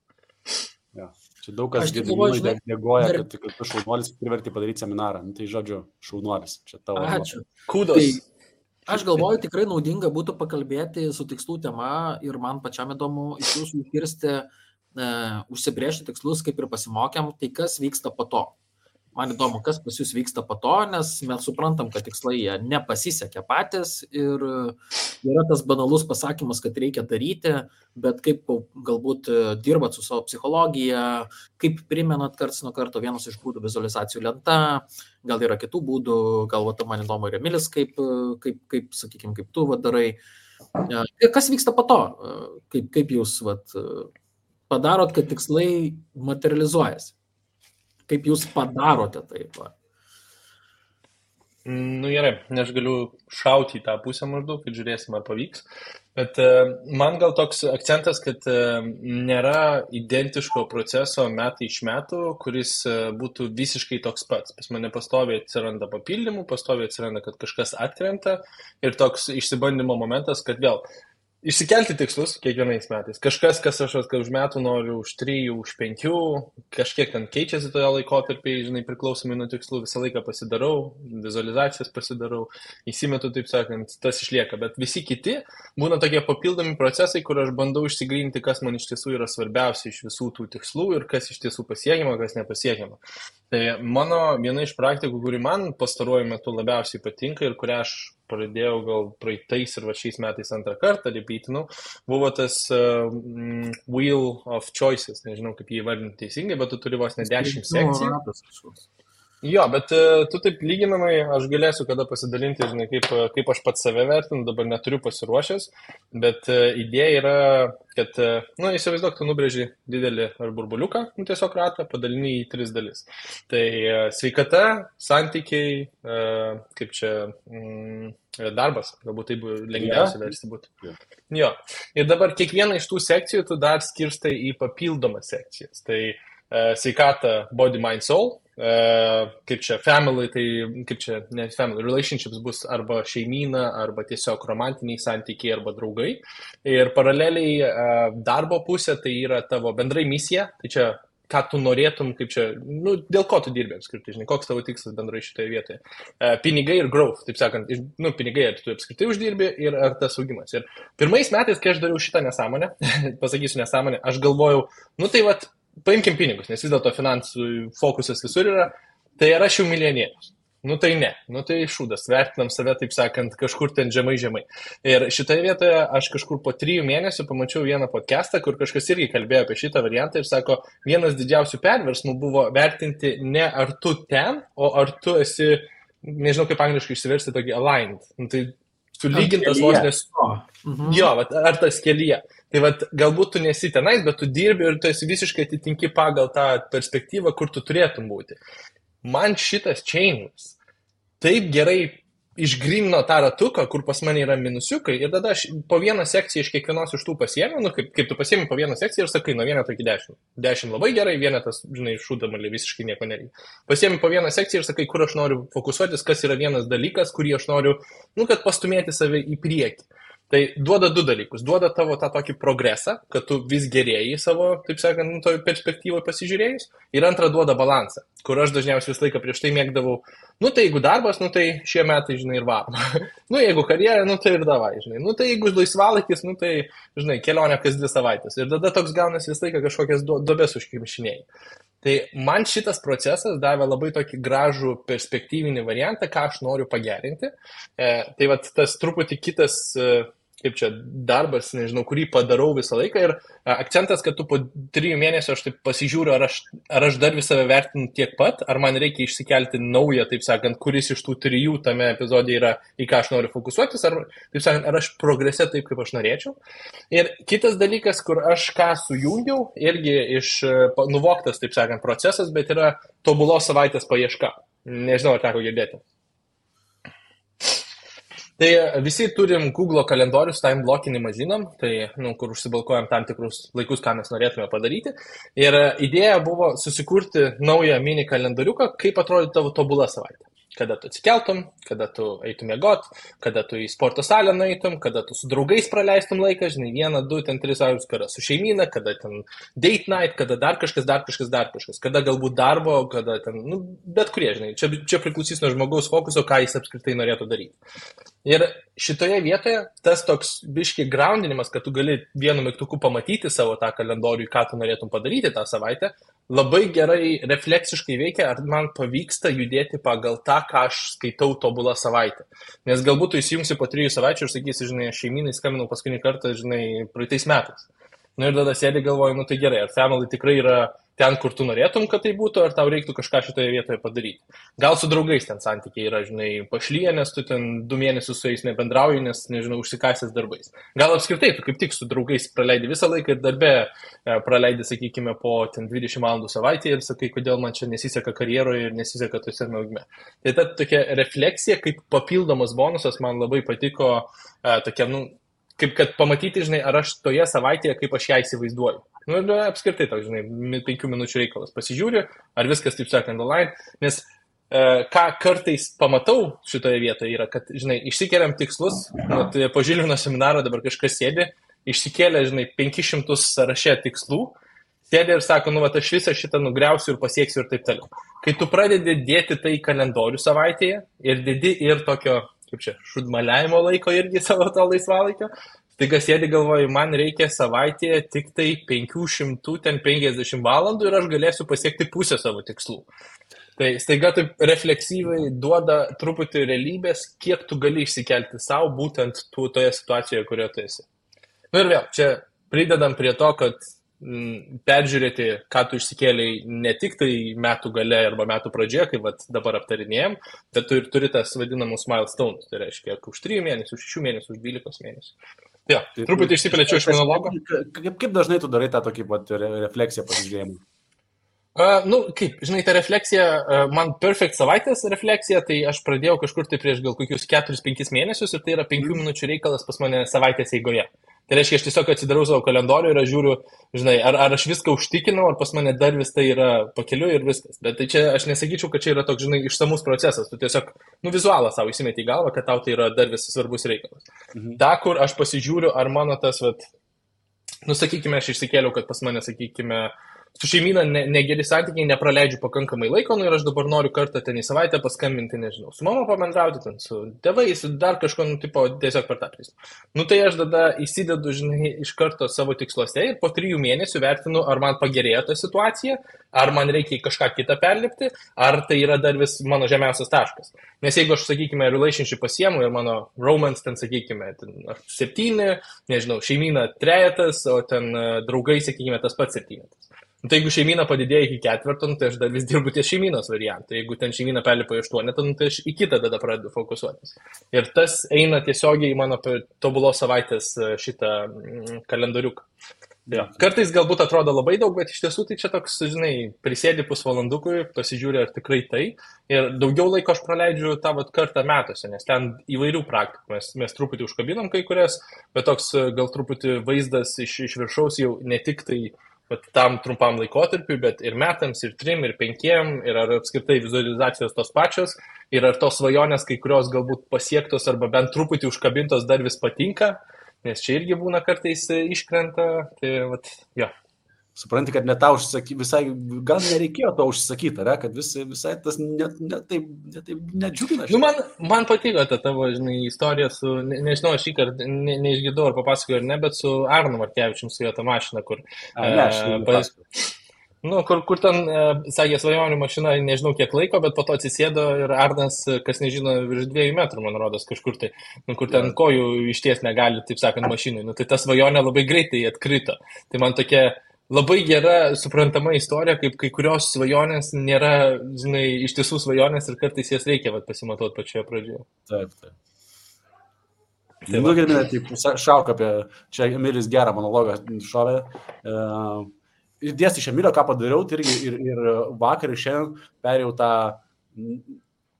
Ja. Čia daug kas dėgoja, kad tu šaunuolis priverti padaryti seminarą. Tai žodžiu, šaunuolis. Čia tavo. Ačiū. Kudos. Aš galvoju, tikrai naudinga būtų pakalbėti su tikslų tema ir man pačiam įdomu iš jūsų išgirsti, užsibrėžti tikslus, kaip ir pasimokėm, tai kas vyksta po to. Man įdomu, kas pas jūs vyksta po to, nes mes suprantam, kad tikslai jie nepasisekė patys ir yra tas banalus pasakymas, kad reikia daryti, bet kaip galbūt dirbat su savo psichologija, kaip primenat karts nuo karto, vienas iš būdų vizualizacijų lenta, gal yra kitų būdų, gal man įdomu ir Emilis, kaip sakykime, kaip tu darai. Kas vyksta po to? Kaip jūs padarot, kad tikslai materializuojasi? Kaip jūs padarote taip? Gerai, aš galiu šauti į tą pusę maždaug, kad žiūrėsim, ar pavyks. Bet man gal toks akcentas, kad nėra identiško proceso metai iš metų, kuris būtų visiškai toks pats. Pas mane pastoviai atsiranda papildymų, pastoviai atsiranda, kad kažkas atkrenta ir toks išsibandymo momentas, kad vėl išsikelti tikslus kiekvienais metais. Kažkas, kas aš už metų noriu, už 3, už 5, kažkiek ten keičiasi toje laikotarpiai, žinai, priklausomai nuo tikslų, visą laiką pasidarau, vizualizacijas pasidarau, įsimetu, taip sakant, tas išlieka. Bet visi kiti būna tokie papildomi procesai, kur aš bandau išsigryninti, kas man iš tiesų yra svarbiausia iš visų tų tikslų ir kas iš tiesų pasiekiama, kas nepasiekiama. Tai mano viena iš praktikų, kuri man pastaruoju metu labiausiai patinka ir kurią aš pradėjau gal praeitais ir šiais metais antrą kartą repeatinau, buvo tas Wheel of Choices, nežinau kaip jį įvardinti teisingai, bet tu turi vos ne 10 sekcijų. Jo, bet tu taip lyginamai, aš galėsiu kada pasidalinti, žinai, kaip aš pats save vertinu, dabar neturiu pasiruošęs, bet idėja yra, kad, įsivaizduok, tu nubrėži didelį ar burbuliuką, tiesiog ratą, padalini į 3 dalis. Tai sveikata, santykiai, kaip čia, darbas, galbūt taip lengviausia versti būtų. Jo, ir dabar kiekvieną iš tų sekcijų tu dar skirstai į papildomas sekcijas. Tai sveikata, body, mind, soul. Kaip čia family, tai kaip čia, ne family, relationships bus arba šeimyna, arba tiesiog romantiniai santykiai, arba draugai. Ir paraleliai darbo pusė tai yra tavo bendrai misija, tai čia ką tu norėtum, kaip čia, nu, dėl ko tu dirbi apskritai, žinai, koks tavo tikslas bendrai šitoje vietoje. Pinigai ir growth, taip sakant, nu, pinigai, ar tu apskritai uždirbi ir ar tas augimas. Ir pirmais metais, kai aš dariau šitą nesąmonę, pasakysiu nesąmonę, aš galvojau, nu tai vat, paimkim pinigus, nes vis dėlto finansų fokusas visur yra, tai ar aš jau milijonierius. Nu tai ne, nu tai šūdas, vertinam save, taip sakant, kažkur ten žemai. Ir šitoje vietoje aš kažkur po 3 mėnesių pamačiau vieną podcastą, kur kažkas irgi kalbėjo apie šitą variantą ir sako, vienas didžiausių perversmų buvo vertinti ne ar tu ten, o ar tu esi, nežinau kaip angliškai išsiversti, tokį aligned. Nu, tai sulygintas vos nes... Jo, vat, ar tas kelyje. Tai vat, galbūt tu nesi tenais, bet tu dirbi ir tu esi visiškai atitinki pagal tą perspektyvą, kur tu turėtum būti. Man šitas changes taip gerai išgrynino tą ratuką, kur pas mane yra minusiukai ir tada aš po vieną sekciją iš kiekvienos iš tų pasiėmiau, nu kaip tu pasiėmi po vieną sekciją ir sakai, nuo 1 iki 10. 10 labai gerai, vienetas, žinai, šūdamalį visiškai nieko nereikia. Pasiėmi po vieną sekciją ir sakai, kur aš noriu fokusuotis, kas yra vienas dalykas, kurį aš noriu, nu, kad pastumėti save į priekį. Tai duoda 2 dalykus. Duoda tavo tą tokį progresą, kad tu vis gerėjai savo, taip sakant, nu, toj perspektyvoje pasižiūrėjus. Ir antra duoda balansą, kur aš dažniausiai visą laiką prieš tai mėgdavau, nu tai jeigu darbas, nu tai šie metai, žinai, ir varom. Nu jeigu karjera, nu tai ir davai, žinai. Nu tai jeigu laisvalaikis, nu tai, žinai, kelionė kas 2 savaitės. Ir tada toks gaunasi visą laiką kažkokias duobes užkimšinėjai. Tai man šitas procesas davė labai tokį gražų perspektyvinį variantą, ką aš noriu pagerinti. Tai vat tas truputį kitas, kaip čia, darbas, nežinau, kurį padarau visą laiką ir akcentas, kad tu po 3 mėnesių aš taip pasižiūriu, ar aš dar visą vertinu tiek pat, ar man reikia išsikelti naują, taip sakant, kuris iš tų 3 tame epizode yra, į ką aš noriu fokusuotis, ar, taip sakant, ar aš progrese taip, kaip aš norėčiau. Ir kitas dalykas, kur aš ką sujungiau, irgi iš nuvoktas, taip sakant, procesas, bet yra tobulos savaitės paieška. Nežinau, ar teko girdėti. Tai visi turim Google kalendorius, time blockinimą žinom, tai, nu, kur užsibalkuojam tam tikrus laikus, ką mes norėtume padaryti. Ir idėja buvo susikurti naują mini kalendoriuką, kaip atrodo tavo tobula savaitė. Kada tu atsikeltum, kada tu eitum miegot, kada tu į sporto salę nueitum, kada tu su draugais praleistum laiką, žinai, 1, 2, 3 savaitės, kada su šeimyna, kada ten date night, kada dar kažkas, kada galbūt darbo, kada ten, nu, bet kurie, žinai, čia priklausys nuo žmogaus fokuso, ką jis apskritai norėtų daryti. Ir šitoje vietoje tas toks biški groundinimas, kad tu gali vienu mygtuku pamatyti savo tą kalendorių, ką tu norėtum padaryti tą savaitę, labai gerai refleksiškai veikia, ar man pavyksta judėti pagal tą, ką aš skaitau tobulą savaitę. Nes galbūt tu įsijungsi po 3 savaičių ir sakysi, žinai, šeimynai skambinau paskutinį kartą, žinai, praeitais metais. Nu ir tada sėdi galvoju, nu tai gerai, ar family tikrai yra ten, kur tu norėtum, kad tai būtų, ar tau reiktų kažką šitoje vietoje padaryti. Gal su draugais ten santykiai yra, žinai, pašlyje, nes tu ten 2 mėnesius su jais nebendrauji, nes, nežinau, užsikasęs darbais. Gal apskritai tu kaip tik su draugais praleidi visą laiką ir darbe praleidi, sakykime, po ten 20 valandų savaitėje ir sakai, kodėl man čia nesiseka karjeroje ir nesiseka tose augime. Tai ta tokia refleksija, kaip papildomas bonusas, man labai patiko, tokia, nu, kaip kad pamatyti, žinai, ar aš toje savaitėje, kaip aš ją įsivaizduoju. Nu, apskritai, toks, žinai, 5 minučių reikalas. Pasižiūriu, ar viskas, taip sakant, online, nes ką kartais pamatau šitoje vietoje yra, kad, žinai, išsikeliam tikslus, tai po Žilvino seminaro dabar kažkas sėdi, išsikėlė, žinai, 500 sąraše tikslų, sėdi ir sako, nu, va, aš visą šitą nugriausiu ir pasieksiu ir taip toliau. Kai tu pradedi dėti tai kalendorių savaitėje ir dėdi ir tokio, kaip čia, šudmaliavimo laiko irgi savo to laisvalaikio, tai kas sėdi galvoju, man reikia savaitėje tik tai 550 valandų ir aš galėsiu pasiekti pusę savo tikslų. Tai staiga taip refleksyviai duoda truputį realybės, kiek tu gali išsikelti savo būtent toje situacijoje, kurioje tu esi. Nu ir vėl, čia pridedam prie to, kad peržiūrėti, ką tu išsikėliai ne tik tai metų gale arba metų pradžioje, kaip dabar aptarinėjom, bet tu ir turi tas vadinamus milestones, tai reiškia, už 3 mėnesių, 6 mėnesių, už 12 mėnesių. Jo, truputį išsiplėčiau iš monologo. Kaip dažnai tu darai tą tokį refleksiją pasižiūrėjimą? Nu, kaip, žinai, ta refleksija, man perfect savaitės refleksija, tai aš pradėjau kažkur tai prieš gal kokius 4-5 mėnesius ir tai yra 5 minučių reikalas pas mane savaitės eigoje. Tai reiškia, aš tiesiog atsidarau savo kalendorių ir aš žiūriu, žinai, ar aš viską užtikinau, ar pas mane dar vis tai yra pakeliu ir viskas. Bet tai čia aš nesakyčiau, kad čia yra toks, žinai, išsamus procesas. Tu tiesiog, nu, vizualą savo įsimeti į galvą, kad tau tai yra dar vis svarbus reikalas. Ta, kur aš pasižiūriu, ar mano tas, vat, nu, sakykime, aš išsikėliau, kad pas mane, sakykime, su šeimyna negeri santykiai, nepraleidžiu pakankamai laiko, nu ir aš dabar noriu kartą ten į savaitę paskambinti, nežinau, su mama pabendrauti, ten su tėvais, dar kažko, nu, tipo, tiesiog per tą prizmę. Nu tai aš tada įsidedu, žinai, iš karto savo tiksluose ir po 3 mėnesių vertinu, ar man pagerėjo ta situacija, ar man reikia kažką kitą perlipti, ar tai yra dar vis mano žemiausias taškas. Nes jeigu aš, sakykime, relationship pasiemu ir mano romance ten, sakykime, 7, nežinau, šeimyna 3, o ten draugai, sakykime, tas pats 7. Nu, tai jeigu šeimyna padidėjo iki 4, nu, tai aš dar vis dirbu ties šeimynos variantą. Jeigu ten šeimyna perlipa į 8, nu, tai aš į kitą tada pradedu fokusuotis. Ir tas eina tiesiogiai į mano tobulos savaitės šitą kalendoriuką. Ja. Kartais galbūt atrodo labai daug, bet iš tiesų tai čia toks, žinai, prisėdi pusvalandukui, pasižiūri ar tikrai tai. Ir daugiau laiko aš praleidžiu tą kartą metuose, nes ten įvairių praktikų. Mes truputį užkabinom kai kurias, bet toks gal truputį vaizdas iš viršaus jau ne tik tai tam trumpam laikotarpiui, bet ir metams, ir 3, ir 5, ir ar apskritai vizualizacijos tos pačios, ir ar tos svajonės, kai kurios galbūt pasiektos arba bent truputį užkabintos dar vis patinka. Nes čia irgi būna kartais iškrenta, tai jo. Supranti, kad net tau užsakyti, visai, gal nereikėjo to užsakyti, ar, kad visai tas taip nedžiugina. Nu, man patiko ta tavo, žinai, istorija su, nežinau, aš šį kartą neišgirdau ar papasakoju ar ne, bet su Arnu Markevičium, su jo ta mašina, kur... Nu, kur ten, sakė, svajonių mašina, nežinau kiek laiko, bet po to atsisėdo ir Arnas, kas nežino, virš 2 metrų, man rodos, kažkur tai, nu, kur ten kojų išties negali, taip sakant, mašinai. Nu, tai ta svajonė labai greitai atkrito. Tai man tokia labai gera, suprantama istorija, kaip kai kurios svajonės nėra, žinai, iš tiesų svajonės ir kartais jas reikia pasimatuoti pačioje pradžioje. Taip. Tai nugirdime, taip, šauk apie, čia Emilis gerą monologą šovė. Dėsti iš Emilio, ką padariau, tai ir vakar ir šiandien perėjau tą,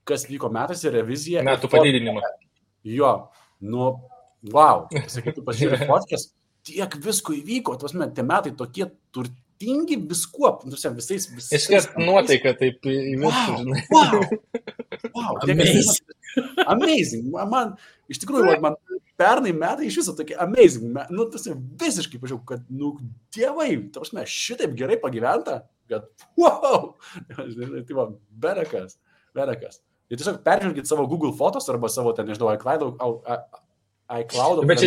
kas vyko metais ir reviziją. Metų padidinimą. Jo, nu, wow, sakytų, pasižiūrėjau fotkės, tiek visko įvyko, tie metai tokie turtingi viskuo, visais. Iškart nuotaika taip įvirtų, žinai. Wow, amazing. Man, iš tikrųjų, man pernai metai iš viso tokie amazing. Nu, tas visiškai pažiūrėjau, kad, nu, dievai, šitaip gerai pagyventa, kad, wow, tai va, berekas. Ir tiesiog peržvelgit savo Google fotos arba savo, ten, nežinau, iCloud. Bet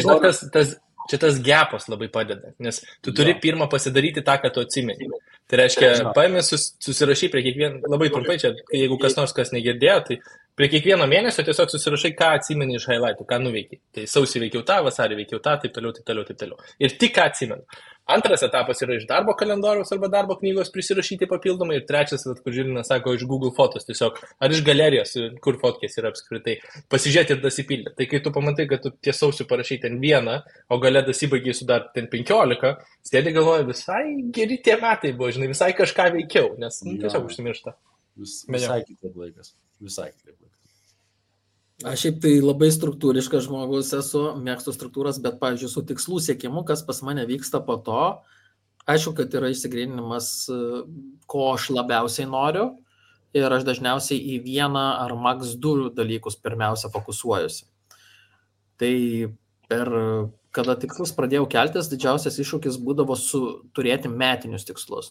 čia tas gapas labai padeda, nes tu turi pirmą pasidaryti tą, ką tu atsimeni. Tai reiškia, paėmė susirašy prie kiekvieno, labai trumpai čia, jeigu kas nors kas negirdėjo, tai prie kiekvieno mėnesio tiesiog susirašai, ką atsimeni iš highlightų, ką nuveikiai. Tai sausį veikiau tą, vasarį veikiau tą, taip toliau. Ir tik ką atsimenu. Antras etapas yra iš darbo kalendoriaus arba darbo knygos prisirašyti papildomai. Ir trečias, kur Žilinas sako, iš Google fotos tiesiog, ar iš galerijos, kur fotkės yra apskritai, pasižiūrėti ir dasipildyti. Tai kai tu pamatai, kad tu tiesausiu parašai ten 1, o gale dasibaigiai su dar ten 15, sėdi galvoja, visai geri tie metai buvo, žinai, visai kažką veikiau, nes tiesiog užsimiršta. Visai kitaip laikas. Aš šiaip tai labai struktūriškas žmogus esu, mėgstu struktūras, bet, pavyzdžiui, su tikslų siekimu, kas pas mane vyksta po to, aišku, kad yra išsigryninimas, ko aš labiausiai noriu ir aš dažniausiai į 1 ar max 2 dalykus pirmiausia fokusuojuosi. Tai kada tikslus pradėjau keltis, didžiausias iššūkis būdavo turėti metinius tikslus.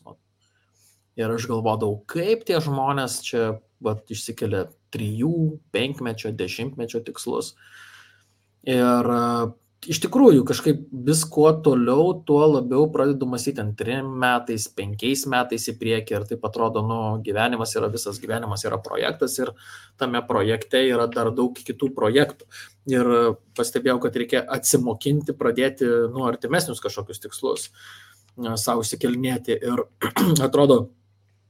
Ir aš galvodavau, kaip tie žmonės čia išsikelia 3, 5, 10 tikslus. Ir iš tikrųjų kažkaip vis kuo toliau, tuo labiau pradedu mąstyti 3 metais, 5 metais į priekį. Ir taip atrodo, gyvenimas yra projektas ir tame projekte yra dar daug kitų projektų. Ir pastebėjau, kad reikia atsimokinti, pradėti artimesnius kažkokius tikslus savo įsikelinėti. Ir atrodo,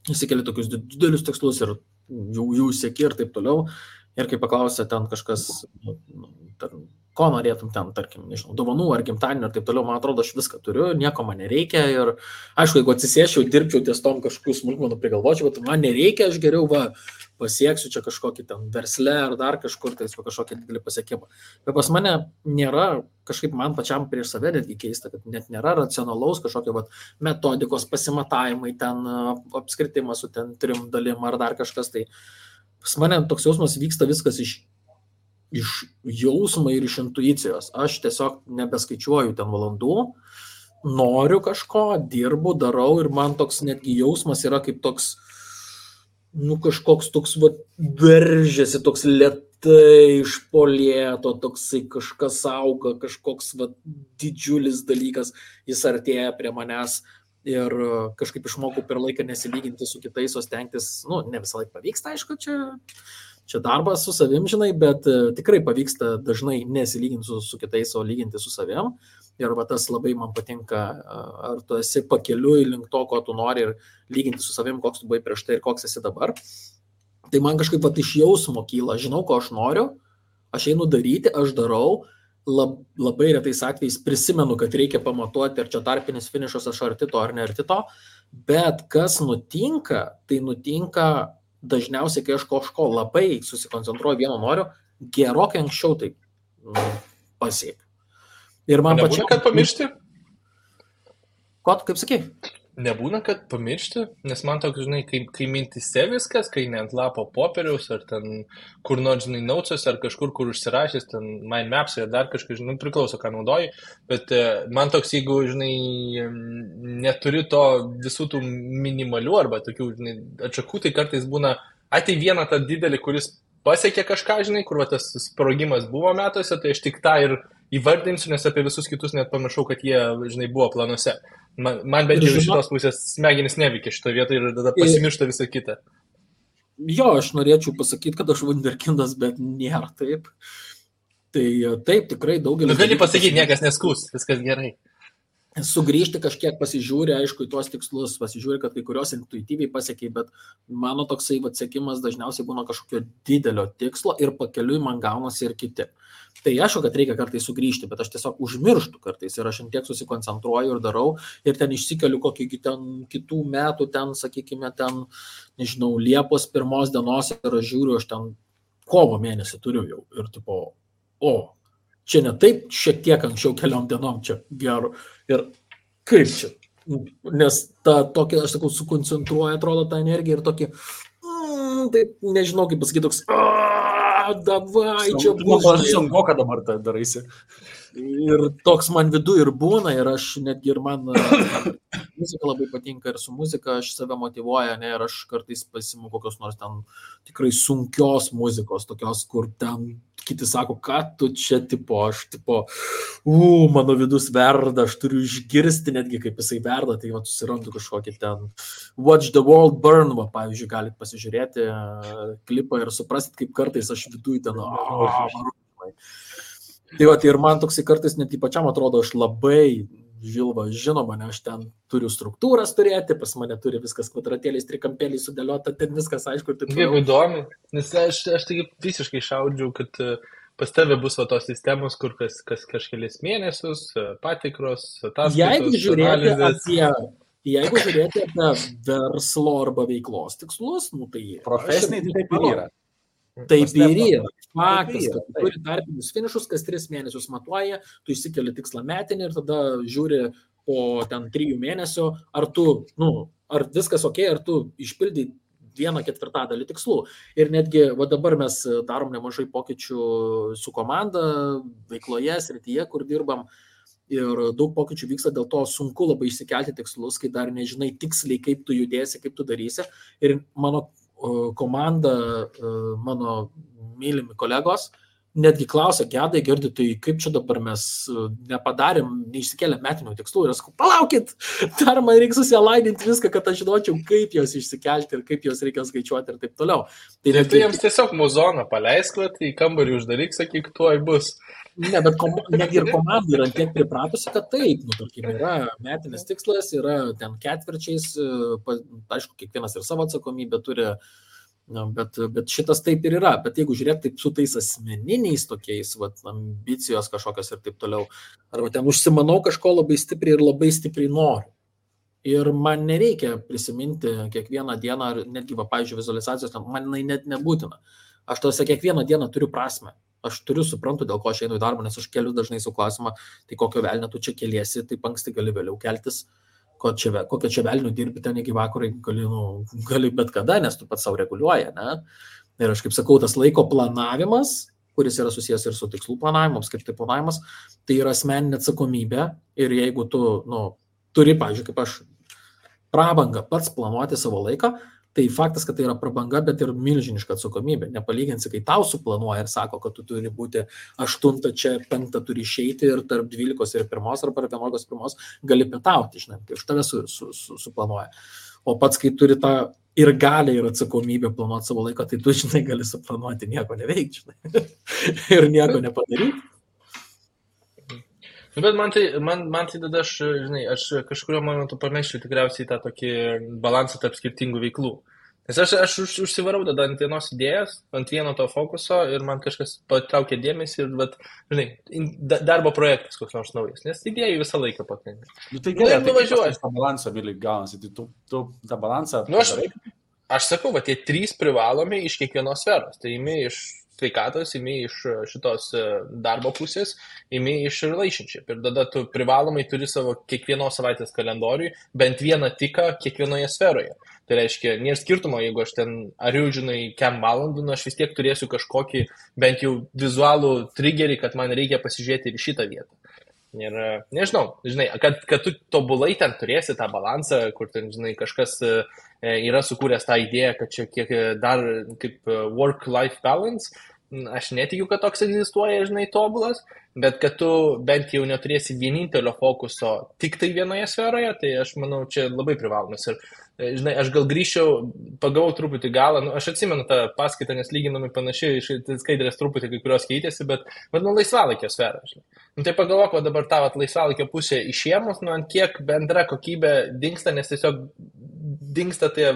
įsikeli tokius didelius tikslus ir jų sieki ir taip toliau. Ir kai paklausė ten kažkas, ko norėtum ten, tarkim, nežinau, dovanų ar gimtadienio ir taip toliau, man atrodo, aš viską turiu, nieko man nereikia. Ir aišku, jeigu atsisėsčiau, dirbčiau ties tom kažkokių smulkmenų prigalvočiau, bet man nereikia, aš geriau pasieksiu čia kažkokį ten versle ar dar kažkur, tai kažkokį didelį pasiekimą. Bet pas mane nėra, kažkaip man pačiam prieš save netgi keista, kad net nėra racionalaus kažkokio metodikos pasimatavimai, ten apskritimas su ten 3 dalim ar dar kažkas. Tai pas mane toks jausmas vyksta viskas iš jausmo ir iš intuicijos. Aš tiesiog nebeskaičiuoju ten valandų, noriu kažko, dirbu, darau ir man toks netgi jausmas yra kaip toks, kažkoks toks, veržiasi, toks lėtai iš polėto, toksai kažkas auga, kažkoks didžiulis dalykas, jis artėja prie manęs. Ir kažkaip išmokau per laiką nesilyginti su kitais, o stengtis, ne visą laiką pavyksta, aišku, čia darbas su savim, žinai, bet tikrai pavyksta dažnai nesilyginti su kitais, o lyginti su savim. Ir tas labai man patinka, ar tu esi pakeliui link to, ko tu nori ir lyginti su savim, koks tu buvai prieš tai ir koks esi dabar. Tai man kažkaip iš jausmo kyla, žinau, ko aš noriu, aš einu daryti, aš darau. Labai retais atvejais prisimenu, kad reikia pamatuoti, ar čia tarpinis finišas, aš arti to ar ne arti to, bet kas nutinka, tai nutinka dažniausiai, kai aš kažko labai susikoncentruoju vieno noriu, gerokai anksčiau tai pasiekiu. Ir man pačiam... Nebūna, kad pamiršti? Ko, kaip sakei? Nebūna, kad pamiršti, nes man toks, žinai, kai mintise viskas, kai ne ant lapo popieriaus, ar ten kur nors, žinai, naucas, ar kažkur, kur užsirašęs, ten mind maps, ar dar kažkas, žinai, priklauso, ką naudoji, bet man toks, jeigu, žinai, neturi to visų tų minimalių, arba tokių, žinai, atšakų, tai kartais būna, tai vieną tą didelį, kuris pasiekė kažką, žinai, kur tas sprogimas buvo metuose, tai aš tik tą ir įvardinsiu, nes apie visus kitus net pamiršau, kad jie, žinai, buvo planuose. Man bent jau iš šitos pusės smegenis neveikia šitoje vietoje ir tada pasimiršta visą kitą. Jo, aš norėčiau pasakyti, kad aš wunderkindas, bet nėra taip. Tai taip, tikrai daugelis... Gali pasakyti, niekas neskūs, viskas gerai. Sugrįžti kažkiek pasižiūri, aišku, į tuos tikslus, pasižiūri, kad kai kurios intuityviai pasiekiai, bet mano toksai siekimas dažniausiai būna kažkokio didelio tikslo ir pakeliui man gaunasi ir kiti. Tai aišku, kad reikia kartais sugrįžti, bet aš tiesiog užmirštu kartais ir aš tiek susikoncentruoju ir darau ir ten išsikeliu kokį ten kitų metų, ten, sakykime, ten, nežinau, Liepos 1 dienos ir aš žiūriu, aš ten kovo mėnesį turiu jau ir tipo, čia ne taip, šiek tiek anksčiau keliom dienom čia geru. Ir kaip čia? Nes ta tokia, aš sakau, sukoncentruoja, atrodo, tą energiją ir tokį, taip, nežinau, kaip pasakyti, toks, davai, čia bus. Aš sunku, kad dabar tai daraisi. Ir toks man vidu ir būna, ir aš netgi ir man muzika labai patinka ir su muzika aš save motyvuoja, ne, ir aš kartais pasimu kokios nors ten tikrai sunkios muzikos, tokios, kur ten kiti sako, kad tu čia tipo, aš tipo, mano vidus verda, aš turiu išgirsti netgi, kaip jisai verda, tai susirandu kažkokį ten Watch the World Burn, pavyzdžiui, galit pasižiūrėti klipą ir suprasit, kaip kartais aš viduj ten, Tai ir man toksai kartais net pačiam atrodo, aš labai žilva, žinoma, ne, aš ten turiu struktūras turėti, pas mane turi viskas kvadratėliais, trikampėliais sudėliota, ten viskas aišku. Jeigu įdomi, nes aš taigi visiškai šaudžiau, kad pas tave bus tos sistemos, kur kas kažkelis mėnesius, patikros, ataskaitos, analizės. Jeigu žiūrėti apie verslo arba veiklos tikslus, tai profesiniai taip ir yra. Taip ir yra. Faktas, kad tu turi tarpinius finišus, kas 3 mėnesius matuoja, tu išsikeli tikslą metinį ir tada žiūri po ten 3 mėnesių, ar tu, ar viskas ok, ar tu išpildai 1/4 tikslų. Ir netgi, dabar mes darom nemažai pokyčių su komanda, veikloje, srityje, kur dirbam. Ir daug pokyčių vyksta, dėl to sunku labai išsikelti tikslus, kai dar nežinai tiksliai, kaip tu judėsi, kaip tu darysi. Ir mano komanda, mano mylimi kolegos, netgi klausia, Gedai, Girdi, tai kaip čia dabar mes nepadarėm, neišsikėlėm metinių tikslų. Ir aš sakau, palaukit, dar man reikia susialaidinti viską, kad aš žinočiau, kaip jos išsikelti ir kaip jos reikia skaičiuoti ir taip toliau. Tai jiems tiesiog muzoną paleisk, į kambarį uždaryk, sakyk, tuoj bus. Ne, bet netgi ir komanda yra tiek pripratusi, kad taip, tarkim, yra metinis tikslas, yra ten ketvirčiais, aišku, kiekvienas ir savo atsakomybę turi, bet šitas taip ir yra. Bet jeigu žiūrėt taip su tais asmeniniais tokiais, ambicijos kažkokios ir taip toliau, arba ten užsimanau kažko labai stipriai ir labai stipriai noriu. Ir man nereikia prisiminti kiekvieną dieną, ar netgi, pavyzdžiui, vizualizacijos, man net nebūtina. Aš tose kiekvieną dieną turiu prasmę. Aš suprantu, dėl ko aš einu į darbą, nes aš keliu dažnai su klausimą, tai kokio velnio tu čia keliesi, taip anksti gali vėliau keltis, kokio čia velnio dirbi ten iki vakarą, gali bet kada, nes tu pats savo reguliuoja, ne? Ir aš kaip sakau, tas laiko planavimas, kuris yra susijęs ir su tikslų planavimu, apskritai planavimas, tai yra asmeninė atsakomybė ir jeigu tu, turi, pavyzdžiui, kaip aš, prabangą pats planuoti savo laiką, tai faktas, kad tai yra prabanga, bet ir milžiniška atsakomybė. Nepalyginsi, kai tau suplanuoja ir sako, kad tu turi būti 8 čia, 5 turi išeiti ir tarp 12 ir 1 arba 11 gali pietauti, žinai, kai už tave suplanuoja. O pats, kai turi tą ir gali ir atsakomybę planuoti savo laiką, tai tu, žinai, gali suplanuoti nieko neveikti, žinai, ir nieko nepadaryti. Bet man tai tada aš kažkurio momentu pameščiau tikriausiai tą tokį balansą tarp skirtingų veiklų. Nes aš užsivarau tada ant vienos idėjos, ant vieno to fokuso ir man kažkas patraukė dėmesį ir, žinai, darbo projektas koks nors naujas, nes idėjų visą laiką pakanka. Tai gerai, nuvažiuoji. Tą balansą, Vili, gaunasi, tai tu tą balansą... Aš sakau, tie 3 privalomi iš kiekvienos sferos, tai imi iš sveikatos, imi iš šitos darbo pusės, imi iš relationship. Ir tada tu privalomai turi savo kiekvienos savaitės kalendoriui bent vieną tiką kiekvienoje sferoje. Tai reiškia, nėra skirtumo, jeigu aš ten ariu, žinai, kem valandų, aš vis tiek turėsiu kažkokį bent jau vizualų triggerį, kad man reikia pasižiūrėti ir šitą vietą. Ir nežinau, žinai, kad tu tobulai ten turėsi tą balansą, kur ten, žinai, kažkas yra sukūręs tą idėją, kad čia kiek dar kaip work-life balance, aš netikiu, kad toks egzistuoja, žinai, tobulas, bet kad tu bent jau neturėsi vienintelio fokuso tik tai vienoje sferoje, tai aš manau, čia labai privalomas. Ir, žinai, aš gal grįžčiau, pagavau truputį galą, aš atsimenu tą paskaitą, nes lyginami panašiai, skaidrės truputį kai kurios keitėsi, bet laisvalaikio sferą, žinai. Tai pagalvok, dabar tavo laisvalaikio pusė išėmus, ant kiek bendra kokybė dingsta, nes tiesiog dingsta tie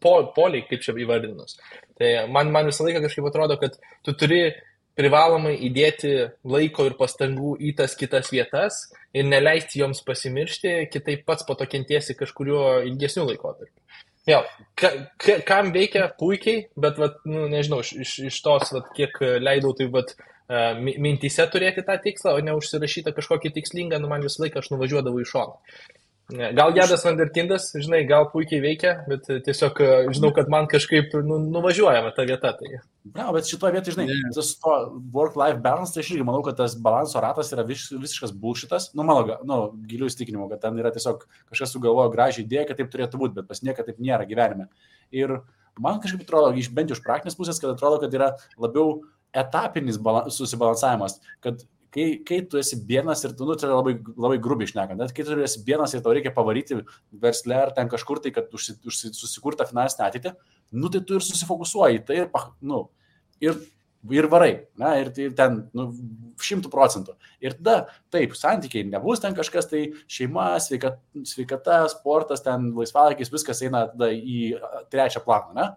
poliai, kaip čia įvardinus. Tai man visą laiką kažkaip atrodo, kad tu turi privalomai įdėti laiko ir pastangų į tas kitas vietas ir neleisti joms pasimiršti, kitaip pats po to kentiesi kažkuriuo ilgesniu laikotarpiu. Vėl, kam veikia puikiai, bet, nežinau, iš tos, kiek leidau, tai, mintyse turėti tą tikslą, o ne užsirašytą kažkokį tikslingą, man visą laiką aš nuvažiuodavau į šoną. Gal Gedas Vanderkindas, žinai, gal puikiai veikia, bet tiesiog žinau, kad man kažkaip nuvažiuojama ta vieta. Tai. Na, bet šitoje vietoje, žinai, tas to work-life balance, tai aš irgi manau, kad tas balanso ratas yra visiškas bullshitas. Mano gilių įsitikinimų, kad ten yra tiesiog kažkas sugalvojo gražią idėją, kad taip turėtų būti, bet pas nieką taip nėra gyvenime. Ir man kažkaip atrodo, bent jau iš praktinės pusės, kad atrodo, kad yra labiau etapinis susibalansavimas, kad kai tu esi vienas ir tu, tai labai, labai grubiai šnekant, bet kai tu esi vienas ir tau reikia pavaryti versle ar ten kažkur tai, kad susikurta finansinę ateitį, tai tu ir susifokusuoji, tai ir varai, ir tai ten 100%. Ir tada, taip, santykiai nebus ten kažkas, tai šeima, sveikata, sportas, ten laisvalaikis, viskas eina tada į 3 planą, ne?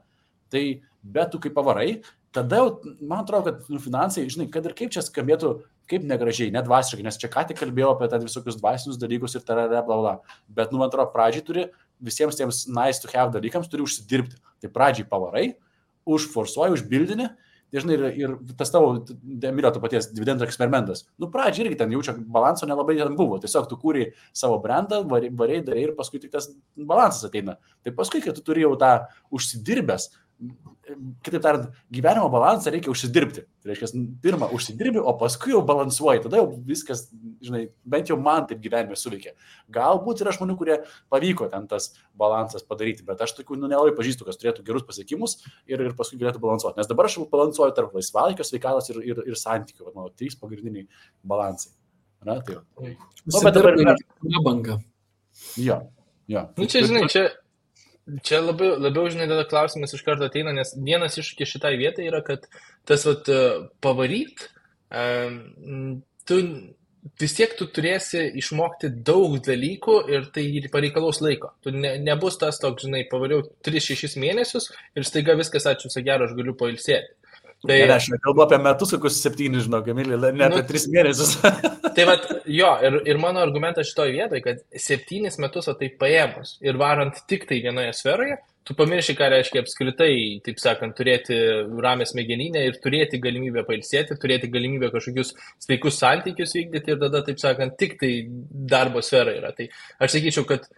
Tai, bet tu kaip pavarai, tada, man atrodo, kad finansai, žinai, kad ir kaip čia skambėtų, kaip negražiai, nedvasiškai, nes čia ką tik kalbėjau apie tą visokius dvasinius dalykus ir bla. Bet, man atrodo, pradžiai turi visiems tiems nice to have dalykams turi užsidirbti. Tai pradžiai pavarai, užforsuoji, užbildini, tai, žinai, ir tas tavo, Emilio, to paties dividendų eksperimentas. Pradžiai irgi ten jaučia balansų nelabai ten buvo. Tiesiog tu kūrei savo brandą, darai ir paskui tik tas balansas ateina. Tai paskui, kai tu turi jau tą užsidirbęs, kitaip tariant, gyvenimo balansą reikia užsidirbti. Tai reiškia, pirmą užsidirbi, o paskui jau balansuoji. Tada jau viskas, žinai, bent jau man taip gyvenime suveikia. Galbūt yra žmonių, kurie pavyko ten tas balansas padaryti, bet aš tokių nelabai pažįstu, kas turėtų gerus pasiekimus ir paskui galėtų balansuoti. Nes dabar aš balansuoju tarp laisvalaikio, sveikatos ir santykių. Mano 3 pagrindiniai balansai. Na, tai jau. Bet dabar yra banga. Jo. Čia, žinai, čia labiau, žinai, tada klausimas iš karto ateina, nes vienas iššūkis šitai vietai yra, kad tas pavaryt, tu vis tiek tu turėsi išmokti daug dalykų ir tai pareikalaus laiko. Tu nebus tas toks, žinai, pavariau 3-6 mėnesius ir staiga viskas, ačiū, gero, aš galiu pailsėti. Tai aš kalbu apie metus, kokius 7, žinau, Emilį, ne apie 3 mėnesius. Tai ir mano argumentas šitoje vietoje, kad 7 metus tai paėmus ir varant tik tai vienoje sferoje, tu pamirši, ką reiškia apskritai, taip sakant, turėti ramę smegeninę ir turėti galimybę pailsėti, turėti galimybę kažkokius sveikus santykius vykdyti ir tada, taip sakant, tik tai darbo sfera yra. Tai aš sakyčiau, kad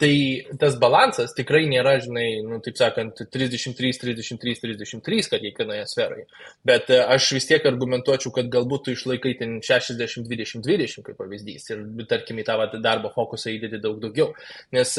tai tas balansas tikrai nėra, žinai, nu, taip sakant, 33, 33, 33, kad kiekvienoje sferoje. Bet aš vis tiek argumentuočiau, kad galbūt tu išlaikai ten 60, 20, 20 kaip pavyzdys ir, tarkim, į tą darbo fokusą įdėti daug daugiau. Nes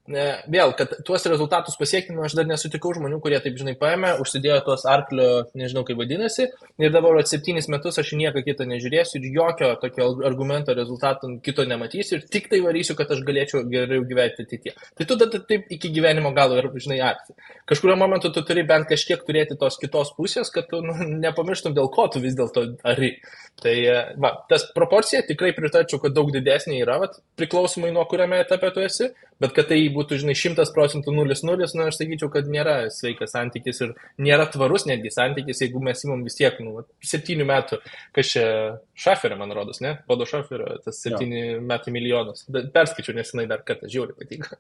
vėl, kad tuos rezultatus pasiekti, aš dar nesutikau žmonių, kurie taip, žinai, paėmė, užsidėjo tuos arklio, nežinau kaip vadinasi, ir dabar 7 metus aš nieko kitą nežiūrėsiu ir jokio tokio argumento rezultato kito nematysiu ir tik tai varysiu, kad aš galėčiau geriau gyventi ateityje. Tai tu tada taip iki gyvenimo galo ir, žinai, arti. Kažkurio momentu tu turi bent kažkiek turėti tos kitos pusės, kad tu nepamirštum, dėl ko tu vis dėlto ari. Tai va, tas proporcija tikrai pritarčiau, kad daug didesnė yra, va, priklausomai nuo kuriame etape tu esi, bet kad tai būtų, žinai, 100% 0-0, nu, aš sakyčiau, kad nėra sveikas santykis ir nėra tvarus netgi santykis, jeigu mes imam vis tiek, 7 metų, kas čia Šaferio, man rodos, ne? Podo Šaferio, tas 7 metų milijonas. Perskaičiau, nes jinai dar kartą žiauriai patinka.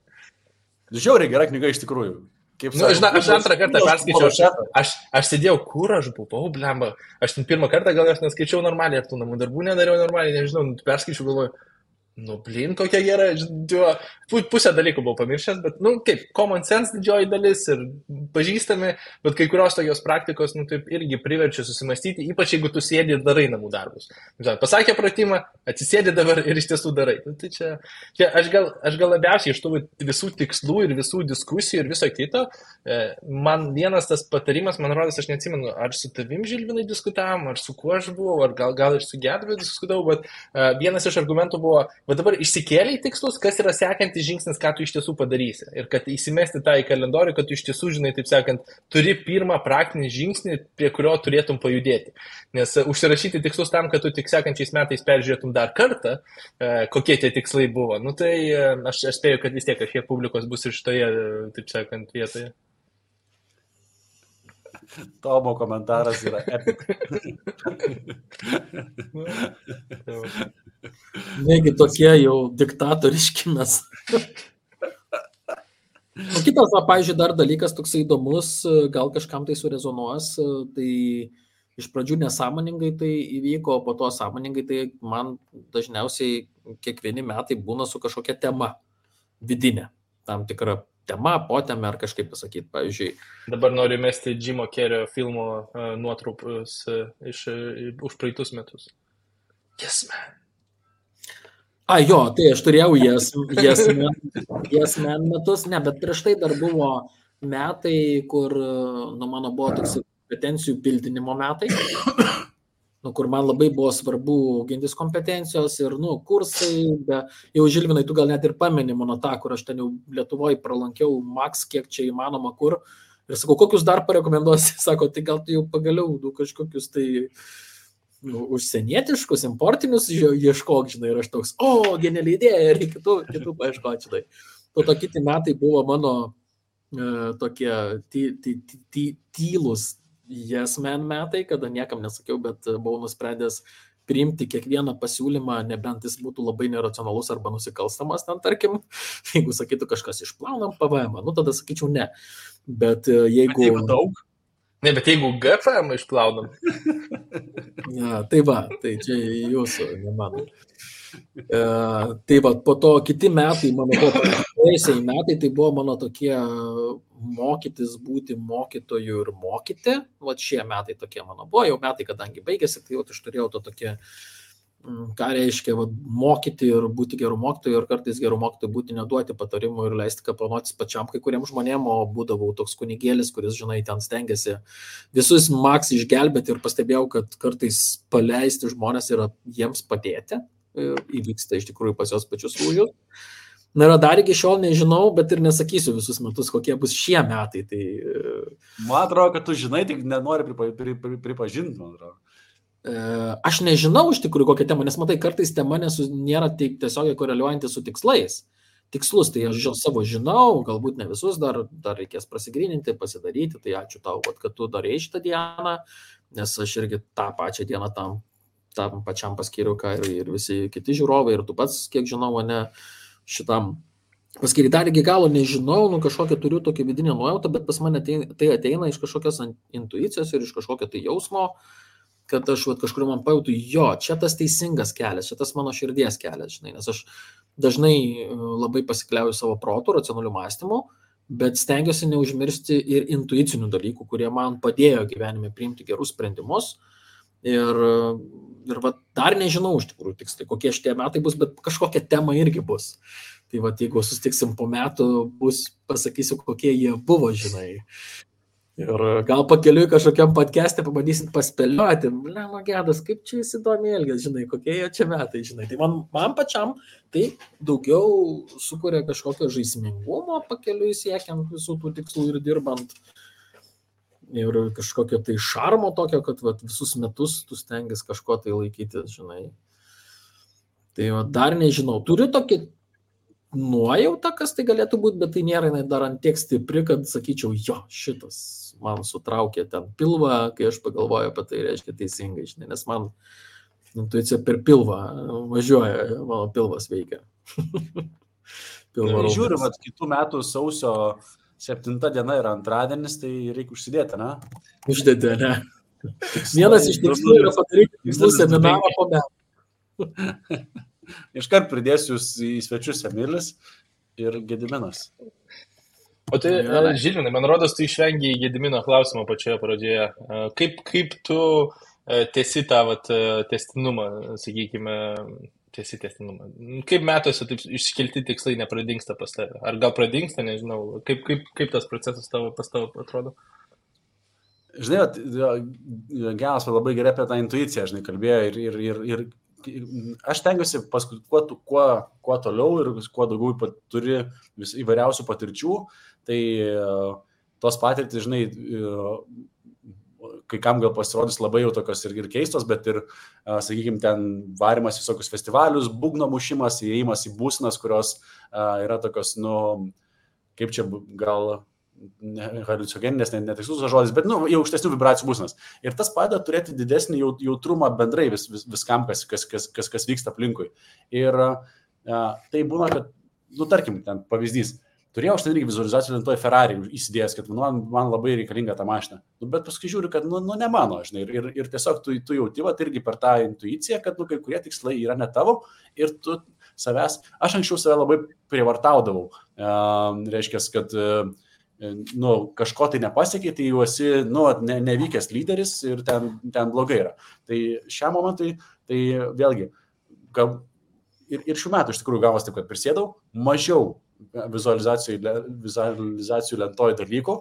Žiauriai gera knyga iš tikrųjų. Aš antrą kartą perskaičiau, aš sėdėjau, kur aš buvau, blemba. Aš ten pirmą kartą gal aš neskaičiau normaliai, ar tų namų darbų nedariau normaliai, nežinau, perskaičiau, galvoju, blin, kokia gera, pusę dalykų buvau pamiršęs, bet, kaip, common sense didžioji dalis ir pažįstami, bet kai kurios tokios praktikos, taip irgi priverčia susimastyti, ypač jeigu tu sėdi ir darai namų darbus. Pasakė pratimą, atsisėdi dabar ir iš tiesų darai. Tai čia aš gal labiausiai iš tų visų tikslų ir visų diskusijų ir viso kito, man vienas tas patarimas, man rodos, aš neatsimenu, ar su tavim, Žilvinai, diskutavom, ar su kuo aš buvau, ar gal ir su Gedviu diskutavau, bet vienas iš argumentų buvo, bet dabar išsikėlė į tikslus, kas yra sekantis žingsnis, ką tu iš tiesų padarysi. Ir kad įsimesti tą į kalendorių, kad tu iš tiesų, žinai, taip sakant, turi pirmą praktinį žingsnį, prie kurio turėtum pajudėti. Nes užsirašyti tikslus tam, kad tu tik sekančiais metais peržiūrėtum dar kartą, kokie tie tikslai buvo. Tai aš spėju, kad vis tiek kažkiek publikos bus ir šitoje, taip sakant, vietoje. Tomo komentaras yra epic. Negi tokie jau diktatoriški mes. Kitas, pavyzdžiui, dar dalykas toksai įdomus, gal kažkam tai surezonuos, tai iš pradžių nesąmoningai tai įvyko, o po to sąmoningai tai man dažniausiai kiekvieni metai būna su kažkokia tema vidinė, tam tikra tema, potema ar kažkaip pasakyti, pavyzdžiui. Dabar noriu mesti Jimo Kerio filmo nuotrupus už praeitus metus. Yes, man. Jo, tai aš turėjau Yes Man metus, ne, bet prieš tai dar buvo metai, kur, mano buvo toks kompetencijų pildinimo metai, kur man labai buvo svarbu gintis kompetencijos ir, kursai, jau Žilvinai, tu gal net ir pameni mano tą, kur aš ten jau Lietuvoje pralankiau maks, kiek čia įmanoma kur, ir sakau, kokius dar parekomenduosi, sako, tai gal tu jau pagaliau kažkokius tai užsienietiškus, importinius ieškok, žinai, ir aš toks, geniali idėja, ir kitų paieškoti, žinai. To kiti metai buvo mano tokie tylus Yes Man metai, kada niekam nesakiau, bet buvau nusprendęs priimti kiekvieną pasiūlymą, nebent jis būtų labai neracionalus arba nusikalstamas, ten tarkim, jeigu sakytų kažkas išplaunam PVM, tada sakyčiau ne. Bet jeigu daug? Ne, bet jeigu GFM išplaunam. Tai va, tai čia jūsų, ne mano. Tai va, po to kiti metai, mano praėjusiai metai, tai buvo mano tokie mokytis būti mokytoju ir mokyti. Va šie metai tokie mano buvo, jau metai, kadangi baigėsi, tai jau aš turėjau to tokie, ką reiškia mokyti ir būti gerų mokytojų ir kartais gerų mokytojų būti neduoti patarimų ir leisti kaplanotis pačiam kai kuriems žmonėm, o būdavau toks kunigėlis, kuris, žinai, ten stengiasi visus maks išgelbėti ir pastebėjau, kad kartais paleisti žmonės yra jiems padėti ir įvyksta iš tikrųjų pas jos pačius lūžius. Na ir dar iki šiol nežinau, bet ir nesakysiu visus metus, kokie bus šie metai. Tai... Man atrodo, kad tu žinai, tik nenori pripažinti, man atrodo. Aš nežinau iš tikrųjų kokią temą, nes matai, kartais tema nėra tiesiog koreliuojanti su tikslais. Tikslus, tai aš savo žinau, galbūt ne visus, dar reikės prasigryninti, pasidaryti, tai ačiū tau, kad tu darei šitą dieną, nes aš irgi tą pačią dieną tam pačiam paskyriau, ką ir visi kiti žiūrovai, ir tu pats, kiek žinau, ne šitam Paskiri dar iki galo nežinau, kažkokią turiu tokią vidinę nuojautą, bet pas mane tai ateina iš kažkokios intuicijos ir iš kažkokio tai jausmo, kad aš kažkur man pajautu, jo, čia tas teisingas kelias, čia tas mano širdies kelias, žinai, nes aš dažnai labai pasikliauju savo protų, racionalių mąstymų, bet stengiuosi neužmiršti ir intuicinių dalykų, kurie man padėjo gyvenime priimti gerus sprendimus. Ir dar nežinau iš tikrųjų tiksliai, kokie šitie metai bus, bet kažkokia tema irgi bus. Tai jeigu sustiksim po metų, pasakysiu, kokie jie buvo, žinai. Ir gal pakeliui kažkokiam podcast'e pabandysit paspėlioti, Gedas, kaip čia įsidomi elgės, žinai, kokie jie čia metai, žinai. Tai man pačiam tai daugiau sukuria kažkokio žaismingumo pakeliui siekiant visų tų tikslų ir dirbant. Ir kažkokio tai šarmo tokio, kad visus metus tu stengiasi kažko tai laikytis, žinai. Tai dar nežinau. Turiu tokį nuojautą, kas tai galėtų būti, bet tai nėra dar ant tiek stipri, kad sakyčiau, jo, šitas man sutraukė ten pilvą, kai aš pagalvoju apie tai, reiškia teisingai, žinai, nes man intuicija per pilvą važiuoja, mano pilvas veikia. Žiūriu, kitų metų sausio 7 diena yra antradienis, tai reikia užsidėti, ne? Uždėti, ne? Vienas iš tikslų yra padaryti tikslų seminarą po metų. Iškart pridėsiu į svečius Emilis ir Gediminas. O tai, Žilvinai, man rodos, tu išvengiai Gedimino klausimo pačioje pradžioje. Kaip tu tęsi tą testinumą, sakykime, testinumą? Kaip metuose taip iškelti tikslai nepradingsta pas tave? Ar gal pradingsta, nežinau. Kaip tas procesas pas tavo atrodo? Žinai, Genas labai gerai apie tą intuiciją, žinai, kalbėjo ir aš tengiuosi paskui kuo toliau ir kuo daugiau turi įvairiausių patirčių, tai tos patirtys, žinai, kai kam gal pasirodys labai jau tokios ir keistos, bet ir, sakykime, ten varimas visokius festivalius, būgno mušimas, įėjimas į būsenas, kurios yra tokios, kaip čia gal haliucinogeninės, netikslus žodis, bet jau aukštesnių vibracijų būsenas. Ir tas padeda turėti didesnį jautrumą bendrai viskam, kas vyksta aplinkui. Ir tai būna, kad, tarkim, ten pavyzdys, turėjau aš ten irgi vizualizacijų lentoje Ferrari įsidėjęs, kad man labai reikalinga ta mašina. Bet paskui žiūriu, kad ne mano, žinai, ir tiesiog tu jauti irgi per tą intuiciją, kad kai kurie tikslai yra ne tavo ir tu savęs, aš anksčiau save labai prievartaudavau. Reiškia, kad kažko tai nepasiekiai, tai jau esi nevykęs lyderis ir ten blogai yra. Tai šiam momentui, tai vėlgi, ir šių metų iš tikrųjų gavos taip, kad prisėdau mažiau vizualizacijų lentoje dalykų,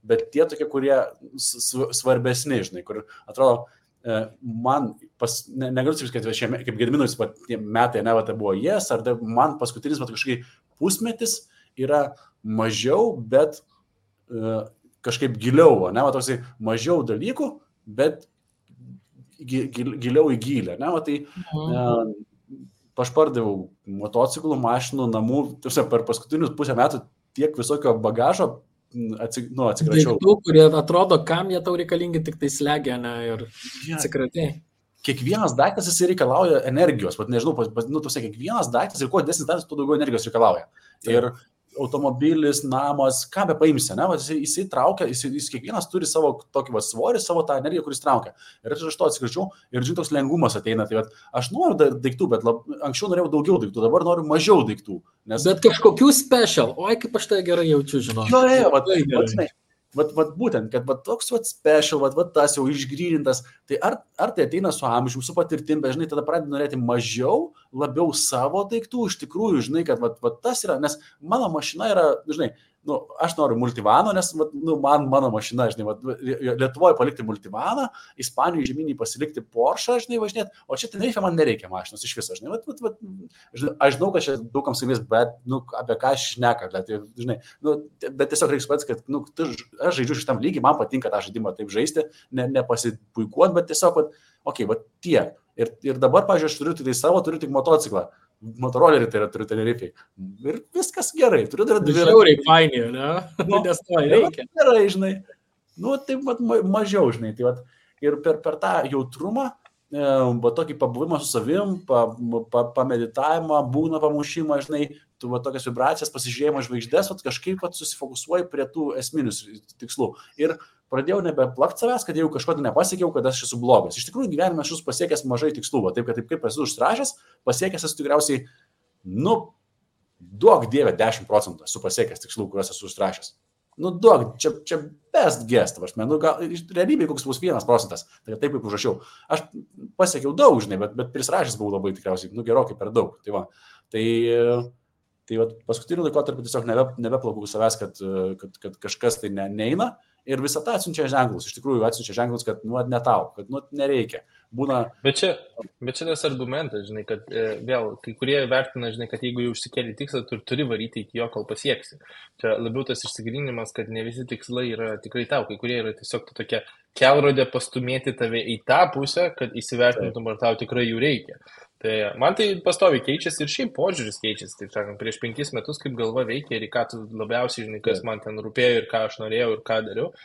bet tie tokie, kurie svarbesni, žinai, kur atrodo, man, negaliu sakyti, kad kaip Gediminui metai, tai buvo jas, ar man paskutinis kažkaip pusmetis yra mažiau, bet kažkaip giliau, toksai mažiau dalykų, bet giliau į gilę, tai aš pardavau motociklų, mašinų, namų, per paskutinius pusę metų tiek visokio bagažo atsikračiau. Daiktų, kurie atrodo, kam jie tau reikalingi, tik tai slegia, ir atsikratai. Kiekvienas daiktas jis reikalauja energijos, nežinau, kiekvienas daiktas ir kuo didesnis daiktas, tuo daugiau energijos reikalauja. Ir automobilis, namas, ką be paimsi, jisai traukia, jis kiekvienas turi savo tokį svorį, savo tą energiją, kuris traukia. Ir aš to atsikračiau ir žinai, toks lengvumas ateina. Tai aš noriu daiktų, bet anksčiau norėjau daugiau daiktų, dabar noriu mažiau daiktų. Bet kažkokių special, oi kaip aš tai gerai jaučiu, žinau. Būtent, kad toks special, tas jau išgrynintas, tai ar tai ateina su amžiumi, su patirtim, bet žinai, tada pradedi norėti mažiau, labiau savo daiktų, iš tikrųjų, žinai, kad tas yra, nes mano mašina yra, žinai, aš noriu multivano, nes mano mašina, žinai, Lietuvoje palikti multivaną, Ispanijoje žemynį pasilikti Porsche, žinai, važinėti, o čia Tenerife man nereikia mašinos iš viso, žinai, aš žinau, kad čia daugam sakys, bet, apie ką aš šneka, žinai, bet tiesiog reikia suprasti, kad, aš žaidžiu šitam lygiai, man patinka tą žaidimą taip žaisti, nepasipuikuoti, bet tiesiog, tiek. Ir dabar, pavyzdžiui, aš turiu tik motociklą. Motorolerį tai yra, turiu Tenerifei. Ir viskas gerai. Turiu dar dvi. Žiauriai fainį, ne? Nes to reikia. Gerai, žinai. Taip mažiau, žinai. Ir per tą jautrumą, tokį pabuvimą su savim, pameditavimą, būgno pamušimą, žinai, tu va, tokias vibracijas, pasižiūrėjimo žvaigždės, va, kažkaip va, susifokusuoji prie tų esminius tikslų. Ir pradėjau nebeplakti savęs, kad jau kažko nepasiekiau, kad aš esu blogas. Iš tikrųjų, gyvenime aš esu pasiekęs mažai tikslų, va, taip kaip esu užsirašęs, pasiekęs esu tikriausiai, duok dievę 10% esu pasiekęs tikslų, kuriuos esu užsirašęs. Duok, čia best guess, gal realybėje koks bus 1%, tai taip kaip užrašiau. Aš pasiekiau daug, žinai, bet prisirašęs buvau labai tikriausiai, gerokai per daug. Tai paskutiniu laikotarpiu tiesiog nebeplakau savęs, kad kažkas tai neina ir visą tą atsiunčia ženklus. Iš tikrųjų atsiunčia ženklus, kad ne tau, kad nereikia. Būna... Bet čia tas argumentas, žinai, kad vėl kai kurie vertina, žinai, kad jeigu jau užsikėlė tikslą, tu turi varyti iki jo, kol pasieksi. Čia labiau tas išsigrinimas, kad ne visi tikslai yra tikrai tau, kai kurie yra tiesiog tokia kelrodė pastumėti tave į tą pusę, kad įsivertintum, ar tau tikrai jų reikia. Tai man tai pastoviai keičiasi ir šiaip požiūris keičiasi, taip sakant, prieš 5 metus kaip galva veikia ir į ką tu labiausiai, žinai, kas man ten rūpėjo ir ką aš norėjau ir ką dariau.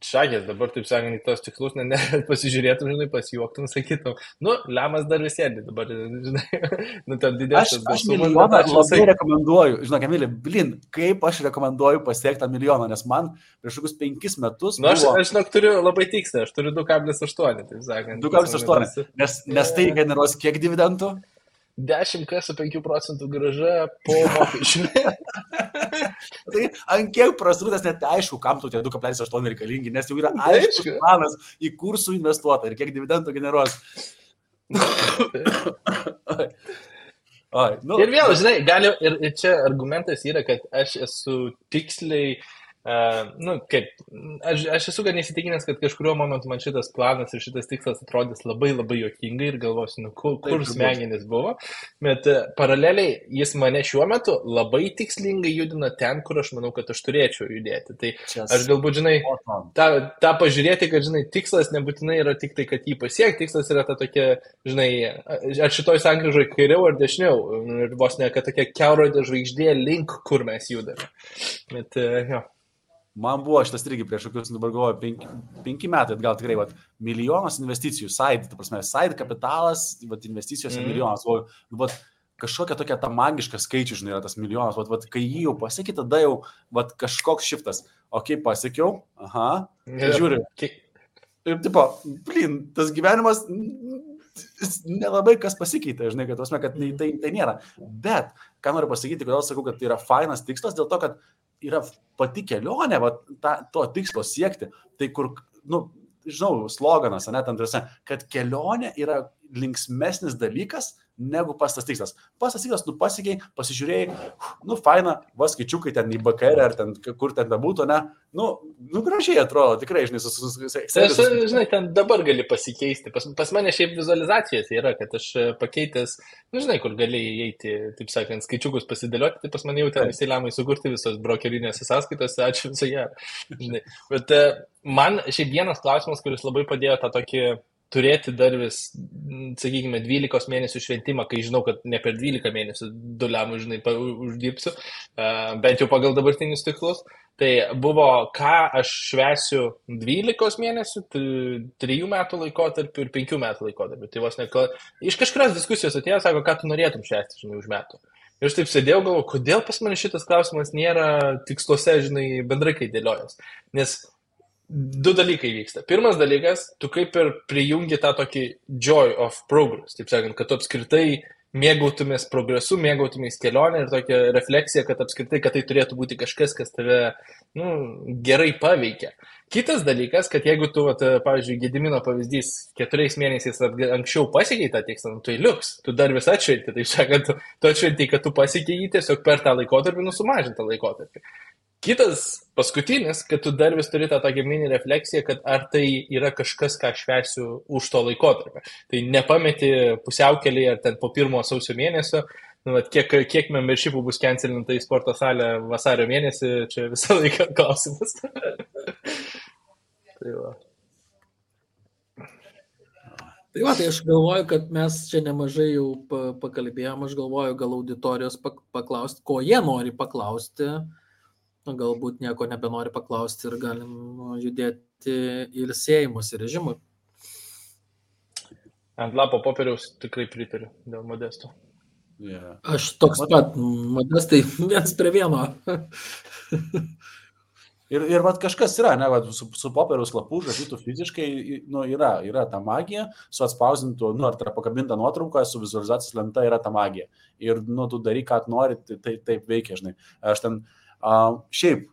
Šakės, dabar, taip sakant, į tos tikslus, pasižiūrėtum, žinai, pasijuoktum, sakytum, lemas dar vis sėdi, dabar, žinai, ten didesnis. Aš milijoną labai rekomenduoju, žinok, Emilė, kaip aš rekomenduoju pasiekti tą milijoną, nes man prieš kokius 5 metus... Aš žinok, turiu labai tikslę, aš turiu 2,8, taip sakant. 2,8, nes tai generuos kiek dividendų? 10 su 5% grąža po mokesčių. Tai ant kiek prasrūtas net aišku, kam tu tie 2,8 reikalingi, nes jau yra aiškus planas į kursų investuotą ir kiek dividendų generuos. Ir vėl, žinai, ir čia argumentas yra, kad aš esu tiksliai, aš esu gan įsitikinęs, kad kažkurio momentu man šitas planas ir šitas tikslas atrodys labai labai juokingai ir galvosiu, kur smegenis buvo, bet paraleliai jis mane šiuo metu labai tikslingai judina ten, kur aš manau, kad aš turėčiau judėti. Tai aš galbūt, žinai, tą pažiūrėti, kad, žinai, tikslas nebūtinai yra tik tai, kad jį pasiekti, tikslas yra ta tokia, žinai, ar šitoj sankryžoje kairiau ar dešiniau, ir vos ne, kad tokia kelrodė žvaigždė link, kur mes judame. Bet, jo. Man buvo šitas irgi prieš kokius, dabar galvoju, 5 metai atgal tikrai, milijonas investicijų, side kapitalas, investicijos milijonas, kažkokia tokia ta magiška skaičių, žinai, yra tas milijonas, kai jį jau pasiekė, tada jau kažkoks šiftas, pasiekiau, žiūri, ir tipo, tas gyvenimas nelabai kas pasikeitė, žinai, kad tai nėra, bet, ką noriu pasakyti, kodėl sakau, kad tai yra fainas tikslas, dėl to, kad yra pati kelionė, to tikslo siekti, tai kur, žinau, sloganas, kad kelionė yra linksmesnis dalykas negu pastas tikslas. Pastas tikslas, pasiekiai, pasižiūrėjai, faina, skaičiukai ten į BKR ar ten, kur ten bebūtų, gražiai atrodo, tikrai, žinai, žinai, ten dabar gali pasikeisti. Pas mane šiaip vizualizacijos yra, kad aš pakeitęs, žinai, kur gali įeiti, taip sakant, skaičiukus pasidėlioti, tai pas mane jau ten visi lemai sukurti visos brokerinėse sąskaitose, ačiū visoje. Bet man šiaip vienas klausimas, kuris labai padėjo tą tokį turėti dar vis, sakykime, 12 mėnesių šventimą, kai žinau, kad ne per 12 mėnesių $, žinai, uždirbsiu, bent jau pagal dabartinius tikslus. Tai buvo, ką aš švęsiu 12 mėnesių, 3 metų laikotarpiu ir 5 metų laikotarpiu. Tai vos ne, iš kažkurios diskusijos atėjo, sako, ką tu norėtum švęsti, žinai, už metų. Ir aš taip sėdėjau, galvoju, kodėl pas mane šitas klausimas nėra tiksluose, žinai, bendrai kai dėliojas. Nes 2 dalykai vyksta. Pirmas dalykas, tu kaip ir prijungi tą tokį joy of progress, taip sakant, kad tu apskritai mėgautumės progresu, mėgautumės kelionę ir tokia refleksija, kad apskritai, kad tai turėtų būti kažkas, kas tave gerai paveikia. Kitas dalykas, kad jeigu tu, pavyzdžiui, Gedimino pavyzdys 4 mėnesiais anksčiau pasiekiai tą tikslą, tai liuks, tu dar vis atšventi, taip sakant, tu atšventi, kad tu pasiekiai jį tiesiog per tą laikotarpį, sumažintą laikotarpį. Kitas, paskutinis, kad tu dar vis turi tą tokią mini refleksiją, kad ar tai yra kažkas, ką švęsiu už to laikotarpį. Tai nepameti pusiaukelėje ar ten po 1 sausio mėnesio, kiek membershipų bus cancelinta į sporto salę vasario mėnesį, čia visą laiką klausimas. Tai va. Tai aš galvoju, kad mes čia nemažai jau pakalbėjom, aš galvoju gal auditorijos paklausti, ko jie nori paklausti. Galbūt nieko nebenori paklausti ir galim judėti ilsėjimosi režimui. Ant lapo popieriaus tikrai pritariu dėl Modesto. Yeah. Aš toks pat, Modestai, 1:1. Ir vat kažkas yra, ne, vat, su popieriaus lapu žadytų fiziškai, nu, yra ta magija, su atspausdintu, nu, ar tai yra pakabinta nuotrauka, su vizualizacijos lenta yra ta magija. Ir, nu, tu daryk, ką nori, tai taip veikia, žinai. Aš ten šiaip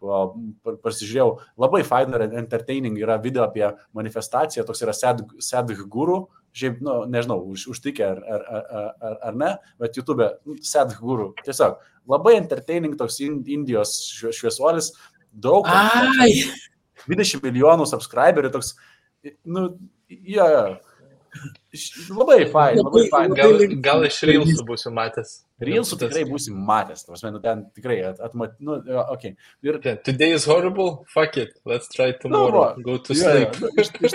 pasižiūrėjau, labai faina ir entertaining yra video apie manifestaciją, toks yra Sadhguru, šiaip, nu, nežinau, užtikę ar ne, bet YouTube Sadhguru. Tiesiog labai entertaining toks Indijos šviesuolis, daug, 20 milijonų subscriberių, toks, nu, labai fain. Gal iš Reelsų būsiu matęs. Reelsų tikrai būsim matęs, nu, ten tikrai nu, okay. Ir Today is horrible, fuck it, let's try tomorrow, go to sleep. Iš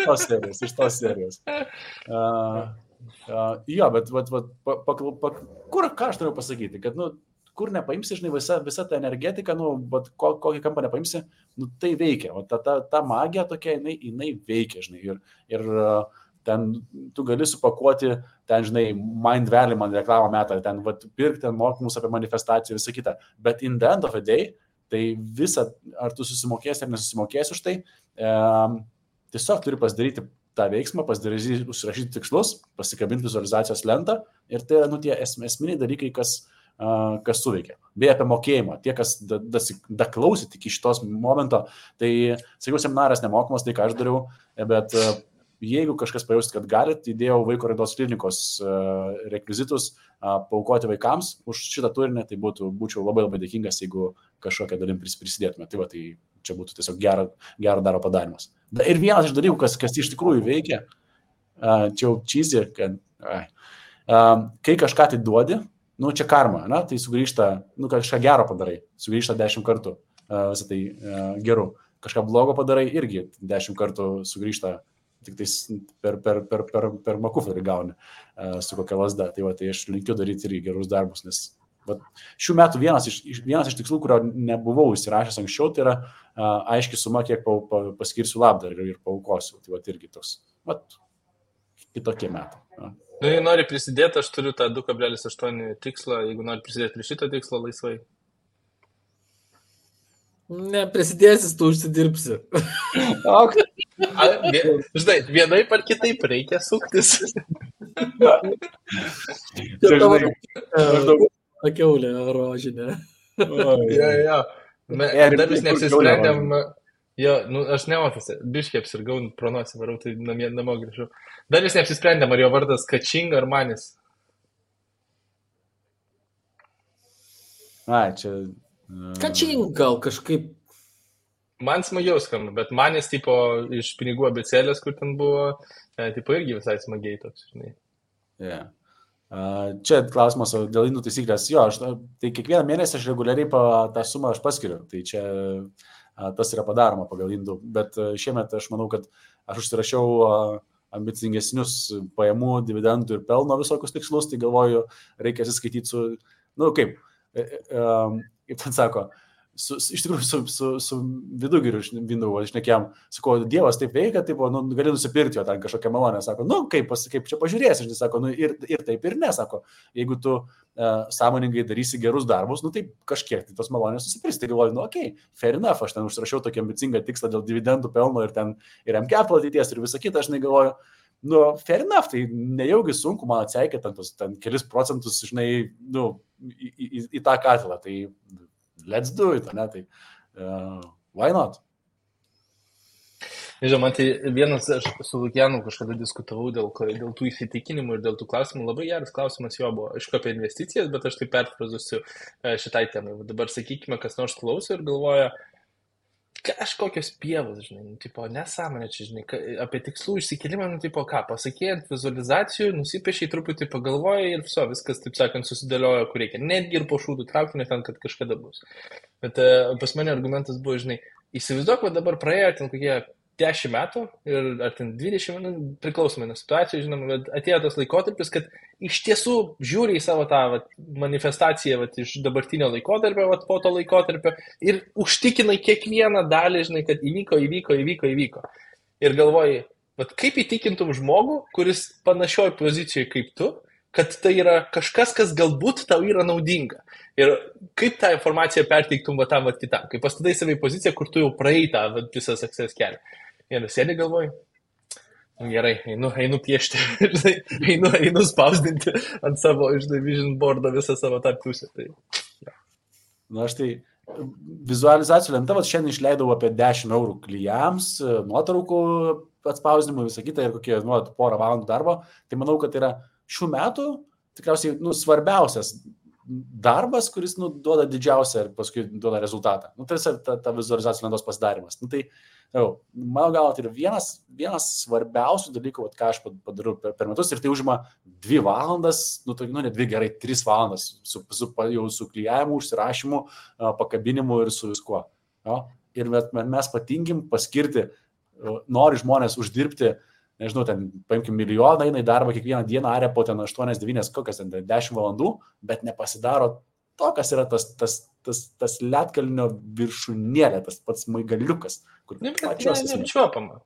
tos serijos. Jo, bet kur, ką aš turiu pasakyti, kad, nu, kur nepaimsi, žinai, visa ta energetika, nu, bet kokį kampą nepaimsi, nu, tai veikia. O ta magija tokia, jinai veikia, žinai. Ir ten tu gali supakuoti, ten, žinai, Mind Valley man reklamą metą, ten pirkti, ten mokymus apie manifestaciją, visą kitą. Bet in the end of the day, tai visa, ar tu susimokėsi ar nesusimokėsi už tai, tiesiog turi pasidaryti tą veiksmą, užsirašyti tikslus, pasikabinti vizualizacijos lentą ir tai yra, nu, tie esminiai dalykai, kas suveikia. Beje, apie mokėjimą. Tie, kas daklausit iki šitos momento, tai, sakiau, seminaras nemokamas, tai ką aš dariau, bet jeigu kažkas pajausit, kad galit, įdėjau vaiko raidos klinikos rekvizitus paaukoti vaikams už šitą turinį, tai būčiau labai labai dėkingas, jeigu kažkokią dalim prisidėtume. Tai va, tai čia būtų tiesiog gero daro padarimas. Ir vienas iš dalykų, kas iš tikrųjų veikia, čia jau cheesy, kad kai kažką tai duodi, nu, čia karma, ne? Tai sugrįžta, nu, kažką gero padarai, sugrįžta 10 kartų visą tai geru. Kažką blogo padarai, irgi 10 kartų sugrįžta, tik tais per makuferį gauni su kokia lasda. Tai va, tai aš linkiu daryti irgi gerus darbus, nes va, šių metų vienas iš tikslų, kurio nebuvau įsirašęs anksčiau, tai yra aiški suma, kiek paskirsiu labdarą ir paaukosiu. Tai va, irgi toks, va, kitokie metai. Ja. Nu, jei nori prisidėti, aš turiu tą 2,8 tikslą, jeigu nori prisidėti prie šito tikslo laisvai. Ne, prisidėsis, tu užsidirbsi. Žinai, vienai par kitaip reikia suktis. Kiaulė rožinė. Jo. Dar vis neapsisprendėm. Jo, nu, aš ne ofise, biškiai apsirgau, pronosį varau, tai namo grįžau. Dar vis neapsisprendėm, ar jo vardas Kačing ar Manis. Čia... Kačing gal kažkaip. Man smagiau skamba, bet Manis tipo iš pinigų abėcėlės, kur ten buvo, tipo irgi visai smagiai toks, žinai. Yeah. Čia klausimas dėl indų taisyklės. Jo, tai kiekvieną mėnesį aš reguliariai tą sumą aš paskiriu. Tai čia tas yra padaroma pagal indų. Bet šiemet aš manau, kad aš užsirašiau ambicingesnius pajamų, dividendų ir pelno visokius tikslus. Tai galvoju, reikia atsiskaityti su, nu kaip ten sako, iš tikrųjų su Vidugiriu šnekėjom, sako, Dievas taip veikia, taip, nu, gali nusipirkti jo ten kažkokią malonę, sako, nu, kaip čia pažiūrėsi, žinai, sako, nu, ir taip ir ne, sako, jeigu tu sąmoningai darysi gerus darbus, nu, taip kažkiek, tai tos malonės susipirksi, tai galvoju, nu, okei, fair enough, aš ten užsirašiau tokį ambicingą tikslą dėl dividendų pelno ir ten ir MCAP ateities ir visą kitą, aš galvoju, nu, fair enough, tai nejaugi sunku man atseikėti ten kelis procentus, žinai, nu, į tą katilą, tai let's do it, ne, tai why not? Nežinau, man tai vienas, aš su Lukianu kažkada diskutavau dėl tų įsitikinimų ir dėl tų klausimų. Labai geras klausimas jo buvo, aišku, apie investicijas, bet aš tai perfrazuosiu šitai temai. Dabar sakykime, kas nors klauso ir galvoja, kažkokios pievos, žinai, tipo, nesąmonė čia, žinai, apie tikslų išsikelimą, nu, tipo, ką, pasakėjant vizualizacijų, nusipiešiai truputį pagalvoja ir viso, viskas, taip sakant, susidėlioja, kur reikia. Netgi ir po šūdų traukti, ten, kad kažkada bus. Bet pas mane argumentas buvo, žinai, įsivaizduok, kad dabar praėjo ten kokie 10 metų ir ar ten 20 metų, priklausomai nuo situacijų, žinoma, bet atėjo tas laikotarpis, kad iš tiesų žiūri į savo tą manifestaciją iš dabartinio laikotarpio, po to laikotarpio ir užtikinai kiekvieną dalį, žinai, kad įvyko. Ir galvoji, kaip įtikintum žmogų, kuris panašioj pozicijoje kaip tu, kad tai yra kažkas, kas galbūt tau yra naudinga. Ir kaip tą informaciją perteiktum va tam, va kitam. Kai pastatai save į poziciją, kur tu jau praėjai tą visą success kelią. Ir sėdi galvoj, gerai, einu piešti, einu spausdinti ant savo, vision boardo visą savo tą pusę. Tai, ja. Na, aš tai vizualizacijų lenta, šiandien išleidau apie 10 eurų klijams, nuotraukų atspausdinimui, visą kitą ir kokie porą valandų darbo. Tai manau, kad yra šių metų tikriausiai svarbiausias darbas, kuris duoda didžiausią ir paskui duoda rezultatą. Tai ta vizualizacijų lentos pasidarimas. Tai mano galva, tai yra vienas svarbiausių dalykų, ką aš padariau per metus ir tai užima 2 valandas, ne 2 gerai, 3 valandas su klijavimu, užsirašymu, pakabinimu ir su viskuo. Ir mes patingim paskirti, nori žmonės uždirbti, nežinau, ten paimkim milijoną, eina į darbą kiekvieną dieną, aria po ten 8-9, kokias ten 10 valandų, bet nepasidaro to, kas yra tas ledkalnio viršūnėlė, tas pats maigaliukas, kur pačios neapčiuopama.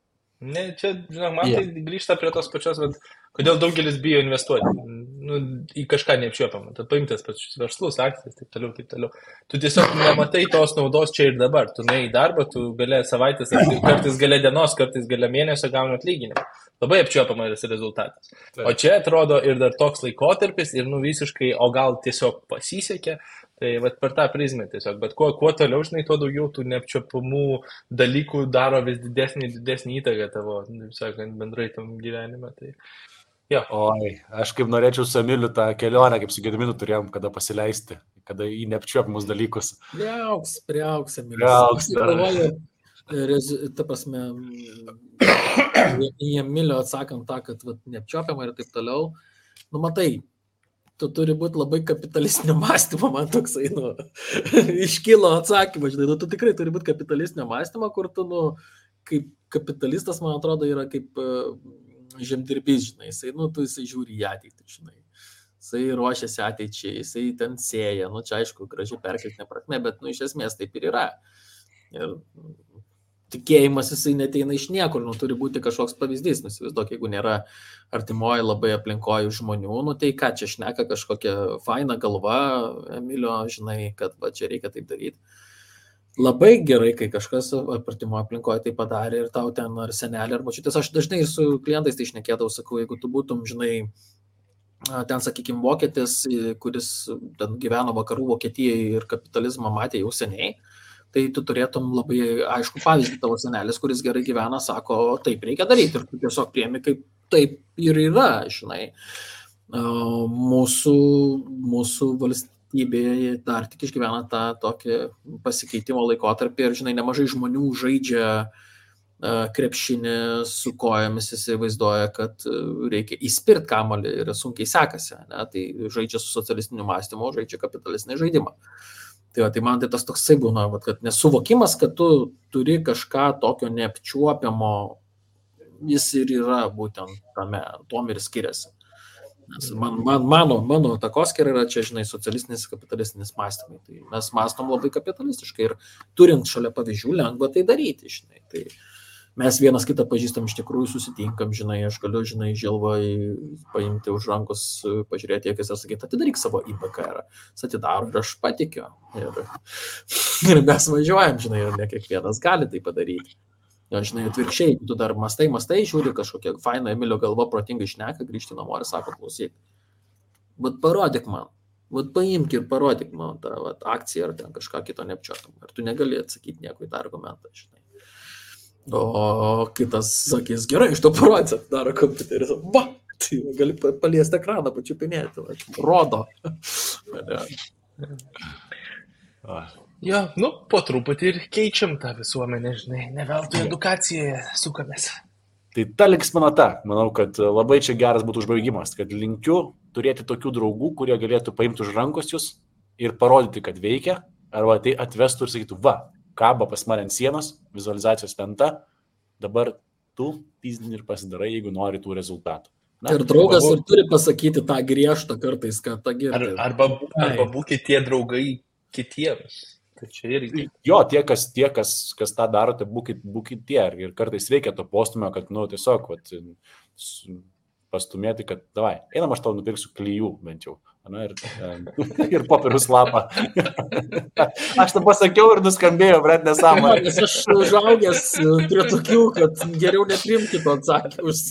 Čia, žinok, man tai grįžta prie tos pačios, kodėl daugelis bijo investuoti į kažką neapčiuopamą. Tu paimtas pačius verslus, akcijas, taip toliau. Tu tiesiog nematai tos naudos čia ir dabar. Tu nuėjai į darbą, tu galė savaitės, kartais galė dienos, kartais galė mėnesio gauni atlyginimą. Labai apčiuopamas rezultatas. Taip. O čia atrodo ir dar toks laikotarpis ir visiškai, o gal tiesiog pasisekė. Tai per tą prizmę tiesiog, bet kuo toliau, žinai, tuo daugiau tų neapčiuopamų dalykų daro vis didesnį įtaką tavo, sakant, bendrai tam gyvenime. Tai, jo. Oi, aš kaip norėčiau su Emiliu tą kelionę, kaip su Gediminu turėjom, kada pasileisti, kada į neapčiuopamus dalykus. Priauks, Emiliu. Aš galvoju, ta prasme, į Emilio atsakant tą, kad neapčiuopiama ir taip toliau, matai, tu turi būti labai kapitalistinio mąstymo, man toksai, iškilo atsakymas, žinai, tu tikrai turi būti kapitalistinio mąstymo, kur tu, kaip kapitalistas, man atrodo, yra kaip žemdirbys, žinai, jisai žiūri į ateitį, žinai, jisai ruošiasi ateičiai, jisai ten sėja, čia aišku, gražiai perkeltinė prasme, bet, iš esmės taip ir yra. Ir tikėjimas jisai neteina iš niekur, turi būti kažkoks pavyzdys, įsivaizduok, jeigu nėra artimoji labai aplinkoji žmonių, tai ką čia šneka kažkokia faina galva, Emilio, žinai, kad čia reikia taip daryti. Labai gerai, kai kažkas artimoje aplinkoje tai padarė ir tau ten ar senelė, ar močiutės, aš dažnai ir su klientais tai šnekėdavau, sakau, jeigu tu būtum, žinai, ten, sakykime, vokietis, kuris ten gyveno vakarų Vokietijoje ir kapitalizmą matė jau seniai, tai tu turėtum labai aišku pavyzdį, tavo senelis, kuris gerai gyvena, sako, taip reikia daryti ir tu tiesiog priemi, kaip taip ir yra, žinai. Mūsų valstybėje dar tik išgyvena tą tokį pasikeitimo laikotarpį ir, žinai, nemažai žmonių žaidžia krepšinį su kojomis, įsivaizduoja, kad reikia įspirt kamuolį ir sunkiai sekasi, ne? Tai žaidžia su socialistiniu mąstymu, žaidžia kapitalistinį žaidimą. Tai man tai tas toksai būna, kad nesuvokimas, kad tu turi kažką tokio neapčiuopiamo, jis ir yra būtent tame, tom ir skiriasi. Nes mano takoskira yra čia, žinai, socialistinis, kapitalistinis mąstymai. Tai mes mąstom labai kapitalistiškai ir turint šalia pavyzdžių lengva tai daryti, žinai. Tai mes vienas kitą pažįstam, iš tikrųjų susitinkam, žinai, aš galiu, žinai, Žilvai paimti už rankos, pažiūrėti, akis ir sakyti, atidaryk savo IBKR, jis atidaro ir aš patikiu. Ir mes važiuojam, žinai, ir ne kiekvienas gali tai padaryti. Jo, žinai, atvirkščiai, tu dar mastai, žiūri kažkokia faina Emilio galva protingai šneka, grįžti namo ir sako, klausyk, parodyk man, paimk ir parodyk man tą akciją ar ten kažką kito neapčiuopiam. Ir tu negali atsakyti nieko į tą argumentą, žinai. O kitas sakys, gerai, iš to parodys, daro kompiuteris, tai gali paliesti ekraną, pačiupinėti, rodo. Jo, po truputį ir keičiam tą visuomenę, žinai, ne veltui edukacijoje sukamės. Tai ta linksminata, manau, kad labai čia geras būtų užbaigimas, kad linkiu turėti tokių draugų, kurie galėtų paimti už rankos jūs ir parodyti, kad veikia, arba tai atvestų ir sakytų, kaba pas mane ant sienos, vizualizacijos lenta, dabar tu pizdini ir pasidarai, jeigu nori tų rezultatų. Ir draugas ir turi pasakyti tą griežtą kartais, kad tą girdi. Arba būkite tie draugai kitiems. Tai čia irgi. Jo, tie, kas tą darote, būkite tie. Ir kartais reikia to postumio, kad, tiesiog, pastumėti, kad davai, einam aš tau nupirksiu klijų bent jau. Na, ir popierius lapą. Aš tą pasakiau ir nuskambėjo, bret, nesąmonė. Nes aš užaugęs prie tokių, kad geriau neprimti to atsakymus.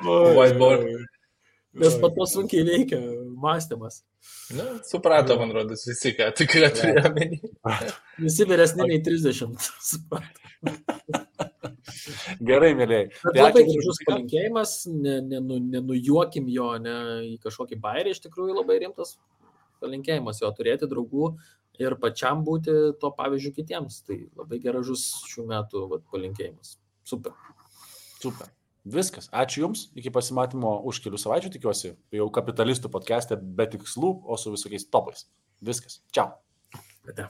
Whiteboard. Nes pat to sunkiai veikia mąstymas. Na, suprato, man rodos, visi, ką tikrai turėjo menį. Visi vyresni nei 30. Suprato. Gerai, mėlyjei. Bet labai gražus palinkėjimas, nenujuokim jo, ne į kažkokį bairį, iš tikrųjų labai rimtas palinkėjimas jo turėti draugų ir pačiam būti to pavyzdžių kitiems. Tai labai gražus šių metų palinkėjimas. Super. Super. Viskas. Ačiū Jums. Iki pasimatymo už kelių savaičių, tikiuosi, jau kapitalistų podcast'e be tikslų, o su visokiais topais. Viskas. Čiau. Ate.